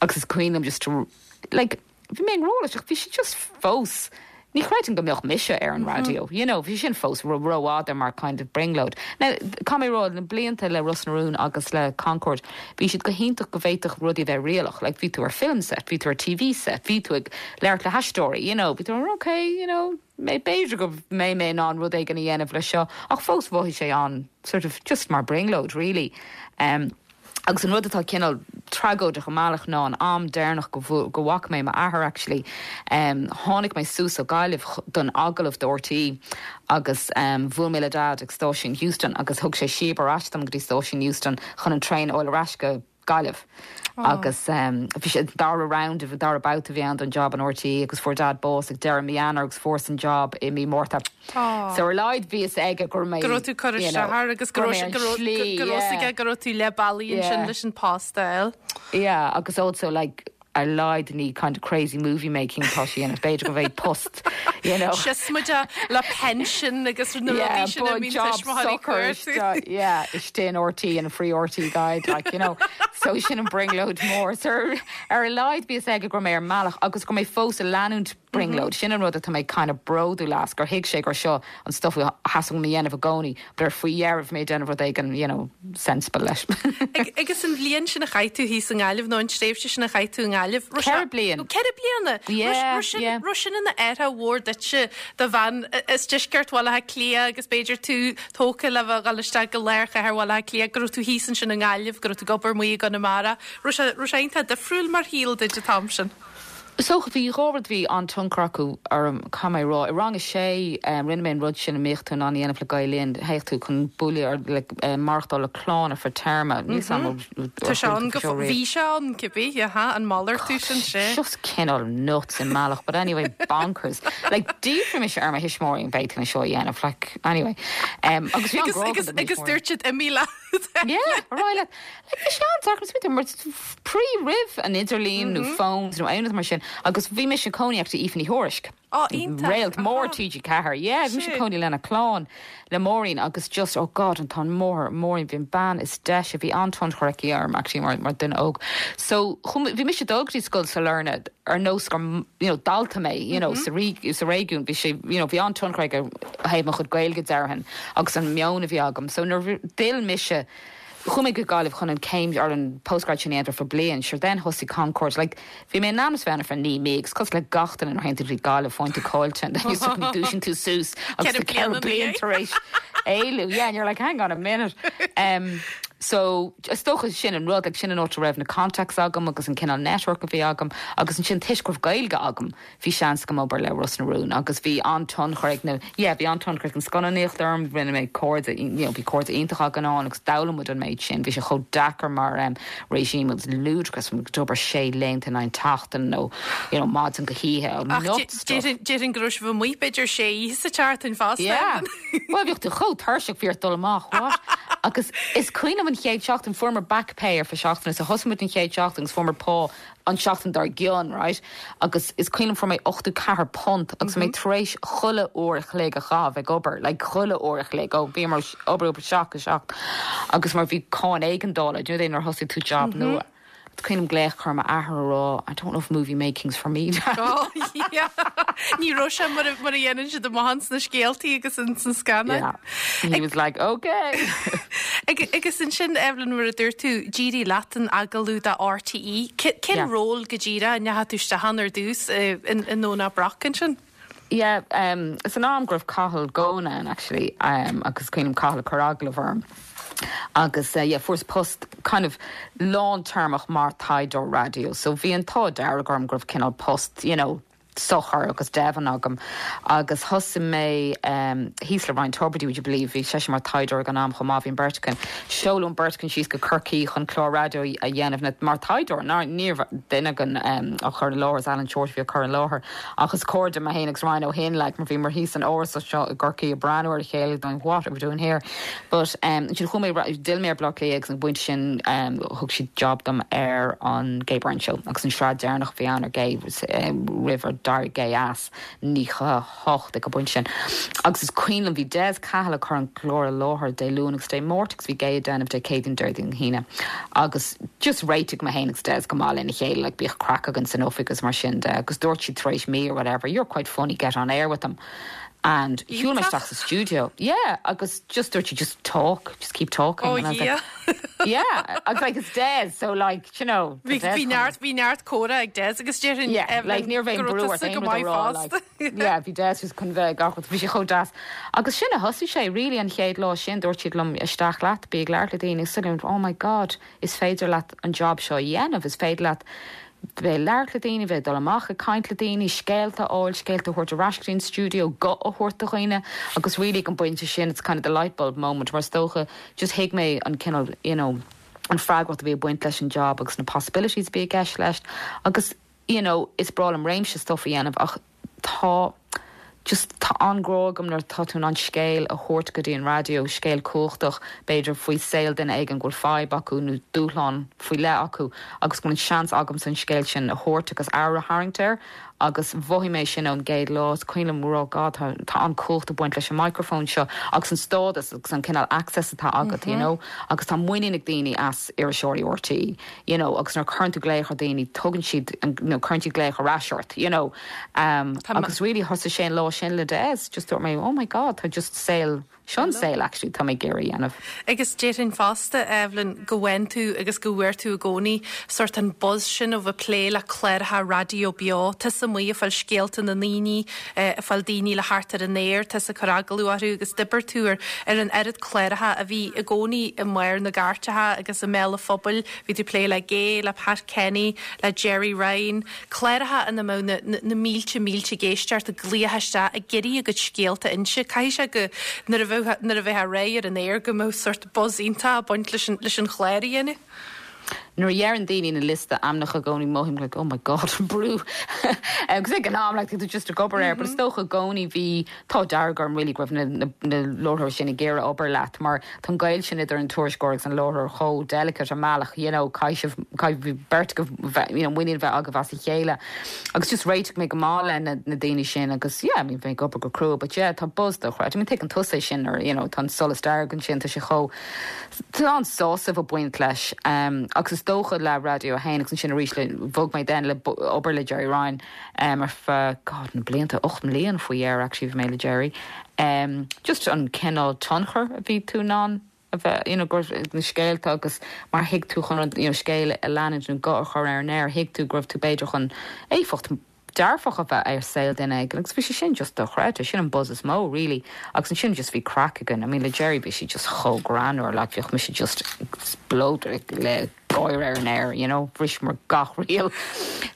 R: agus is cuimhin liom just to like Bhí mé i ngrá leis ach bhí sé just fós, ní chreidim go mbeadh mise ar an raidió, you know, bhí sin fós rófhada mar kind of brionglóid. Now, caithfidh mé a rá, na blianta le Ros na Rún agus le Concorde, bhí siad go hiontach go bhféadfadh rudaí a bheith réalaíoch, like bhí tú ar film set, bhí tú ar TV set, bhí tú ag labhairt le haisteoirí, you know, bhí tú okay, you know, b'fhéidir go mbeidh mé in ann rud éigin a dhéanamh leis seo, ach fós mhothaigh sé an sort of just mar brionglóid really. Um, Agus an rud atá cineál tragóideach i mbealach ná an am deireanach go go bhfaca mé m'athair actually, tháinig mé suas ó Gaillimh don agallamh do RTÉ agus bhuail mé le Dad ag stáisiún Heuston agus thug sé síob ar ais dom go dtí stáisiún Heuston chun an traein a fháil ar ais go Gaillimh. Agus bhí sé an dara round, an dara babhta a bhí ann don job in RTÉ agus fuair Dad bás ag deireadh mí Eanáir agus fuaireas an job i mí Márta. So ar a laghad bhí fhios aige go raibh mé,
A: Go raibh tú curtha
R: you know,
A: isteach air agus go
R: go
A: raibh
R: raibh mé ar
A: go
R: an
A: raibh
R: slí,
A: go raibh fhios
R: yeah.
A: aige go raibh tú leath bealaigh ansin
R: Yeah.
A: leis an post a fháil.
R: Yeah, agus also like ar a laghad ní kind of crazy movie making atá sé a dhéanamh, b'fhéidir go mbeidh post, you know.
A: Sios muid le pension agus na
R: Yeah,
A: rudaí sin a
R: but
A: mbíonn
R: job
A: tuismitheoirí
R: socair
A: cuartú.
R: isteach, yeah, istigh in RTÉ in a free RTÉ guide, like, you know. So sin an brionglóid mór. So ar, ar a laghad bhí fhios aige go raibh mé ar an mbealach agus go raibh mé fós ag leanúint. Brionglóid. Sin an rud atá mé kind of bródúil as, gur thuig sé gur seo an stuff a theastaigh uaim a dhéanamh i gcónaí, but ar faoi dheireadh bhí mé ag déanamh rud éigin, you know, sensible leis.
A: Agus an bhliain sin a chaith tú thíos i nGaillimh, nó an tréimhse sin a chaith tú i nGaillimh,
R: raibh sé. 4 bliain.
A: 4 bliana?
R: Yeah, yeah.
A: Raibh sin ina athrú mhór duitse, do bhean as deisceart Bhaile Átha Cliath agus b'fhéidir tú tógtha le bheith ag dul isteach go lár chathair Bhaile Átha Cliath, go raibh tú thíos ansin i nGaillimh, go raibh tú ag obair amuigh i gConamara. Raibh sé, raibh sé iontach difriúil mar shaol duit an t-am sin?
R: Is dócha, bhí dhá rud a bhí an-tionchar acu orm, caithfidh mé a rá. I rang a sé, rinne mé an rud sin a mbíodh tú in ann a dhéanamh le Gael Linn, théadh tú chun bualadh ar, le maireachtáil le clann ar feadh téarma. Níl 's agam
A: an Tá sé ann go fóill, bhí sé ann, cibé, aha, an malartú sin, sea.
R: Just cineál nuts i mbealach, but anyway, bonkers. Like, d'fhiafraigh mise ar mo thuismitheoirí an bhféadfainn é seo a dhéanamh, like, anyway. Agus bhí an-ghrá agam do mo
A: Agus
R: thuismitheoirí.
A: dúirt siad imigh leat.
R: Yeah, ar aghaidh leat. Like, bhí sé an-deacair smaointiú mar pre roimh an idirlíon nó phones nó aon rud mar sin agus bhí mise ag cónaí actually Aoife Ní Thuairisg.
A: Ó, iontach.
R: Réalt mór TG4. Yeah, bhí mise ag cónaí lena clann, le Máirín agus just, oh God, an t-ádh mór, Máirín, bhí an bean is deise, bhí an-tionchar aici orm actually mar, mar duine óg. So, bhí mise ag dul go dtí scoil Sailearna ar nós gur, you know, dalta mé, you know, sa, sa réigiún, bhí sé, you know, bhí an-tionchar aige ó thaobh mo chuid Gaeilge déarfainn agus an meon a bhí agam. So nuair a d'fhill mise, Chuaigh mé go Gaillimh chun an céim or an postgrad sin a dhéanamh ar feadh bliain, sure then thosaigh Concorde, like bhí mé in ainm is bheith ann ar feadh 9 mí agus cosúil le gach duine nuair a théann tú go dtí Gaillimh faigheann tú caillte and then you suddenly dúisíonn tú suas agus tá 4 bliana tar éis éalú, yeah and you're like hang on a minute. Um, so is dócha sin an rud, like sin an áit a raibh na contacts agam agus an cineál network a bhí agam agus ansin toisc go raibh Gaeilge agam Bhí seans agam obair le Ros na Rún agus bhí an-tionchar ag na, yeah, bhí an-tionchar ag an scannánaíocht orm, rinne mé cairde, you know, bhí cairde iontacha againn ann agus d'fhoghlaim muid an méid sin. Bhí sé chomh deacair mar em regime, it was ludicrous, muid ag obair sé laethanta in aghaidh na seachtaine nó, you know, maidin go hoíche,
A: Ach
R: nuts stuff.
A: déarfainn, déarfainn go raibh sibh amuigh b'fhéidir sé oíche sa tseachtain fosta.
R: Yeah. Bhuel, bhíodh tú chomh tuirseach, bhí ort dul amach, what? Agus is cuimhin liom an chéad seachtain, fuaireamar back pay ar feadh seachtaine, so thosaigh muid an chéad seachtain agus fuaireamar pá an seachtain dár gcionn, right? Agus is cuimhin liom fuair mé £84 agus mé tar éis chuile uair a chloig a chaitheamh ag obair, like chuile uair a chloig, ó bhíomar ag obair ó 7 go 7 agus mar bhí cáin éigeandála, do you know nuair a thosaigh tú job nua. Is cuimhin liom glaoch a chur ar m'athair a rá, I don't know if movie making's for me, Dad.
A: Oh yeah. Ní raibh sé mar a mar a dhéanann siad amach ins na scéaltaí agus ins na scannáin.
R: Yeah. He was like, okay.
A: Agus ansin, Evelyn, mar a dúirt tú, d'éirigh leat an agallamh do RTÉ. Cén ról go díreach a ndeachaigh tú isteach ann ar dtús i nDomhnach Broc ansin?
R: Yeah, san am go raibh Cathal Goan ann actually agus is cuimhin liom Cathal ag cur agallamh orm agus yeah fuaireas post kind of lántéarmach mar taighdeoir raidió so bhí an t-ádh dearg orm go raibh cineál post you know socair agus deimhin agam agus thosaigh mé thíos le Ryan Tubridy, would you believe, bhí seisean mar taighdeoir ag an am chomh maith, bhí an bheirt againn, seoladh an bheirt againn síos go Corcaigh chun clár raidió a dhéanamh mar taighdeoir, ní raibh duine againn á chur i láthair, is Alan Shortt a bhí á cur i láthair ach is cairde mé féin agus Ryan ó shin like mar bhíomar thíos san árasán seo i gCorcaigh ag breathnú ar a chéile going what are we doing here? But ansin chuaigh mé, d'fhill mé ar Bhaile Átha Cliath agus an pointe sin thug siad job dom ar an Gay Byrne Show agus an sraith deireanach a bhí ann ar Gay roimh ar d'éirigh Gay as, 98 ag an bpointe sin. Agus is cuimhin liom bhí Des Cahill ag cur an clár i láthair Dé Luain agus Dé Máirt agus bhí Gay ag déanamh Dé Céadaoin, Déardaoin, hAoine. Agus just réitigh mé féin agus Des go maith lena chéile, like bíodh craic againn san oifig agus mar sin de agus dúirt siad tar éis mí or whatever, you're quite funny, get on air with them. And shiúil mé isteach sa stiúideo, yeah, agus just dúirt sí, just talk, just keep talking.
A: Oh
R: And I was like,
A: yeah.
R: yeah, I was like, it's Des, so like, you know,
A: Bhí
R: Des
A: bhí neart bhí neart comhrá ag Des agus déarfainn
R: Yeah,
A: Evelyn
R: like ní raibh aon
A: go
R: brú
A: raibh
R: ort
A: tusa
R: aon
A: go
R: rud a
A: maith
R: rá,
A: fosta.
R: like, yeah, bhí Des just chun bheith ag gach rud, bhí sé chomh deas. Agus sin a thosaigh sé, really, an chéad lá sin, dúirt siad liom, isteach leat, bí ag labhairt le daoine, agus suddenly, oh my God, is féidir leat an job seo a dhéanamh, is féidir leat bheith ag labhairt le daoine, bheith ag dul amach ag caint le daoine, scéalta a fháil, scéalta a thabhairt ar ais go dtí an stiúideo, guth a thabhairt do dhaoine agus really ag an bpointe sin it's kind of the light bulb moment mar is dócha just thuig mé an cineál you know an freagracht a bhí ag baint leis an job agus na possibilities a bhí i gceist leis agus you know is breá liom réimse stuff a dhéanamh ach Tá just, tá an-ghrá agam nuair atá tú in ann scéal a thabhairt go dtí an raidió, scéal cumhachtach, b'fhéidir, faoi saol duine éigin go bhfuil fadhb acu nó dúshlán faoi leith acu agus go bhfuil an seans agamsa an scéal sin a thabhairt agus aire a tharraingt air. Agus mhothaigh mé sin ón gcéad lá. Is cuimhin liom rá, God, tá, tá an-chumhacht ag baint leis an microphone seo agus an stádas agus an cineál access atá agat, you know. Agus tá muinín ag daoine as iriseoirí RTÉ, you know, agus nuair a chuireann tú glaoch ar dhaoine, tugann siad, nó cuireann siad glaoch ar ais ort, you know. Agus really thosaigh sé an lá sin le Des, just dúirt mé, oh my God, tá just saol, Seo an saol actually tá mé ag iarraidh a dhéanamh.
A: Agus déarfainn fosta, Evelyn, go bhfaigheann tú agus go bhfuair tú i gcónaí sórt an buzz sin ó bheith plé le cláracha raidió beo. Tusa amuigh ag fáil scéalta na ndaoine, ag fáil daoine le theacht ar an aer, tusa ag cur agallamh orthu agus d'oibir tú ar ar an oiread cláracha a bhí i gcónaí i mbarr na gcairteacha agus i mbéal an phobail. Bhí tú ag plé le Gay, le Pat Kenny, le Gerry Ryan. Cláracha ina mbeadh na na mílte mílte ag éisteacht, ag glaoch isteach, ag iarraidh a gcuid scéalta a inse. Caithfidh sé go, nuair a bheadh, nuair a bheifeá réidh ar an aer, go mbeadh sórt buzz iontach ag baint leis an, leis an chlár a dhéanamh.
R: Nuair a dheireann daoine na liosta ainmneacha i gcónaí mothaím like oh my god an brú agus ag an am like tá tú just ag obair air but is dócha i gcónaí bhí t-ádh dearg orm really go raibh na na na láithreoirí sin ag iarraidh obair leat mar Tá an gaol sin idir an tuairisceoir agus an láithreoir chomh delicate i mbealach, you know, caithfidh sibh, caithfidh beirt agaibh, you know, muinín a bheith agaibh as a chéile. Agus just réitigh mé go maith le na, na daoine sin agus yeah, I mean, bhí mé ag obair go crua but yeah, tá buzz dochreidte. I mean, tuigeann tusa é sin nuair, you know, tá an solas dearg ansin, tá sé chomh, tá an-sásamh ag baint leis. Um, agus is dócha le Raidió 1 agus ansin arís le, bhog mé then le obair le Gerry Ryan, um, ar feadh, God, na blianta, 8 mbliana faoi dheireadh actually bhí mé le Gerry. Em, just an cineál tionchar a bhí tú in ann a bheith, you know, go raibh na scéalta agus mar thig tú chun rud, you know, scéal a leanúint nó guth a chur ar an aer, thuig tú go raibh tú b'fhéidir chun éifeacht dearfach a bheith ar saol duine éigin agus bhí sé sin just dochreidte, sin an buzz is mó really agus ansin just bhí craic againn, I mean le Gerry bhí sé just chomh greannmhar like bhíodh mise just explode le gáire ar an aer, you know, bhriseamar gach riail.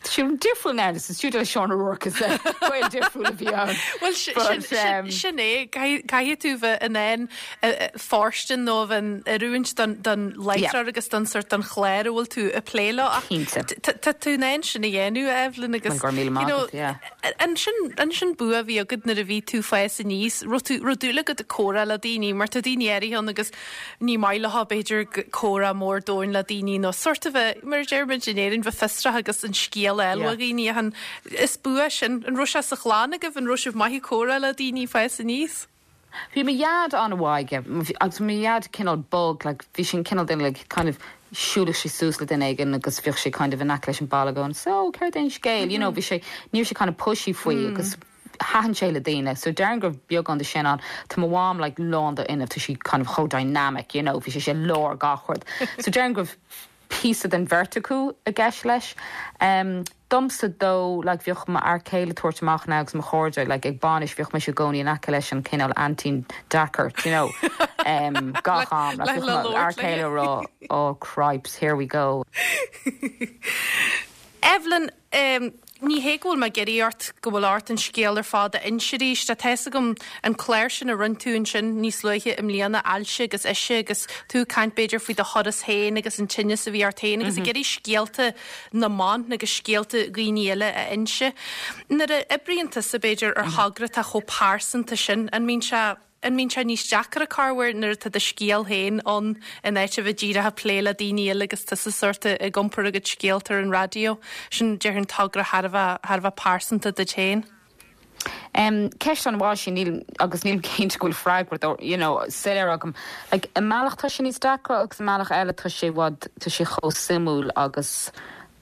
R: Tá sé difriúil now, sa stiúideo le Seán O'Rourke is gaol difriúil a bhí ann.
A: Bhuel, sin é, caithfidh tú bheith in ann fóirstean nó a bheith in oiriúint don láithreoir agus don sort don chlár a bhfuil tú ag plé leo ach tá tú in ann sin a dhéanamh, Evelyn, agus
R: Go raibh míle maith agat, yeah.
A: An sin bua a bhí agat nuair a bhí tú ag fás aníos, raibh tú, raibh dúil agat ag comhrá le daoine mar tá daoine áirithe ann agus Ní maith leo, b'fhéidir, comhrá mór domhain le daoine nó sórt a bheith, mar a deir muid in Éirinn, bheith fiosrach agus an scéal a fháil ó dhaoine ach an, is bua sin. An raibh sé sa chlann agaibh? An raibh sibh maith ag comhrá le daoine ag fás aníos?
R: Bhí mo dhaid an-mhaith aige agus bhí mo dhaid cineál bog, like bhí sé an cineál duine like kind of siúlfadh sé suas le duine éigin agus bheadh sé kind of in aice leis an balla going so céard é an scéal, you know bhí sé, ní raibh sé kind of pushy faoi agus Thaitin sé le daoine. So déarfainn go raibh beagán de sin ann. Tá mo mham like lán d'fhuinneamh, tá sí kind of chomh dynamic, you know, bhí sí i lár gach rud. So déarfainn go raibh píosa den bheirt acu i gceist leis. Em, domsa though, like bhíodh m'fhear céile ag tabhairt amach now agus mo chairde, like ag bainis bhíodh mise i gcónaí in aice leis an cineál aintín deacair, do you know, em, gach am. Like bhíodh mo fhear céile ag rá, oh cripes, here we go.
A: Evelyn, em, Ní hé go bhfuil mé ag iarraidh ort go bhfuil ort an scéal ar fad a inse arís. Tá a fhios agam an clár sin a rinne tú ansin níos luaithe i mbliana, Ailse agus Ise, agus tú ag caint b'fhéidir faoi do thuras féin agus an tinneas a bhí ort féin agus ag iarraidh scéalta na mban agus scéalta dhaoine eile a inse. Nuair a oibríonn tusa b'fhéidir ar thogra atá chomh pearsanta sin, an mbíonn sé An mbíonn sé níos deacra corruair nuair atá do scéal féin ann in áit a bheith díreach ag plé le daoine eile agus tusa sórt ag iompar a gcuid scéalta ar an raidió? Sin, déarfainn, togra thar a bheith, thar a bheith pearsanta duit féin.
R: Em, ceist an-mhaith sin, níl, agus nílim cinnte go bhfuil freagra dó, you know, soiléir agam. Like, i mbealach tá sé níos deacra agus i mbealach eile tá sé i bhfad, tá sé chomh suimiúil agus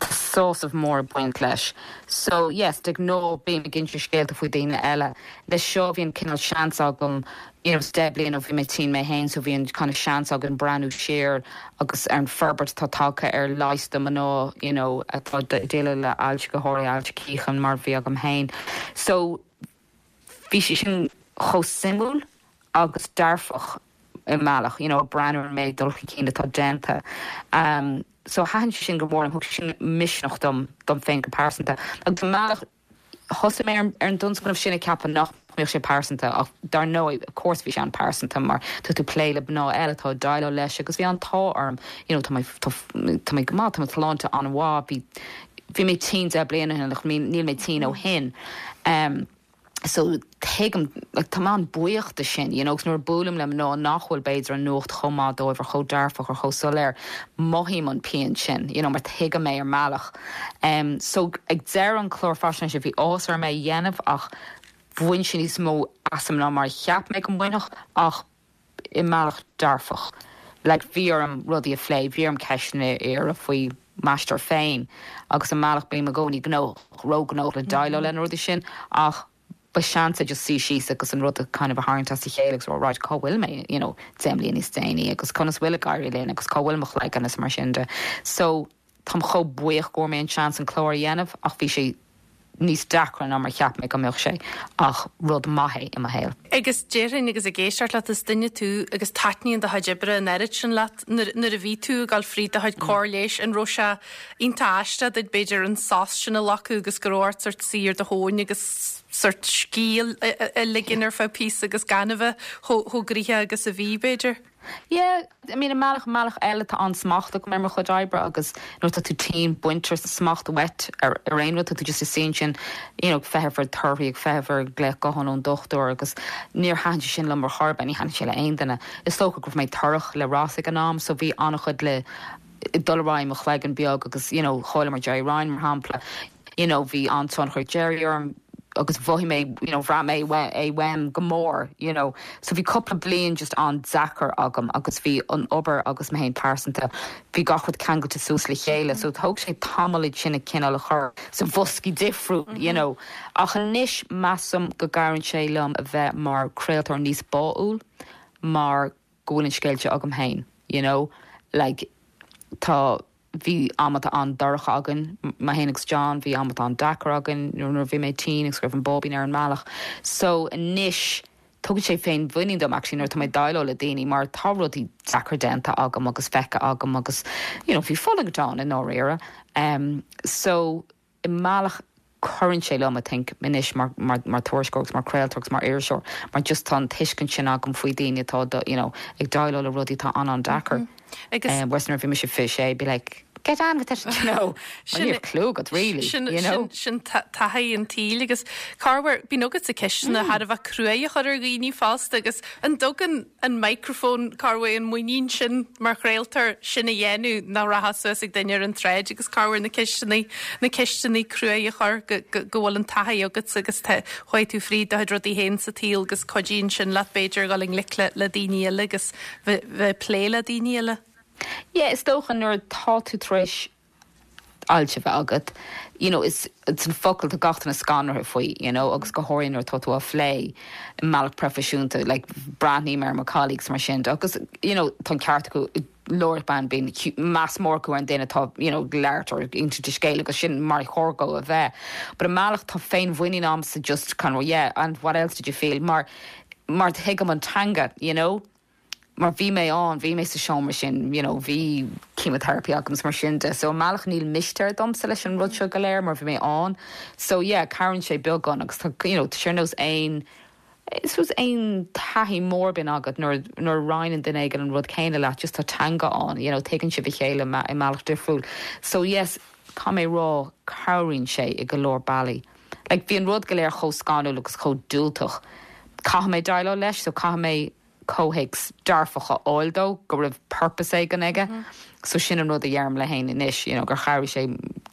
R: tá sásamh mór ag baint leis. So, yes, de ghnáth bím ag inse scéalta faoi daoine eile. Leis seo bhí an cineál seans agam, you know, 10 bliain ó bhí mé tinn mé féin so bhí an kind of seans agam breathnú siar agus ar an forbairt atá tagtha ar leigheas do mná, you know, atá ag déileáil le ailse, go háirithe ailse cíocháin mar a bhí agam féin. So, bhí sé sin chomh suimiúil agus dearfach i mbealach, you know, ag breathnú ar an méid dul chun cinn atá déanta. Um, so thaitin sé sin go mór liom, thug sé sin misneach dom, dom féin go pearsanta. Agus i mbealach, thosaigh mé ar an dtionscnamh sin ag ceapadh nach mbeadh sé pearsanta ach dar ndóigh, of course bhí sé an-pearsanta mar tá tú ag plé le mná eile atá ag déileáil leis agus bhí an t-ádh orm, you know, tá mé, tá, tá mé go maith, tá mo shláinte an-mhaith, bhí, bhí mé tinn 10 bliana ó shin ach níl mé tinn ó shin. Um. So tuigim, like tá mé an-bhuíoch de sin, you know, agus nuair a buailim le mná nach bhfuil b'fhéidir an nuacht chomh maith dóibh or chomh dearfach or chomh soiléir, mothaím an pian sin, you know, mar tuigim é ar mbealach. Em so ag deireadh an chlár faisnéise bhí áthas orm é a dhéanamh ach bhain sé níos mó asam ná mar a cheap mé go mbainfeadh ach i mbealach dearfach. Like bhí orm rudaí a phlé, bhí orm ceisteanna a iarraidh faoi m'aistear féin agus i mbealach bím i gcónaí gnóthach, róghnóthach le déileáil le na rudaí sin ach ba seans é just suí síos agus an rud a kind of a tharraingt as a chéile agus rá right cá bhfuil mé you know 10 mbliana níos déanaí agus conas bhfuil ag éirí linn agus cá bhfuil mo chloigeann agus mar sin de. So Táim chomh buíoch go bhfuair mé an seans an clár a dhéanamh ach bhí sé níos deacra ná mar cheap mé go mbeadh sé ach rud maith é i mo shaol.
A: Agus déarfainn agus ag éisteacht leat is duine tú agus taitníonn do chuid oibre an oiread sin leat. Nuair nuair a bhí tú ag dul fríd do chuid cóir leighis an raibh sé iontach aisteach duit b'fhéidir an sos sin a ghlacadh agus go raibh ort sort suí ar do thóin agus sort scíth a ligean ar feadh píosa agus gan a bheith chomh chomh gnoitheach agus a bhí b'fhéidir?
R: Yeah, I mean i mbealach, i mbealach eile tá an-smacht agam ar mo chuid oibre agus nuair atá tú tinn baintear smacht uait ar ar aon rud, tá tú just ag suí ansin you know ag feitheamh ar torthaí, ag feitheamh ar glaoch gutháin ón dochtúir agus níor thaitin sé sin liom ar chor ar bith, ní thaitin sé le aon duine. Is dócha go raibh mé torrach le Ross ag an am so bhí an-chuid le dul ar aghaidh i mo chloigeann beag agus you know chailleamar Gerry Ryan mar shampla. you know bhí an-tionchar ag Gerry orm agus mhothaigh mé you know bhraith mé é uaim go mór you know. So bhí cúpla bliain just an-deacair agam agus bhí an obair agus mé féin pearsanta, bhí gach rud ceangailte suas le chéile so thóg sé tamall iad sin a cineál a chur sa bhoscaí difriúil you know. Ach anois measaim go gcabhraíonn sé liom a bheith mar craoltóir níos báúil mar go bhfuil an scéal seo agam féin you know like tá bhí amanta an-dorcha againn, mé féin agus John, bhí amanta an-deacair againn nuair a bhí mé tinn agus go raibh an báibín ar an mbealach. So anois tugann sé féinmhuinín dom actually nuair atá mé ag déileáil le daoine mar tá rudaí deacra déanta agam agus feicthe agam agus you know bhí fulaingt ann i ndáiríre. Um so i mbealach cuireann sé liom, I think, anois mar, mar, mar tuairisceoir agus mar chraoltóir agus mar iriseoir mar just tá an tuiscint sin agam faoi daoine atá, you know, ag déileáil le rudaí atá an-an-deacair. Agus. Whereas nuair a bhí mise 26, be like, get on with it, you know, mar ní raibh clue agat really,
A: Sin, you know. sin, sin taithí an tsaoil agus corruair, bíonn agatsa ceisteanna thar a bheith cruaidh a chur ar dhaoine fosta agus an dtugann an microphone, corruair an muinín sin mar chraoltóir sin a dhéanamh nach rachfá suas ag duine ar an tsráid agus corruair na ceisteanna, na ceisteanna cruaidh a chur go, go, go bhfuil an taithí agatsa agus tá, chuaigh tú fríd do chuid rudaí féin sa tsaol agus cuidíonn sin leat b'fhéidir dhul i ngleic le, le daoine eile agus bheith, bheith ag plé le daoine eile.
R: Yeah, is dócha nuair atá tú tar éis ailse a bheith agat, you know, is it's an focal tá gach duine scanraithe faoi, you know, agus go háirithe nuair atá tú á phlé i mbealach proifisiúnta, like, breathnaím ar mo colleagues mar sin de agus, you know, tá an ceart acu, labhairt bean, bíonn meas mór acu ar an duine atá, you know, ag labhairt or ag insint a scéil agus sin mar chóir dó a bheith. But i mbealach tá féinmhuinín a'msa just kind of, yeah, and what else did you feel? Mar, mar tuigim an teanga, you know. mar bhí mé ann, bhí mé sa seomra sin, you know, bhí chemotherapy agam is mar sin de. So i mbealach níl mistéir domsa leis an rud seo go léir mar bhí mé ann. So yeah, cabhraíonn sé beagán agus tá, you know, tá sé ar nós aon, I suppose aon taithí mór a bhíonn agat nuair, nuair a roinneann duine éigin an rud céanna leat, just tá teanga ann, you know, tuigeann sibh a chéile i mbealach difriúil. So yes, caithfidh mé rá, cabhraíonn sé i go leor bealaí. Like bhí an rud go léir chomh scanrúil agus chomh diúltach. Caithfidh mé déileáil leis so caithfidh mé comhthéacs dearfach a fháil dó, go raibh purpose éigin aige. So sin an rud a dheirim liom féin anois, you know, gur chabhraigh sé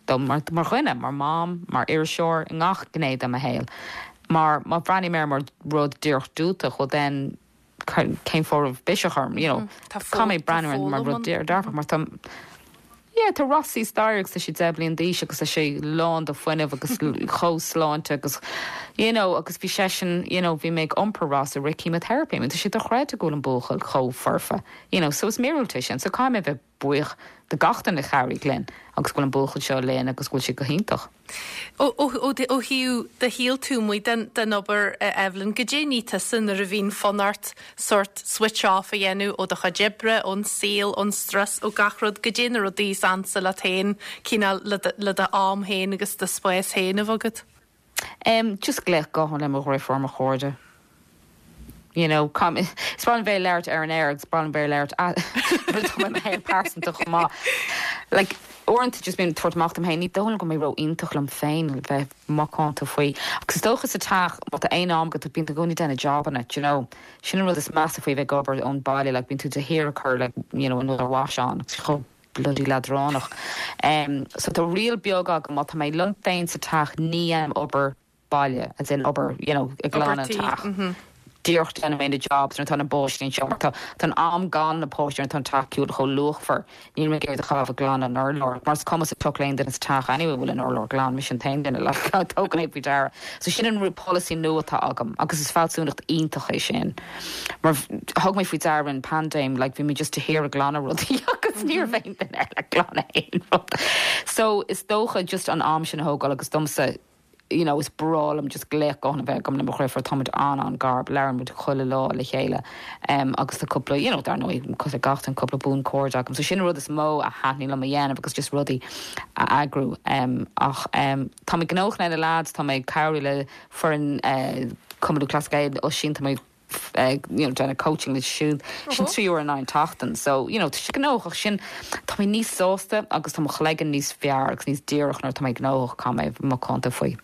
R: dom mar, mar dhuine, mar mham, mar iriseoir, i ngach gné de mo shaol. Mar má bhreathnaím air mar rud díreach diúltach, well then, cén fáth a raibh biseach orm, you know. Caithfidh mé breathnú air mar rud dearfach mar tá, yeah, tá Rossie staighre agus tá sé 10 bliain d'aois agus tá sé lán de fuinneamh agus chomh sláinte agus, you know, agus bhí seisean, you know, bhí mé ag iompar Ross i rith chemotherapy, I mean tá sé dochreidte go bhfuil an buachaill chomh foirfe, you know, so is míorúilt é sin, so caithfidh mé a bheith buíoch de gach duine a chabhraigh linn agus go bhfuil an buachaill seo linn agus go bhfuil sé go hiontach.
A: Ó thaobh do shaol taobh amuigh den obair, a Evelyn, goidé ní tusa nuair a bhíonn fonn ort sórt switch off a dhéanamh ó do chuid oibre, ón saol, ón strus, ó gach rud, goidé na rudaí is ansa leat féin, cineál le do am féin agus do spás féin a bheith agat?
R: Em, just glaoch gutháin le mo dhriofúr, mo chairde. You know, caithfidh mé, is breá liom bheith ag labhairt ar an aer agus breá liom bheith ag labhairt nuair atá mé i mo shaol pearsanta chomh maith. Like, Uaireanta just bím ag tabhairt amach dom féin, ní dóigh liom go mbeidh ró-iontach liom féin le bheith macánta faoi. Agus is dócha sa teach, má tá aon am agat, bíonn tú i gcónaí ag déanamh jabanna, do you know. Sin an rud is measa faoi bheith ag obair ón baile, like bíonn tú de shíor ag cur like, you know, another wash on, agus chomh bloody leadránach. So tá riail beag agam, má tá mé liom féin sa teach ní dhéanaim obair baile, as in obair, you know, ag glanadh an teach. Díreach déanfaidh mé na jobs nuair atá na páistí anseo mar tá tá an am gan na páistí nuair atá an teach ciúin chomh luachmhar. Níl mé ag iarraidh a chaitheamh ag glanadh an urláir mar is cuma sa tsioc le aon duine sa teach anyway an bhfuil an urlár glan, mise an t-aon duine like a dtugann é faoi deara. So sin an polasaí nua atá agam agus is fealsúnacht iontach é sin mar thug mé faoi deara an paindéim like bhí mé just de shíor ag glanadh rudaí agus ní raibh aon duine eile ag glanadh aon rud. So is dócha just an am sin a thógáil agus domsa you know, is breá liom just glaoch gutháin a bheith agam le mo dhriofúr, táimid an-an-gar, labhrann muid chuile lá le chéile em agus tá cúpla, you know, dar ndóigh, cosúil le gach duine, cúpla buanchairde agam. So sin an rud is mó a thaitníonn liom a dhéanamh agus just rudaí a eagrú em ach em tá mé gnóthach le na lads, tá mé ag cabhrú le foireann eh Cumann Lúthchleas Gael, Oisín, tá mé ag you know déanamh coaching leo siúd sin 3 uair in aghaidh an tseachtain so you know tá sé gnóthach ach sin tá mé níos sásta agus tá mo chloigeann níos fearr agus níos díreach nuair atá mé gnóthach caithfidh mé a bheith macánta faoi.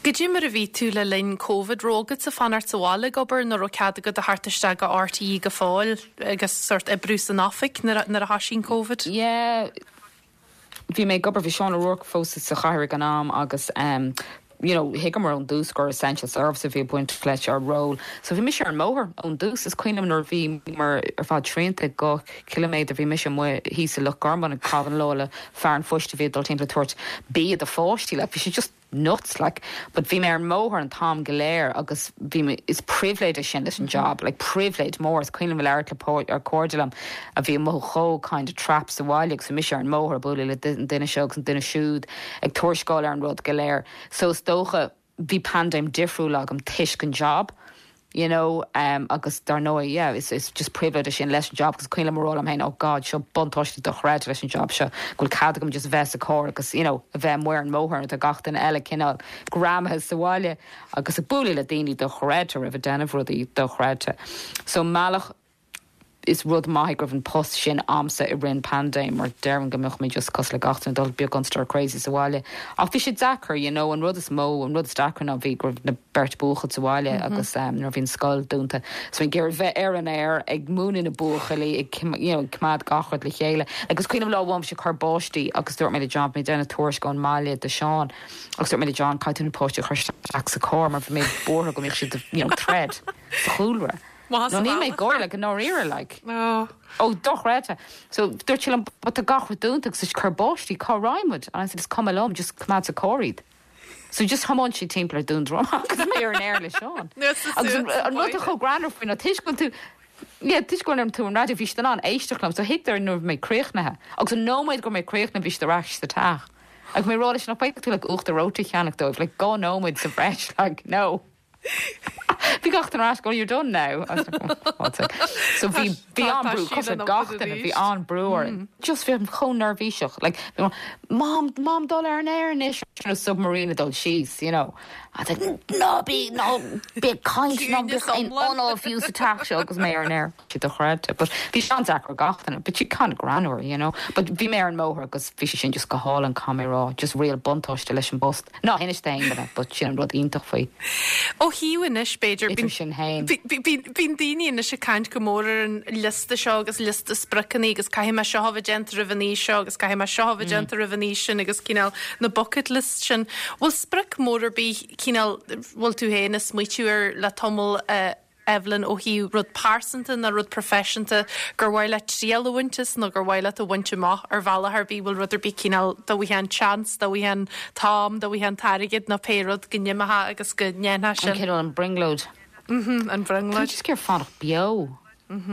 A: Goidé mar a bhí tú le linn Covid, raibh agatsa fanacht sa bhaile ag obair nó raibh cead agat a theacht isteach go RTÉ go fóill agus sórt oibriú san oifig nuair a thoisigh an Covid?
R: Yeah. Bhí mé ag obair, bhí Seán O'Rourke fós sa chathaoir ag an am agus ehm you know thuigeamar ón dtús gur essential service a bhí ag baint leis ár ról. So bhí mise ar an mbóthar ón dtús. Is cuimhin liom nuair a bhíomar ar fad srianta ag 2 chiliméadar bhí mise amuigh thíos i Loch Garman ag caitheamh an lá le fear an phoist a bhí ag dul timpeall ag tabhairt bia do pháistí like bhí sé just nuts like but bhí mé ar an mbóthar an t-am go léir agus bhí mé, is pribhléid é sin leis an job, like pribhléid mór, is cuimhin liom labhairt le cairde liom a bhí amuigh chomh kind of trapped sa bhaile agus bhí mise ar an mbóthar ag bualadh le an duine seo agus an duine siúd ag tuarascáil ar an rud go léir so is dócha bhí paindéim difriúil agam toisc an job. you know agus dar ndóigh yeah is is just pribhléid é sin leis an job agus cuimhin liom a rá liom féin oh God seo buntáiste dochreidte leis an job seo go bhfuil cead agam just bheith sa carr agus you know a bheith amuigh ar an mbóthar nuair atá gach duine eile cineál greamaithe sa bhaile agus ag bualadh le daoine dochreidte roimh ag déanamh rudaí dochreidte so i mbealach is rud maith é go raibh an post sin a'msa i rith an paindéim mar déarfainn go mbeadh mé just cosúil le gach duine dul beagán stir crazy sa bhaile. Ach bhí sé deacair, you know, an rud is mó, an rud is deacra ná bhí go raibh na beirt buachaill sa bhaile agus nuair a bhí an scoil dúnta so bhí ag iarraidh bheith ar an aer ag múineadh na buachaillí ag you know ag coimeád gach rud le chéile. Like is cuimhin liom lá amháin bhí sé ag cur báistí agus dúirt mé le John bhí mé ag déanamh tuairisc ón mbaile do Seán agus dúirt mé le John caithfidh tú na páistí a chur isteach sa carr mar bhí mé buartha go mbeadh siad you know thread sa chúlra.
A: Maith
R: No
A: sa
R: níl mé ag
A: bhealach.
R: gáire like i ndáiríre like.
A: Oh.
R: Oh dochreidte. So dúirt sé liom but tá gach rud dúnta agus ag cur báistí cá raghaidh muid? And I said is cuma liom just coimeád sa carr iad. So just thiomáin siad timpeall ar Dún Droma agus mé ar an aer le Seán. Agus an an rud atá chomh greannmhar faoi ná toisc go bhfuil tú yeah toisc go bhfuil tú ar an raidió bhí siad in ann éisteacht liom so thuigeadar nuair a bhí mé críochnaithe agus an nóiméad go raibh mé críochnaithe bhí siad ar ais sa teach. Agus mé ag rá leis nach bhféadfadh tú like uachtar reoite a cheannach dóibh like 2 nóiméad sa bhreis like no. Bhí gach duine ar ais going you're done now. I was like, oh, God's sake. So bhí bhí an-brú cosúil le gach duine bhí an-brú orainn. Just bhí chomh neirbhíseach like bhí mé, Mom, Mom dul ar an aer anois nó submarine ag dul síos, you know. I was like ná bí ná bí ag caint ná bíodh aon anáil fiú sa teach seo agus mé ar an aer. Sé dochreidte. But bhí sé an-deacair ar gach duine. But bhí kind of greannmhar, you know. But bhí mé ar an mbóthar agus bhí sé sin just go hálainn, caithfidh mé a rá. Just real buntáiste leis an bpost. Ná hinis d'aon duine, but sin an rud iontach faoi.
A: Ó thaobh anois, b'fhéidir,
R: Idir sinn féin.
A: bíonn daoine anois ag caint go mór ar an liosta seo agus liosta spriocanna agus caithfidh mé seo a bheith déanta roimh an aois seo agus caithfidh mé seo a bheith déanta roimh an aois sin agus cineál na bucket lists sin. Bhfuil sprioc mór ar bith cineál, bhfuil tú féin ag smaoitiú air le tamall a Evelyn, ó thaobh rud pearsanta nó rud proifisiúnta gur mhaith leat triail a bhaint as nó gur mhaith leat a bhaint amach ar bhealach ar bith, bhfuil rud ar bith cineál, dá bhfaighfeá an chance, dá bhfaighfeá an t-am, dá bhfaighfeá an t-airgead nó pé rud go n-imeofá agus go ndéanfá
R: An
A: sin.
R: cineál an brionglóid.
A: Mhm, an
R: Tá
A: bhrionglóid.
R: just ag iarraidh fanacht beo.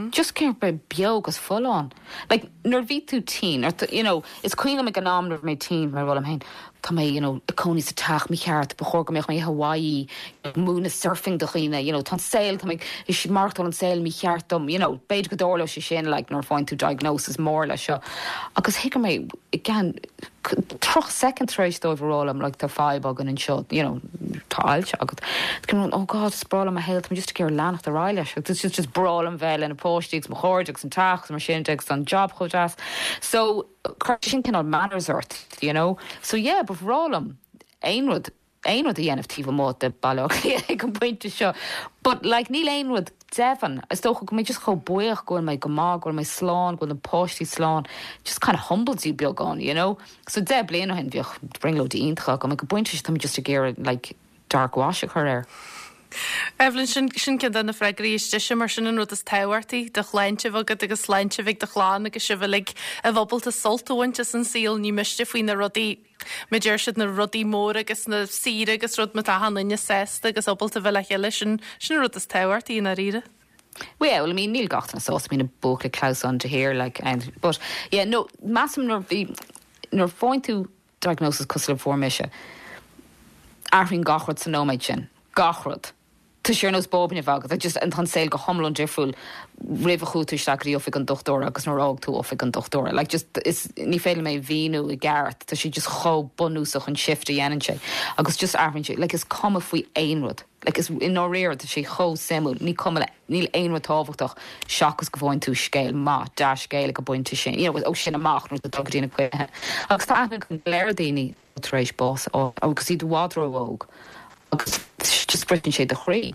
R: Just ag iarraidh bheith beo agus folláin. Like, nuair a bhí tú tinn, or you know, is cuimhin liom ag an am nuair a bhí mé tinn, bhí mé ag rá liom féin, tá mé, you know, ag cónaí sa teach mícheart, ba chóir go mbeadh mé i Hawaii ag múineadh surfing do dhaoine, you know, tá an saol, tá mé ag maireachtáil an saol mícheart dom, you know, b'fhéidir go dtarlódh sé sin, like, nuair a faigheann tú diagnosis mór leis seo. Agus thuig mé, i gceann 30 soicind tar éis dóibh a rá liom, like, tá fadhb againn anseo, you know, tá ailse agat. Tá oh God, is breá liom mo shaol, tá mé just ag iarraidh leanacht ar aghaidh leis agus it's just breá liom bheith le na páistí agus mo chairde agus an teach agus mar sin de agus tá an job chomh deas. So cuireann sin cineál manners ort, you know. So yeah, ba bhreá liom aon rud, aon rud a dhéanamh taobh amuigh de Baile Átha Cliath ag an bpointe seo. But like níl aon rud deimhin. Is dócha go mé just chomh buíoch go bhfuil mé go maith, go bhfuil mé slán, go bhfuil na páistí slán. Just kind of humbles you beagán, you know. So 10 bliain ó shin bheadh brionglóidí iontacha agam. Ag an bpointe seo tá mé just ag iarraidh like dark wash a chur air.
A: Evelyn, sin, sin ceann de na freagraí is deise mar sin an rud is tábhachtaí, do shláinte a bheith agat agus sláinte a bheith ag do chlann agus sibh uilig a bheith ábalta sult a bhaint as an saol, ní miste faoi na rudaí, mar deir siad, na rudaí móra agus na saoire agus rud má tá achan duine sásta agus ábalta bheith le chéile, sin, sin an rud is tábhachtaí i ndáiríre.
R: Well, I mean, níl gach duine sásta, bíonn na buachaillí ag clamhsán de shíor, like, and, but, yeah, no, measaim nuair bhí, nuair faigheann tú diagnosis cosúil le fuair mise, athraíonn gach rud sa nóiméad sin, gach rud. Tá sé ar nós báibín a bheith agat, just, tá an saol go hiomlán difriúil roimh a chuaigh tú isteach go dtí oifig an dochtúra agus nuair a fhág tú oifig an dochtúra. Like, just, is, ní féidir liom é a mhíniú i gceart, tá sé just chomh bunúsach an shift a dhéanann sé agus just athraíonn sé, like, is cuma faoi aon rud. Like, is, i ndáiríre, tá sé chomh suimiúil, ní cuma le, níl aon rud tábhachtach seachas go bhfaigheann tú scéal maith, dea-scéal ag an bpointe sin, you know, ó sin amach nuair atá tú ag dul go dtí na cluichí. Agus tá aithne agam go leor daoine tar éis bás a fháil agus iad i bhfad ró-óg agus just briseann sé do chroí.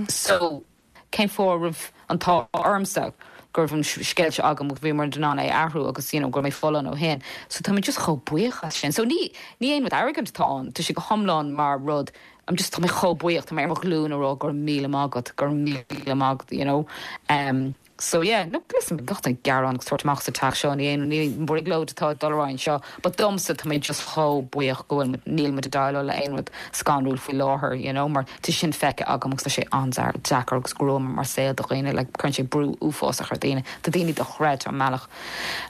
R: So. cén fáth a raibh an t-ádh ormsa go raibh an scéal seo agam agus bhíomar in ann é a athrú agus you know go raibh mé folláin ó shin. So tá mé just chomh buíoch as sin. So ní ní aon rud arrogant atá ann, tá sé go hiomlán mar rud I'm just tá mé chomh buíoch, tá mé ar mo ghlúin ag rá go raibh míle maith agat, go raibh míle maith agat, you know. Um, so yeah, no, listen, gach duine ag gearán agus tabhairt amach sa teach seo, ní aon ní brionglóid atá ag dul ar aghaidh anseo, but domsa tá mé just chomh buíoch go bhfuil níl muid ag déileáil le aon rud scanrúil faoi láthair, you know, mar Tá sin feicthe agam agus tá sé an-deacair agus gruama mar saol do dhaoine, like cuireann sé brú uafásach ar dhaoine. Tá daoine dochreidte an mbealach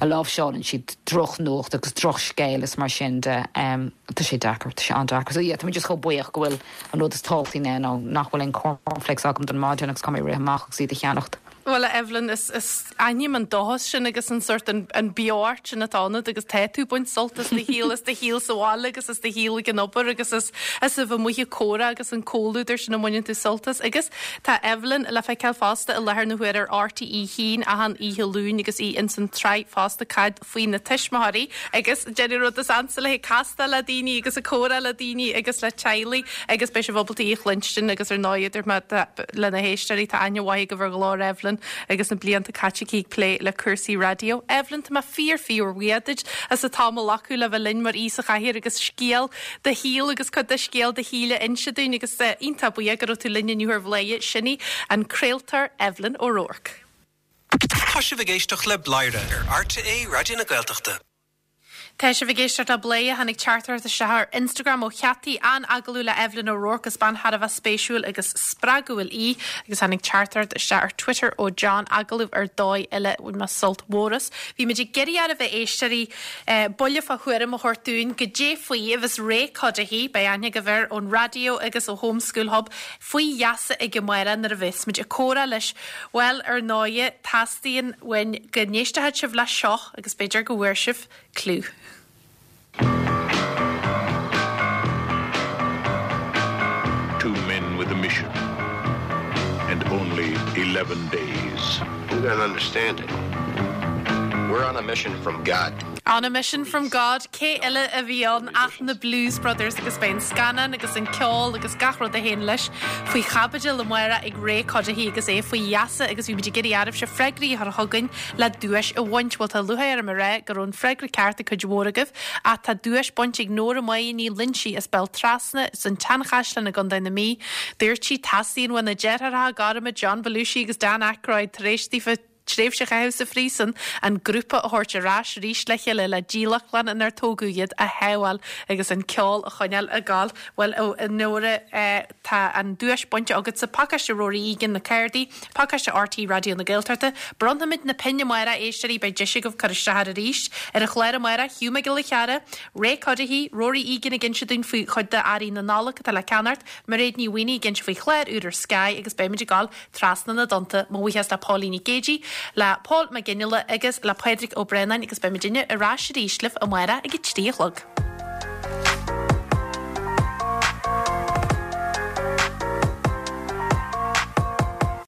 R: a láimhseálann siad drochnuacht agus drochscéal is mar sin de. Tá sé deacair, tá sé an-deacair. So yeah, tá mé just chomh buíoch go bhfuil an rud is tábhachtaí ná nach bhfuil aon cornflakes agam don maidin agus caithfidh mé rith amach agus iad a cheannacht.
A: Bhuel, a Evelyn, is, is aithním an dóchas sin agus an sórt, an, an beocht sin atá ionat agus tá tú ag baint sult as do shaol, as do shaol sa bhaile agus as do shaol ag an obair agus as, as a bheith amuigh ag comhrá agus an comhluadar sin a mbaineann tú sult as. Agus tá Evelyn le feiceáil fosta i láthair na huaire ar RTÉ 1 achan oíche Luain agus í ins an tsraith fosta Cad faoi na tuismitheoirí agus déanamh rud is ansa léi, castáil le daoine agus ag comhrá le daoine agus le teaghlaigh agus beidh sibh ábalta í a chluinstin agus ar ndóigh idir má tá le na héisteoirí tá aithne mhaith agaibh ar ghlór Evelyn agus na blianta caite aici ag plé le cúrsaí raidió. Evelyn, tá mé fíor fíor bhuíoch duit as an t-am a ghlacadh le bheith linn mar aoi sa chathaoir agus scéal do shaoil agus cuid de scéal do shaoil a inse dúinn agus iontach buíoch go raibh tú linn inniu ar Bhladhaire. Sin í an craoltóir Evelyn O'Rourke.
E: Tá sibh ag éisteacht le Bladhaire ar RTÉ Raidió na Gaeltachta.
A: Tá sibh ag éisteacht le Bladhaire. Tháinig teachtaireacht isteach ar Instagram ó Cheataí, an-agallamh le Evelyn O'Rourke, is bean thar a bheith spéisiúil agus spreagúil í. Agus tháinig teachtaireacht isteach ar Twitter ó John, agallamh ar dóigh eile, bhain mé sult mhór as. Bhí muid ag iarraidh oraibh a éisteoirí buille fá thuairim a thabhairt dúinn goidé faoi a bheas Ray Cuddihy, beidh aithne agaibh air ón raidió agus ó Home School Hub, faoi gheasa aige amárach nuair a bheas muid ag comhrá leis. Bhuel, ar ndóighe, teastaíonn uainn go n-éistfeadh sibh leis seo agus b'fhéidir go bhfuair sibh cliú.
B: Two men with a mission and only 11 days.
C: You don't understand it. We're on a mission from God.
A: On a mission from God, cé eile a bhí ann ach na Blues Brothers agus beidh an scannán agus an ceol agus gach rud a théann leis faoi chaibidil amárach ag Ray Cuddihy agus é faoi gheasa agus bhí muid ag iarraidh oraibhse freagraí a chur chugainn le duais a bhaint. Bhuel tá lúcháir orm a rá go raibh an freagra ceart ag cuid mhór agaibh ach tá duais bainte ag Nóra Máire Ní Loinsigh as Béal Trasna san tSeanchaisleán i gContae na Mí. Dúirt sí, Teastaíonn uaidh na deartháireacha gorma John Belushi agus Dan Aykroyd tar éis daofa tréimhse a chaitheamh sa phríosún, an grúpa a thabhairt ar ais arís le chéile le dílleachtlann inar tógadh iad a shábháil agus an ceol a choinneáil ag gabháil. Bhuel, a Nóra, tá an duais bainte agatsa, pacáiste Rory Egan, na cártaí, pacáiste RTÉ Raidió na Gaeltachta. Bronnfaimid na pinn amárach, a éisteoirí, beidh deis agaibh cur isteach air arís. Ar an chlár amárach, Hugh Mac Giolla Chearra, Ray Cuddihy, Rory Egan ag inse dúinn faoi chuid de earraí na Nollag atá le ceannacht, Mairéad Ní Mhaonaigh ag inse faoi chlár úr ar Sky agus beimid ag gabháil trasna na dtonnta. Mo bhuíochas le Póilín Nic Géidigh, le Pól Mac Fhionnghaile agus le Pádraig Ó Braonáin agus beidh muidinne ar ais arís libh amárach ag a 3 a chlog.